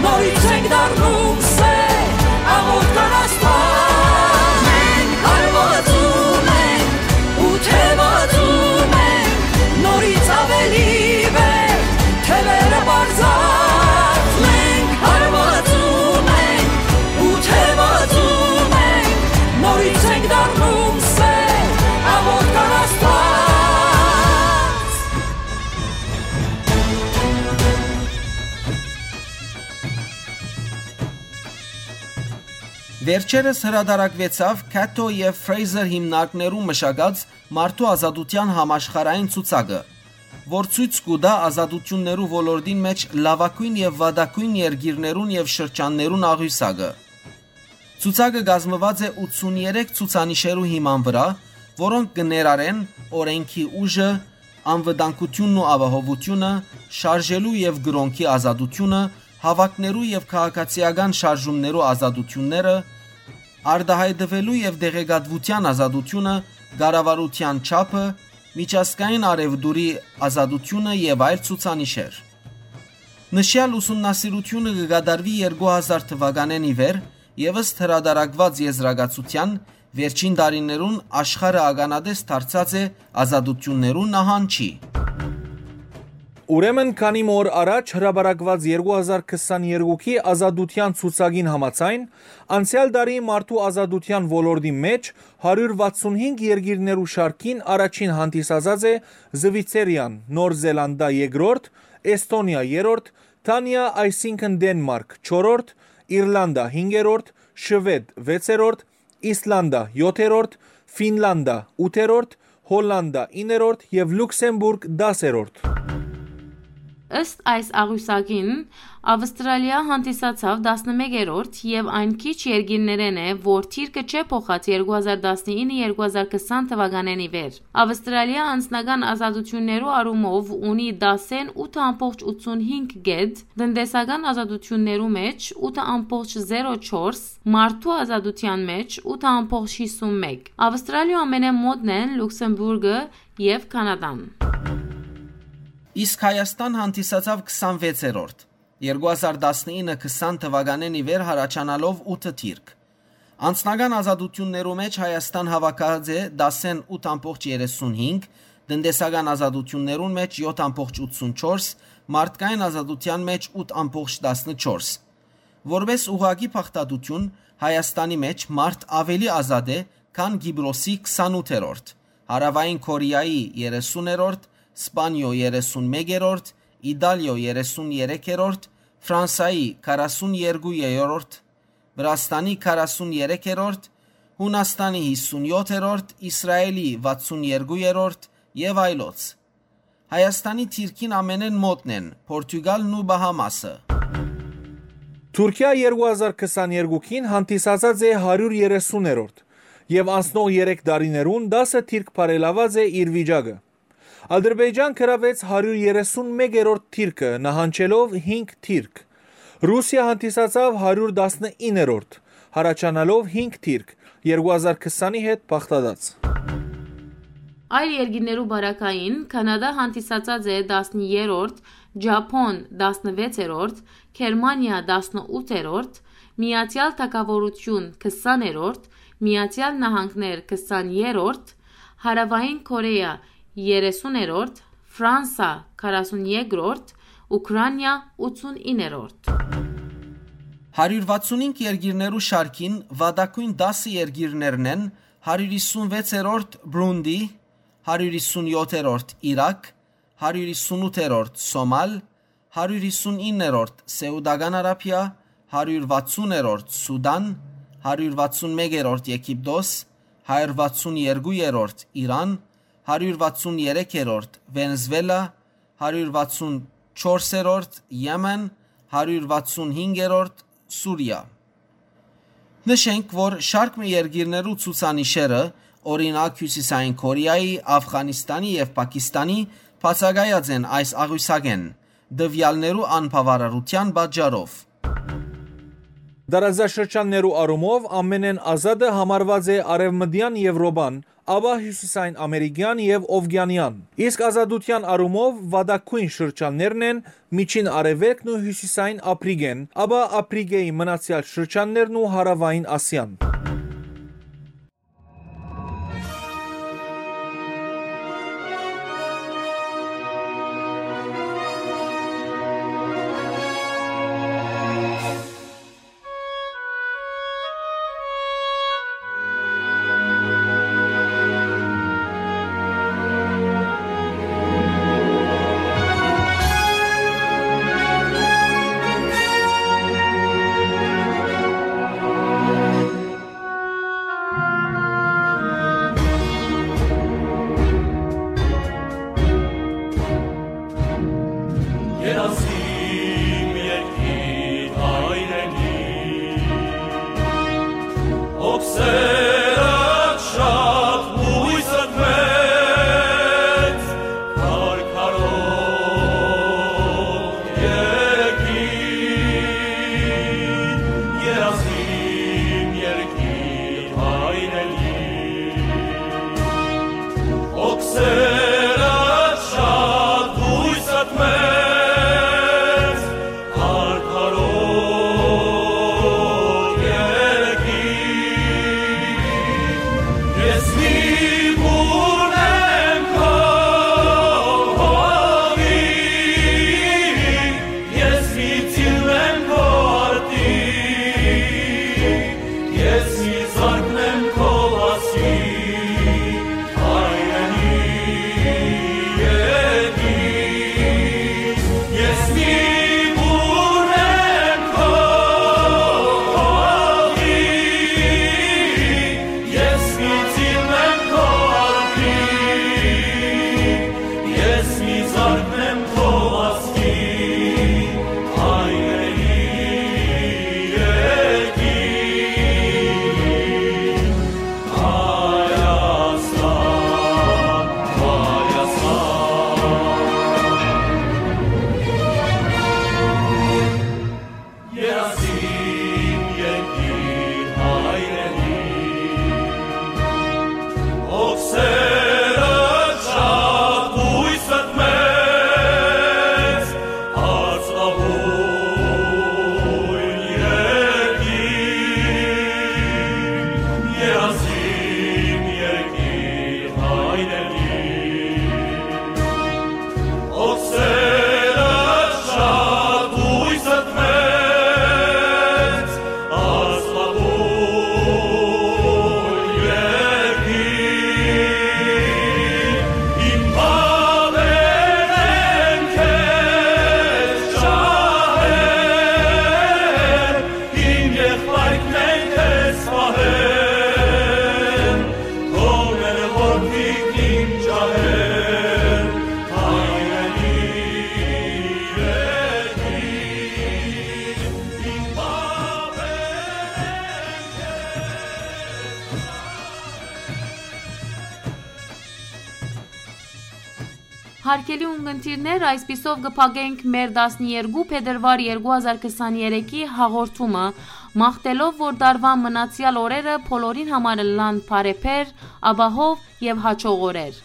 նորից ենք դառնում սեր, աղոթք առ Աստված։ Մենք հարվածում ենք ու թևածում ենք, նորից ավելի վեր, թևերը պարզած, մենք հարվածում ենք ու թևածում ենք, նորից ենք դառնում սեր, աղոթք առ Աստված։ Վերջերս հրատարակուեցաւ Cato եւ Fraser հիմնարկներու մշակած մարդու ազատութեան համաշխարհային ցուցակը, որ ցոյց կու տայ ազատութիւններու ոլորտին մէջ լաւագոյն եւ վատագոյն երկիրներուն եւ շրջաններուն աղիւսակը։ Ցուցակը կազմուած է ութսուններեք ցուցանիշերու հիման վրայ, որոնք կը ներառեն օրէնքի ուժը, անվտանգութիւնն ու ապահովութիւնը, շարժելու եւ կրօնքի ազատութիւնը, հաւաքներու եւ քաղաքացիական շարժումներու ազատութիւնները, արտայայտուելու եւ տեղեկատուութեան ազատութիւնը, կառավարութեան չափը, միջազգային առեւտուրի ազատութիւնը եւ այլ ցուցանիշեր։ Նշեալ ուսումնասիրութիւնը կը կատարուի երկու հազար թուականէն ի վեր եւ ըստ հրատարակուած եզրակացութեան, վերջին տարիներուն աշխարհը ականատես դարձած է ազատութիւններու նահանջի։ Ուրեմն քանի մը օր առաջ հրապարակուած երկու հազար քսաներկուքի ազատութեան ցուցակին համաձայն, անցեալ տարի մարդու ազատութեան ոլորտի մէջ հարիւր վաթսունհինգ երկիրներու շարքին առաջին հանդիսացած է Զուիցերիան, Նոր Զելանդա երկրորդ, Էսթոնիա երրորդ, Դանիա, այսինքն Դենմարք չորրորդ, Իրլանդա՝ հինգերորդ, Շուեդ՝ վեցերորդ, Իսլանդա՝ յոթերորդ, Ֆինլանդա՝ ութերորդ, Հոլլանդա՝ իններորդ եւ Լուքսեմբուրգ՝ դասերորդ։ Ըստ այս աղիւսակին, Ավստրալիա հանդիսացաւ տասնմեկերորդ եւ այն քիչ երկիրներէն է, որ թիրքը չէ փոխած երկու հազար տասնինը երկու հազար քսան թուականէն ի վեր։ Ավստրալիա անձնական ազատութիւններու առումով ունի տասնութ ըմբողջ ութսունհինգ կետ, տնտեսական ազատութիւններու մէջ ութ ըմբողջ զերո չորս, մարդու ազատութեան մէջ ութ ըմբողջ հիսունմեկ։ Ավստրալիոյ ամենէն մօտն են Լուքսեմբուրգը եւ Քանադան։ Իսկ Հայաստան հանդիսացաւ քսանվեցերորդ, երկու հազար տասնինը քսան թուականէն ի վեր յառաջանալով ութ թիրք։ Անձնական ազատութիւններու մէջ Հայաստան հաւաքած է տասնութ ըմբողջ երեսունհինգ, տնտեսական ազատութիւններուն մէջ յոթ ըմբողջ ութսունչորս, մարդկային ազատութեան մէջ ութ ըմբողջ տասնչորս։ Որպէս ուղղակի փախտատութիւն, Հայաստանի մէջ մարդ աւելի ազատ է, քան Կիպրոսի քսանութերորդ, Հարաւային Քորեայի երեսուներորդ, Սպանիոյ երեսունմեկերորդ, Իտալիոյ երեսուներկերորդ, Ֆրանսայի քառասուներկուերորդ, Վրաստանի քառասուներկերորդ, Յունաստանի հիսունյոթերորդ, Իսրայելի վաթսուներկուերորդ եւ այլոց։ Հայաստանի թիրքին ամենէն մօտն են Պորտուգալն ու Բահամասը։ Թուրքիա երկու հազար քսաներկուին հանդիսացած է հարիւր երեսուներորդ եւ անցնող երեք տարիներուն տասը թիրք բարելաւած է իր վիճակը։ Ադրբեջան գրաւեց հարիւր երեսունմեկերորդ թիրքը՝ նահանջելով հինգ թիրք։ Ռուսիա հանդիսացաւ հարիւր տասնիններորդ, յառաջանալով հինգ թիրք, երկու հազար քսանի հետ բաղդատած։ Այլ երկիրներու պարագային Քանադա հանդիսացած է տասներորդ, Ճափոն՝ տասնվեցերորդ, Գերմանիա՝ տասնութերորդ, Միացեալ Թագաւորութիւն՝ քսաներորդ, Միացեալ Նահանգներ՝ քսաներորդ, Հարաւային Քորեա՝ երեսուներորդ, Ֆրանսա՝ քառասուներկրորդ, Ուքրանիա՝ ութսունիններորդ։ Հարիւր վաթսունհինգ երկիրներու շարքին վատագոյն տասը երկիրներն են՝ հարիւր հիսունվեցերորդ՝ Բրունդի, հարիւր հիսունյոթերորդ՝ Իրաք, հարիւր հիսունութերորդ՝ Սոմալ, հարիւր հիսունիններորդ՝ Սէուտական Արաբիա, հարիւր վաթսուներորդ՝ Սուտան, հարիւր վաթսունմեկերորդ՝ Եգիպտոս, հարիւր վաթսուներկուերորդ՝ Իրան, հարիւր վաթսուներեքերորդ՝ Վենեզուելա, հարիւր վաթսունչորսերորդ՝ Եմեն, հարիւր վաթսունհինգերորդ՝ Սուրիա։ Նշենք, որ շարք մը երկիրներու ցուցանիշերը, օրինակ՝ Հիւսիսային Քորեայի, Աֆղանիստանի եւ Պակիստանի, բացակայած են այս աղիւսակէն՝ տուեալներու անբաւարարութեան պատճառով։ Տարածաշրջաններու առումով ամենէն ազատը համարուած է Արեւմտեան Եւրոպան, ապա Հիւսիսային Ամերիկեան եւ Ովկիանեան, իսկ ազատութեան առումով վատագոյն շրջաններն են Միջին Արեւելքն ու Հիւսիսային Ափրիկեն, ապա Ափրիկէի մնացեալ շրջաններն ու Հարաւային Ասիան։ Երազիմ երկիր հայրենի, հոգսերդ շատ, հոյսդ մեծ, քարքարոտ երկիր, երազիմ երկիր հայրենի, հոգսերդ շատ, հոյսդ մեծ, քարքարոտ երկիր։ Ես մի բուռն եմ քո հողի, ես մի ծիլն եմ քո արտի, ես մի զարկն եմ քո վազքի, հայրենի։ Հարգելի ունկնդիրներ, այսպիսով կը փակենք մեր տասներկու փետրուար երկու հազար քսաներեքի հաղորդումը, մաղթելով որ տարուան մնացեալ օրերը բոլորին համար ըլլան բարեբեր, ապահով եւ հաջող օրեր։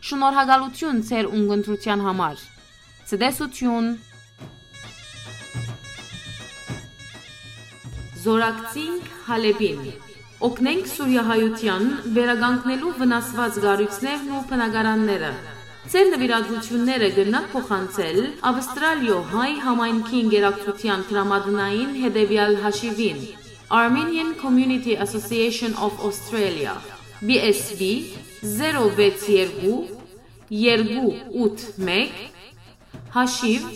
Շնորհակալություն ձեր ունկնդրութեան համար։ Ցտեսություն։ Զորակցինք Հալէպին։ Օգնենք սուրիահայութեան վերականգնելու վնասուած կառոյցներն ու բնակարանները։ Ձեր նուիրատուութիւնները կրնաք փոխանցել Աւստրալիոյ հայ համայնքի ընկերակցութեան դրամատնային հետեւեալ հաշիւին՝ Armenian Community Association of Australia, B S B, zero վեց երկու, երկու ութ մէկ, հաշիւ,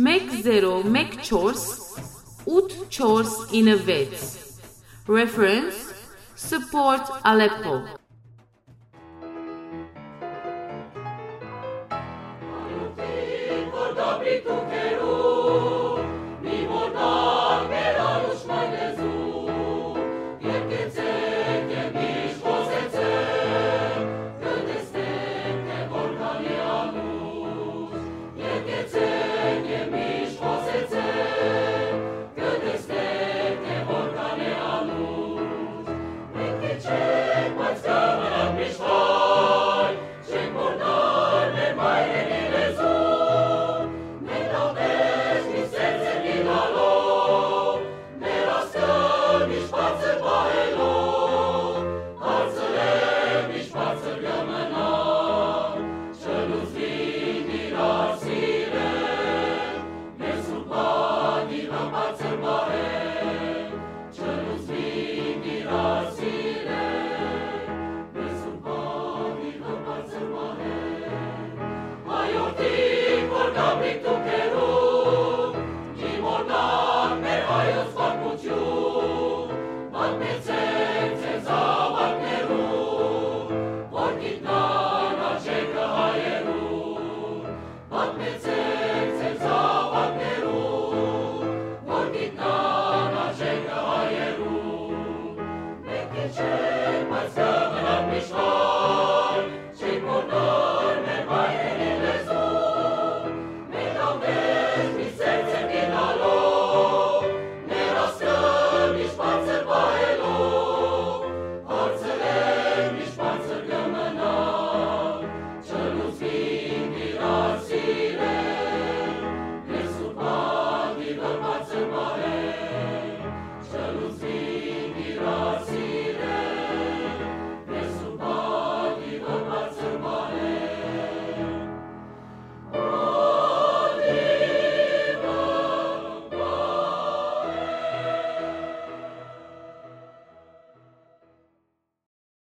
մեկ զերո մեկ չորս, ութ չորս ինը վեց։ Reference, Support Aleppo։